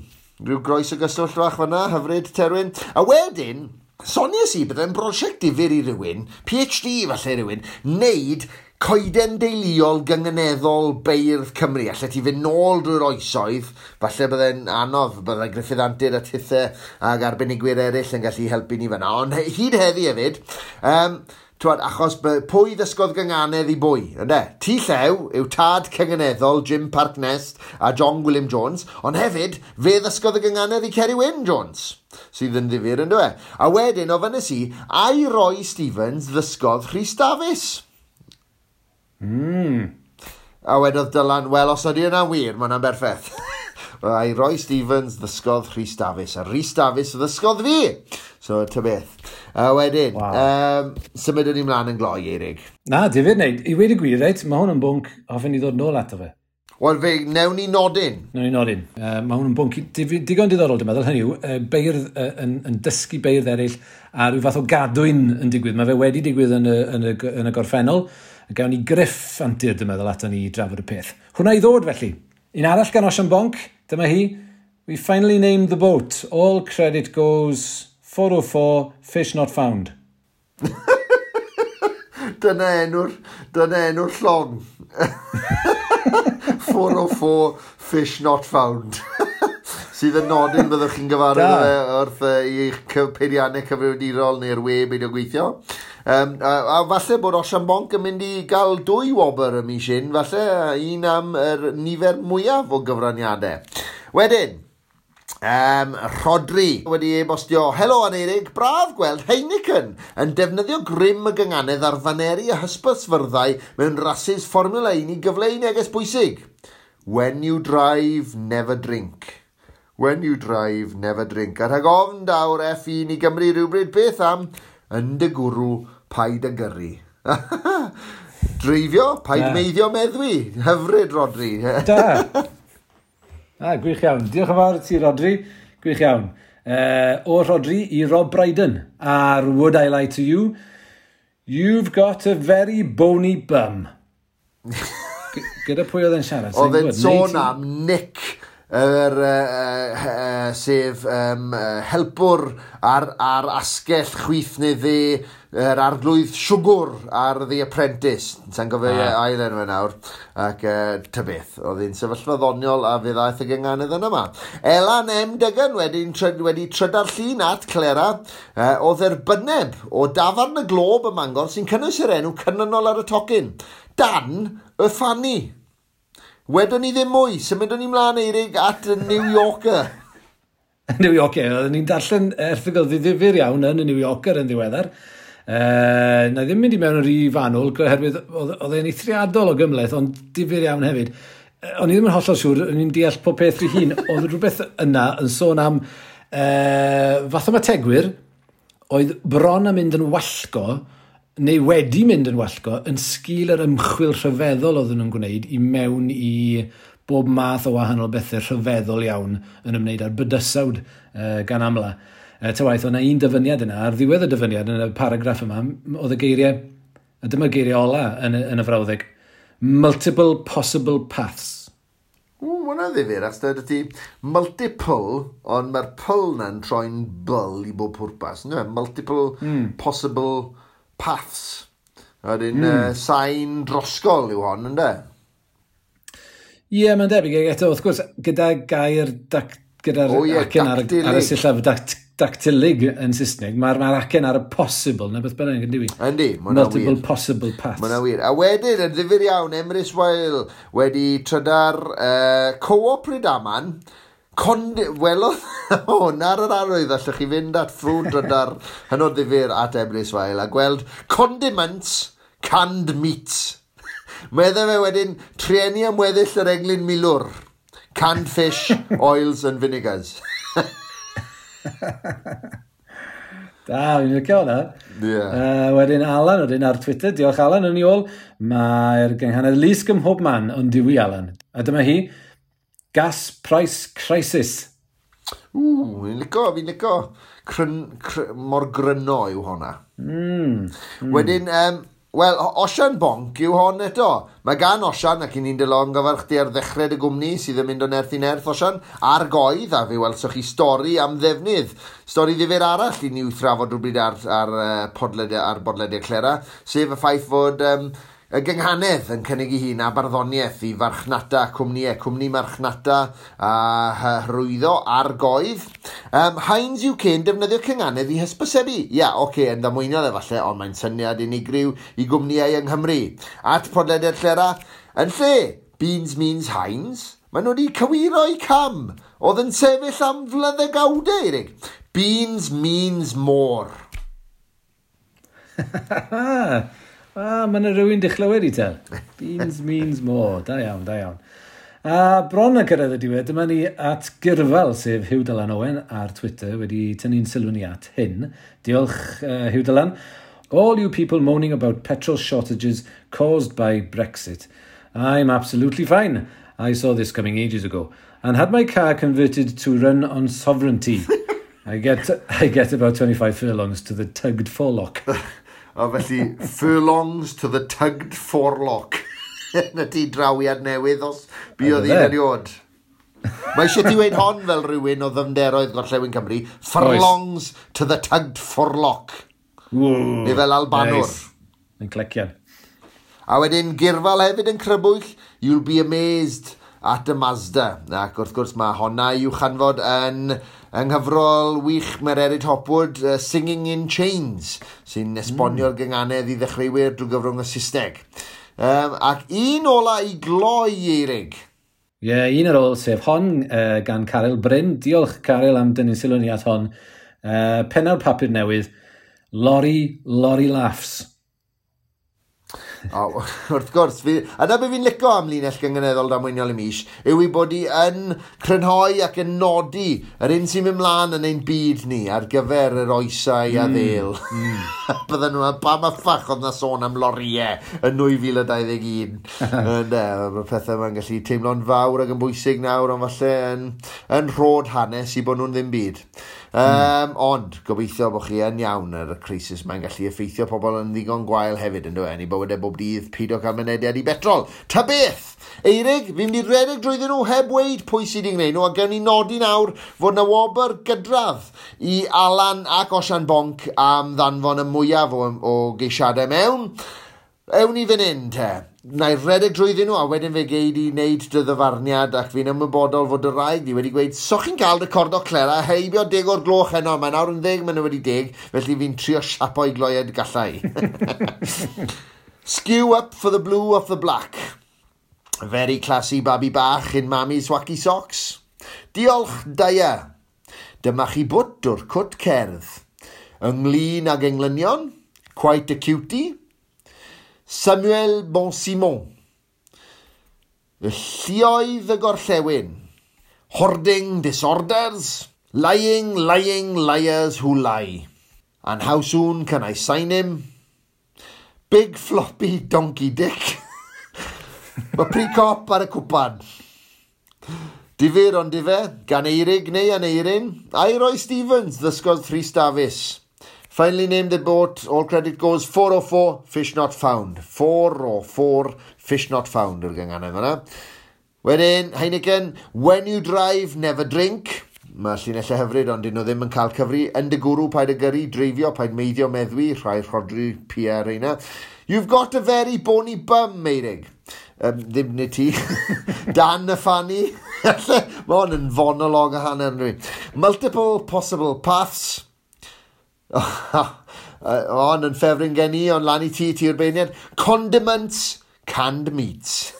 Rhyw groes o gyswllt fach fyna, hyfryd Terwyn. A wedyn, soniais i byddai'n brosiect difyr i rywun, PhD falle rywun, wneud coeden deuluol gynganeddol beirdd Cymru. Alle ti fynd nôl drwy'r oesoedd, falle byddai'n anodd, byddai Gruffydd Antur a tithe ag arbenigwyr eraill yn gallu helpu ni fyna. Ond hyd heddi hefyd, twad, achos pwy ddysgodd gynganedd i bwy, ynde? T Llew yw tad cynganeddol Jim Parc Nest a John Gwilym Jones, ond hefyd fe ddysgodd y gynganedd i Ceri Wyn Jones, sydd yn ddifyr, yndyw e? A wedyn, ofynnes i, ai Roy Stevens ddysgodd Rhys Dafis? A wedodd Dylan, wel, os ydy yna'n wir, mae hwnna'n berffaith. Ai Roy Stevens ddysgodd Rhys Dafis, a Rhys Dafis ddysgodd fi. So, ta beth. A wedyn, wow. Symudwn ni mlaen yn gloi, Eirig. Na, difyr wneud. I weud y gwir, reit, mae hwn yn bwnc hoffen ni ddod nôl ato fe. Wel, fe, newn ni nodyn. Newn ni nodyn. Mae hwn yn bwnc digon diddorol, dwi'n meddwl. Hynny yw, beirdd yn dysgu beirdd eraill a rhyw fath o gadwyn yn digwydd. Mae fe wedi digwydd yn y gorffennol. Gawn ni Gruff Antur, dwi'n meddwl, ato ni i drafod y peth. Hwna i ddod, felly. Un arall gan Osian Bonc, dyma hi. We finally named the boat. All credit goes 404, fish not found. Dyna enw'r llong. 404, fish not found. Sydd yn nodyn byddwch chi'n gyfarwydd â fe wrth i'ch peiriannau cyfrifiadurol neu'r we beidio gweithio. A falle bod Osian Bonc yn mynd i gael dwy wobr y mis hyn, falle un am yr nifer mwyaf o gyfraniadau. Wedyn, Rhodri wedi e-bostio, helo Aneirig, braf gweld Heineken yn defnyddio grym y gynganedd ar faneri a hysbysfyrddau mewn rasys Formula 1 i gyfleu neges bwysig. When you drive, never drink. When you drive, never drink. A rhag ofn daw'r F1 i Gymru rhywbryd, beth am yn dy gwrw, paid a gyrru. Dreifio, paid meiddio meddwi. Hyfryd, Rodri. Da. Ah, gwych iawn. Diolch yn fawr i ti, Rodri. Gwych iawn. O Rodri i Rob Brydon ar Would I Lie to You? You've got a very bony bum. Gyda pwy oedd yn siarad? Oedd e'n sôn am Nick, sef helpwr ar asgell chwith neu dde, yr arglwydd siwgwr ar The Apprentice. Sa'n gofio ail enw nawr. Ac ta beth, oedd hi'n sefyllfa ddoniol a fe ddaeth y gynganedd yna yma. Elan M. Duggan wedi trydar llun at Clera o dderbynneb o dafarn y Glob ym Mangor sy'n cynnwys yr enw cynanol ar y tocyn. Dan y Fanny. Wedwn ni ddim mwy, symudwn ni mlaen, Eirig, at y New Yorker. New Yorker, oedden ni'n darllen erthygl ddifyr iawn yn y New Yorker yn ddiweddar. Na ddim mynd i mewn yn rhy fanwl, oherwydd oedd e'n eithriadol o gymhleth, ond difyr iawn hefyd. O'n i ddim yn hollol siŵr, o'n i'n deall pob peth i hun. Oedd rhywbeth yna yn sôn am fathemategwyr oedd bron a mynd yn wallgo, neu wedi mynd yn wallgo, yn sgil yr ymchwil rhyfeddol oedden nhw'n gwneud i mewn i bob math o wahanol bethau rhyfeddol iawn yn ymwneud â'r bydysawd gan amla. Ta waith, oedd yna un dyfyniad yna, ar ddiwedd y dyfyniad yn y paragraff yma, oedd y geiriau, a dyma'r geiriau ola yn y frawddeg, multiple possible paths. Ww, ma' hwnna'n ddifyr, achos dydy ti multiple, ond mae'r pull na'n troi'n byl i bob pwrpas. Yndyw e? Multiple possible paths. A wedyn sain drosgol yw hon, ynde? Ie, yeah, mae'n debyg. Eto, wrth gwrs, gyda gair, gyda'r O ie, acen ar y dactylig. sillaf dactylig yn Saesneg, mae'r acen ar y possible, na beth bynnag yn diwi. Yndi, ma' hwnna'n Multiple wir. possible paths. Mae hwnna'n wir. A wedyn, yn ddifyr iawn, Emrys Weil wedi trydar Co-op Rhydaman, welodd hwn ar yr arwydd, allwch chi fynd at ffrwd drydar hynod ddifyr at Emrys Weil a gweld condiments, canned meats. Medde fe wedyn, trueni am weddill yr englyn milwr. Canned fish, oils and vinegars. Da, fi'n licio hwnna. Ie. Wedyn Alan, wedyn ar Twitter, diolch Alan yn ei ôl. Mae'r gynghanedd lusg ym mhob man, ond diwi Alan. A dyma hi, gas price crisis. Ww, fi'n licio, fi'n licio. Mor gryno yw honna. Wedyn, wel, Osian Bonc yw hon eto. Mae gan Osian, ac i ni'n dylong gyfarch di ar ddechrau dy gwmni sydd yn mynd o nerth i nerth, Osian, ar goedd, a fe welsoch chi stori am ddefnydd. Stori ddifyr arall i ni thrafod rhywbryd ar bodlediad Clera, sef y ffaith fod y gynghanedd yn cynnig ei hun a barddoniaeth i farchnata cwmnïau, cwmni marchnata a hyrwyddo ar goedd. Heinz UK yn defnyddio cynghanedd i hysbysebu. Ia, yeah, oce, okay, yn ddamweiniol efallai, ond mae'n syniad unigryw i gwmnïau yng Nghymru. At podlediad Clera, yn lle Beans Means Heinz, maen nhw wedi cywiro eu cam. Oedd yn sefyll am flyddegawdau, Eirig. Beans Means More. Ah, mae yna rhywun di chlywed i tel. Beans means more. Da iawn, da iawn. A bron yn cyrraedd y diwedd, dyma ni at Gyrfal, sef Huw Dylan Owen ar Twitter, wedi tynnu'n sylw ni at hyn. Diolch, Huw Dylan. All you people moaning about petrol shortages caused by Brexit. I'm absolutely fine. I saw this coming ages ago. And had my car converted to run on sovereignty. I get about 25 furlongs to the tugged forelock. O, felly, furlongs to the tugged forelock. Na ti drawiad newydd os buodd un Ynddo fe? erioed. Mae eisiau ti weud hon fel rhywun o ddyfnderoedd Gorllewin Cymru. Furlongs to the tugged forelock. Ww, Neu fel Albanwr. Nice. Yn clecian. A wedyn Gyrfal hefyd yn crybwyll, you'll be amazed at the Mazda. Ac wrth gwrs mae honna i'w chanfod yn yng nghyfrol wych Mererid Hopwood, Singing in Chains, sy'n esbonio'r gynganedd i ddechreuwyr drwy gyfrwng y Saesneg. Ac un ola i gloi, Eirig. Ie, yeah, un ar ôl, sef hon gan Caryl Bryn. Diolch, Caryl, am dynnu sylw ni at hon. Pennawd papur newydd, Lori, Lori Laughs. O, wrth gwrs, a na be fi'n licio am linell gynganeddol damweiniol y mis, yw i bod i yn crynhoi ac yn nodi yr un sy'n mynd mlaen yn ein byd ni ar gyfer yr oesau a ddel. Bydden nhw, pam y ffach oedd na sôn am loriau yn 2021. Ynde, mae pethau yma'n gallu teimlo'n fawr ac yn bwysig nawr, ond falle yn rhod hanes i bod nhw'n ddim byd. Ond, gobeithio bod chi yn iawn ar y crisis mae'n gallu effeithio pobl yn ddigon gwael hefyd, yn dweud, yn eu bywydau bob dydd, peidio cael mynediad i betrol. Ta beth! Eirig, fi'n mynd i redeg drwyddyn nhw heb weud pwy sydd wedi gwneud nhw, a gewn ni nodi nawr fod na wobr gydradd i Alan ac Osian Bonc am ddanfon y mwyaf o geisiadau mewn. Ewn ni fan hyn, te. Na i redeg drwyddyn nhw, a wedyn fe gei di wneud dy ddyfarniad, ac fi'n ymwybodol fod y rhaid ni wedi gweud, so chi'n cael recordo Clera heibio 10 o'r gloch heno, mae nawr yn 10:40, felly fi'n trio siapo i gloied gallai. Skew up for the blue of the black. Very classy babi bach in mammy's wacky socks. Diolch, Daia. Dyma chi bwt o'r cwt cerdd. Ynglyn ag englynion, Quite a Cutie, Samuel Bon Simon, Y Llioedd y Gorllewin, Hoarding Disorders, Lying, Lying, Liars Who Lie, And How Soon Can I Sign Him, Big Floppy Donkey Dick, Mae pre-cop ar y cwpan. Difyr ond dife, gan Eirig neu Aneirin, a'i Roy Stevens ddysgodd Rhys Davies. Finally named the boat, all credit goes 404, fish not found. 404, fish not found yw'r gynganedd yna. Wedyn, Heineken, when you drive, never drink. Mae llinellau hyfryd, ond dyn nhw ddim yn cael cyfri. Yn dy gwrw, paid y gyrru, dreifio, paid meiddio, meddwi, rhai Rhodri, Pierre, reina. You've got a very bony bum, Meirig. Ddim nid ti. Dan y Fanny. Mae hwn yn fonolog a hanner yn dwi. Multiple possible paths. Hwn yn ffefryn gen i, ond lan i ti, ti'r beirniad. Condiments, canned meats.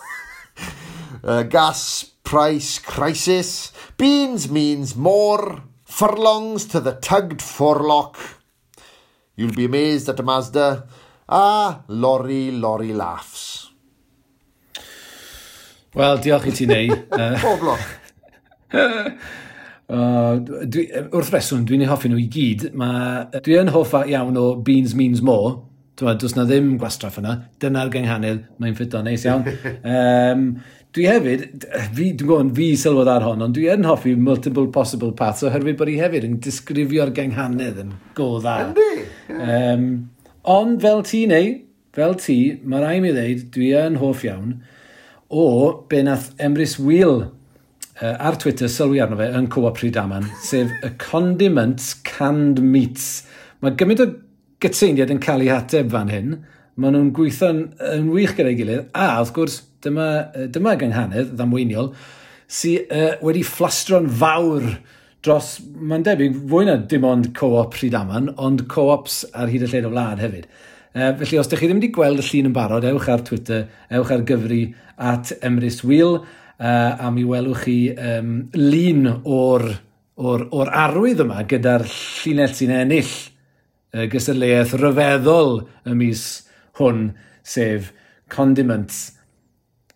Gas price crisis. Beans means more. Furlongs to the tugged forelock. You'll be amazed at a Mazda. A lorry, lorry laughs. Wel, diolch i ti, Neu. Pob lwc. Wrth reswm, dwi'n ei hoffi nhw i gyd. Dwi yn hoffa iawn o Beans Means More. Does na ddim gwastraff yna. Dyna'r gynghanedd, mae'n ffito'n neis iawn. Dwi hefyd, dwi'n gwybod fi sylwodd ar hon, ond dwi yn hoffi Multiple Possible Paths, oherwydd bod hi hefyd yn disgrifio'r gynghanedd yn go dda. Yndi? Ond fel ti, Neu, fel ti, mae rai mi ddeud, dwi yn hoff iawn o be nath Emrys Wheel ar Twitter sylwi arno fe yn Co-op Rhydaman, sef y Condiments Canned Meats. Mae gymaint o gytseiniad yn cael ei hateb fan hyn. Maen nhw'n gweithio'n yn wych gyda'i gilydd. A, wrth gwrs, dyma gynghanedd ddamweiniol sydd wedi fflastro'n fawr dros, mae'n debyg, fwy na dim ond Co-op Rhydaman, ond co-ops ar hyd y lled o wlad hefyd. Felly, os ydych chi ddim wedi gweld y llun yn barod, ewch ar Twitter, ewch ar gyfri @EmrysWheel, a mi welwch chi lun o'r arwydd yma gyda'r llinell sy'n ennill gystadleuaeth ryfeddol y mis hwn, sef Condiments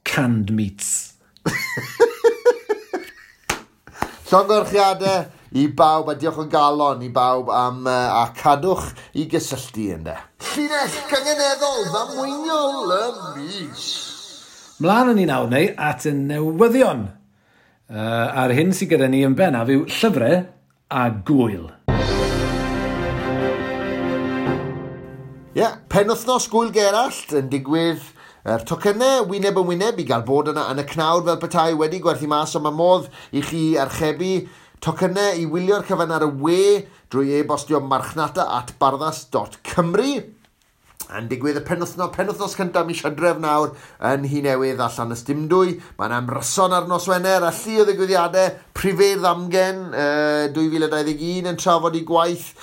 Canned Meats. Llongyfarchiadau i bawb a diolch o galon i bawb am a cadwch i gysylltu ynddo. Llinell gynganeddol ddamweiniol y mis. Mlaen yn ni nawr neu at y newyddion. A'r hyn sydd gyda ni yn bennaf yw llyfrau a gwyl. Ie, yeah, penwythnos Gwyl Gerallt yn digwydd yr tocynnau wyneb yn wyneb i gael bod yna yn y cnawd fel petai wedi gwerthu mas, ond mae modd i chi archebu tocynnau i wylio'r cyfan ar y we drwy e-bostio marchnata@barddas.cymru. Yn digwydd y penwythnos cyntaf mis Hydref nawr yn Nhŷ Newydd a Llanystumdwy. Mae'n amryson ar nos Wener a llu o ddigwyddiadau. Prifeirdd Amgen 2021 yn trafod ei gwaith,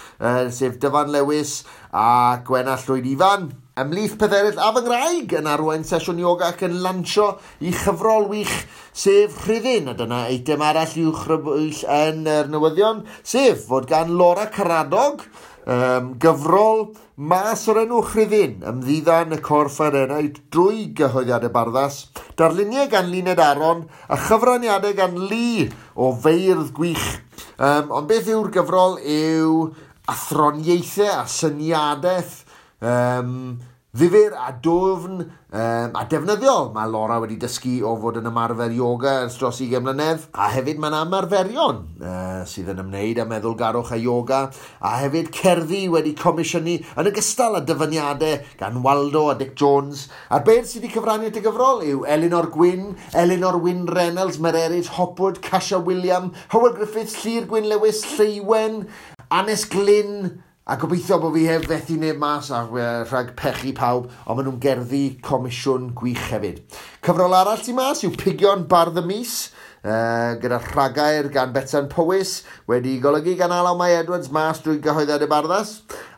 sef Dyfan Lewis a Gwenna Llwyd Ifan. Ymhlith peth eraill, a fy ngwraig yn arwain sesiwn yoga ac yn lansio i chyfrol wych, sef Rhuddin. A dyna eitem arall i'w chrybwyll yn yr newyddion, sef fod gan Laura Caradog gyfrol mas o'r enw Rhuddin, ymddiddan y corff a'r enaid drwy gyhoeddiadau Barddas, darluniau gan Luned Aron a chyfraniadau gan lu o feirdd gwych. Ond beth yw'r gyfrol yw athroniaethau a syniadaeth ddifyr a dwfn a defnyddiol. Mae Laura wedi dysgu o fod yn ymarfer yoga ers dros 20 mlynedd, a hefyd mae'n ymarferion sydd yn ymwneud â meddwlgarwch a yoga, a hefyd cerddi wedi comisiynu yn ogystal â dyfyniadau gan Waldo a Dick Jones. A'r beirdd sydd wedi cyfrannu at y gyfrol yw Elinor Gwynn, Elinor Wyn Reynolds, Mererid Hopwood, Casia William, Howell Griffiths, Llyr Gwyn Lewis, Lleuwen, Anes Glyn, a gobeithio bod fi heb fethu neb mas a rhag pechu pawb, ond maen nhw'n gerddi comisiwn gwych hefyd. Cyfrol arall sy'n mas yw Pigion Bardd y Mis, gyda rhagair gan Betsan Powys, wedi golygu gan Alaw Mai Edwards mas drwy gyhoeddiad y Barddas.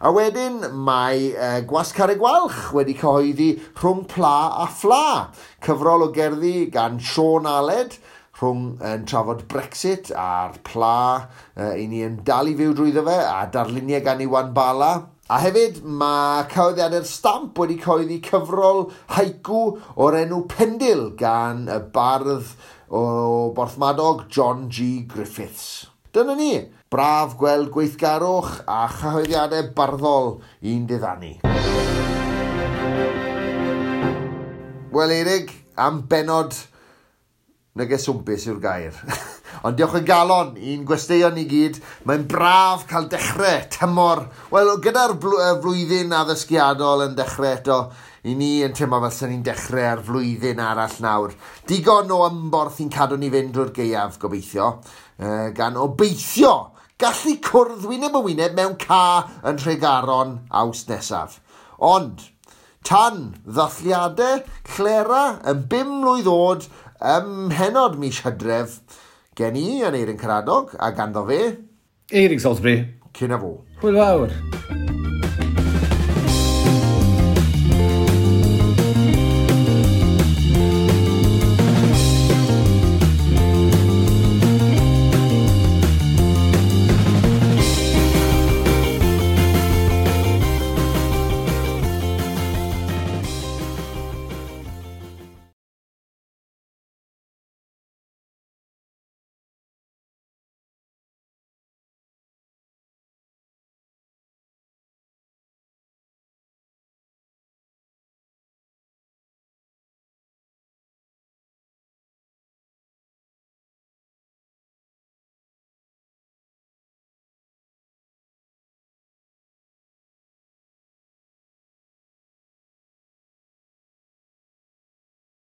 A wedyn mae Gwasg Carreg Gwalch wedi cyhoeddi Rhwng Pla a Phla, cyfrol o gerddi gan Siôn Aled, rhwng yn trafod Brexit a'r pla i ni yn dal i fyw drwyddo fe, a darluniau gan Iwan Bala. A hefyd, mae cyhoeddiadau'r Stamp wedi cyhoeddi cyfrol haiku o'r enw Pendil gan y bardd o Borthmadog John G. Griffiths. Dyna ni. Braf gweld gweithgarwch a chyhoeddiadau barddol i'n diddanu. Wel, Eirig, am benod neges swmpus yw'r gair. Ond diolch yn galon i'n gwesteion i gyd. Mae'n braf cael dechrau tymor. Wel, gyda'r flwyddyn addysgiadol yn dechrau eto, i ni yn teimlo fel sy'n ni'n dechrau ar flwyddyn arall nawr. Digon o ymborth i'n cadw ni fynd drwy'r gaeaf, gobeithio. Gan obeithio gallu cwrdd wyneb yn wyneb mewn ca yn Nhregaron Awst nesaf. Ond, tan ddathliadau Clera yn 5 mlwydd oed ym mhenod mis Hydref, gen i yn Eirin Caradog a ganddo fe... Eirig Salisbury. Cyn a fo. Hwyl fawr.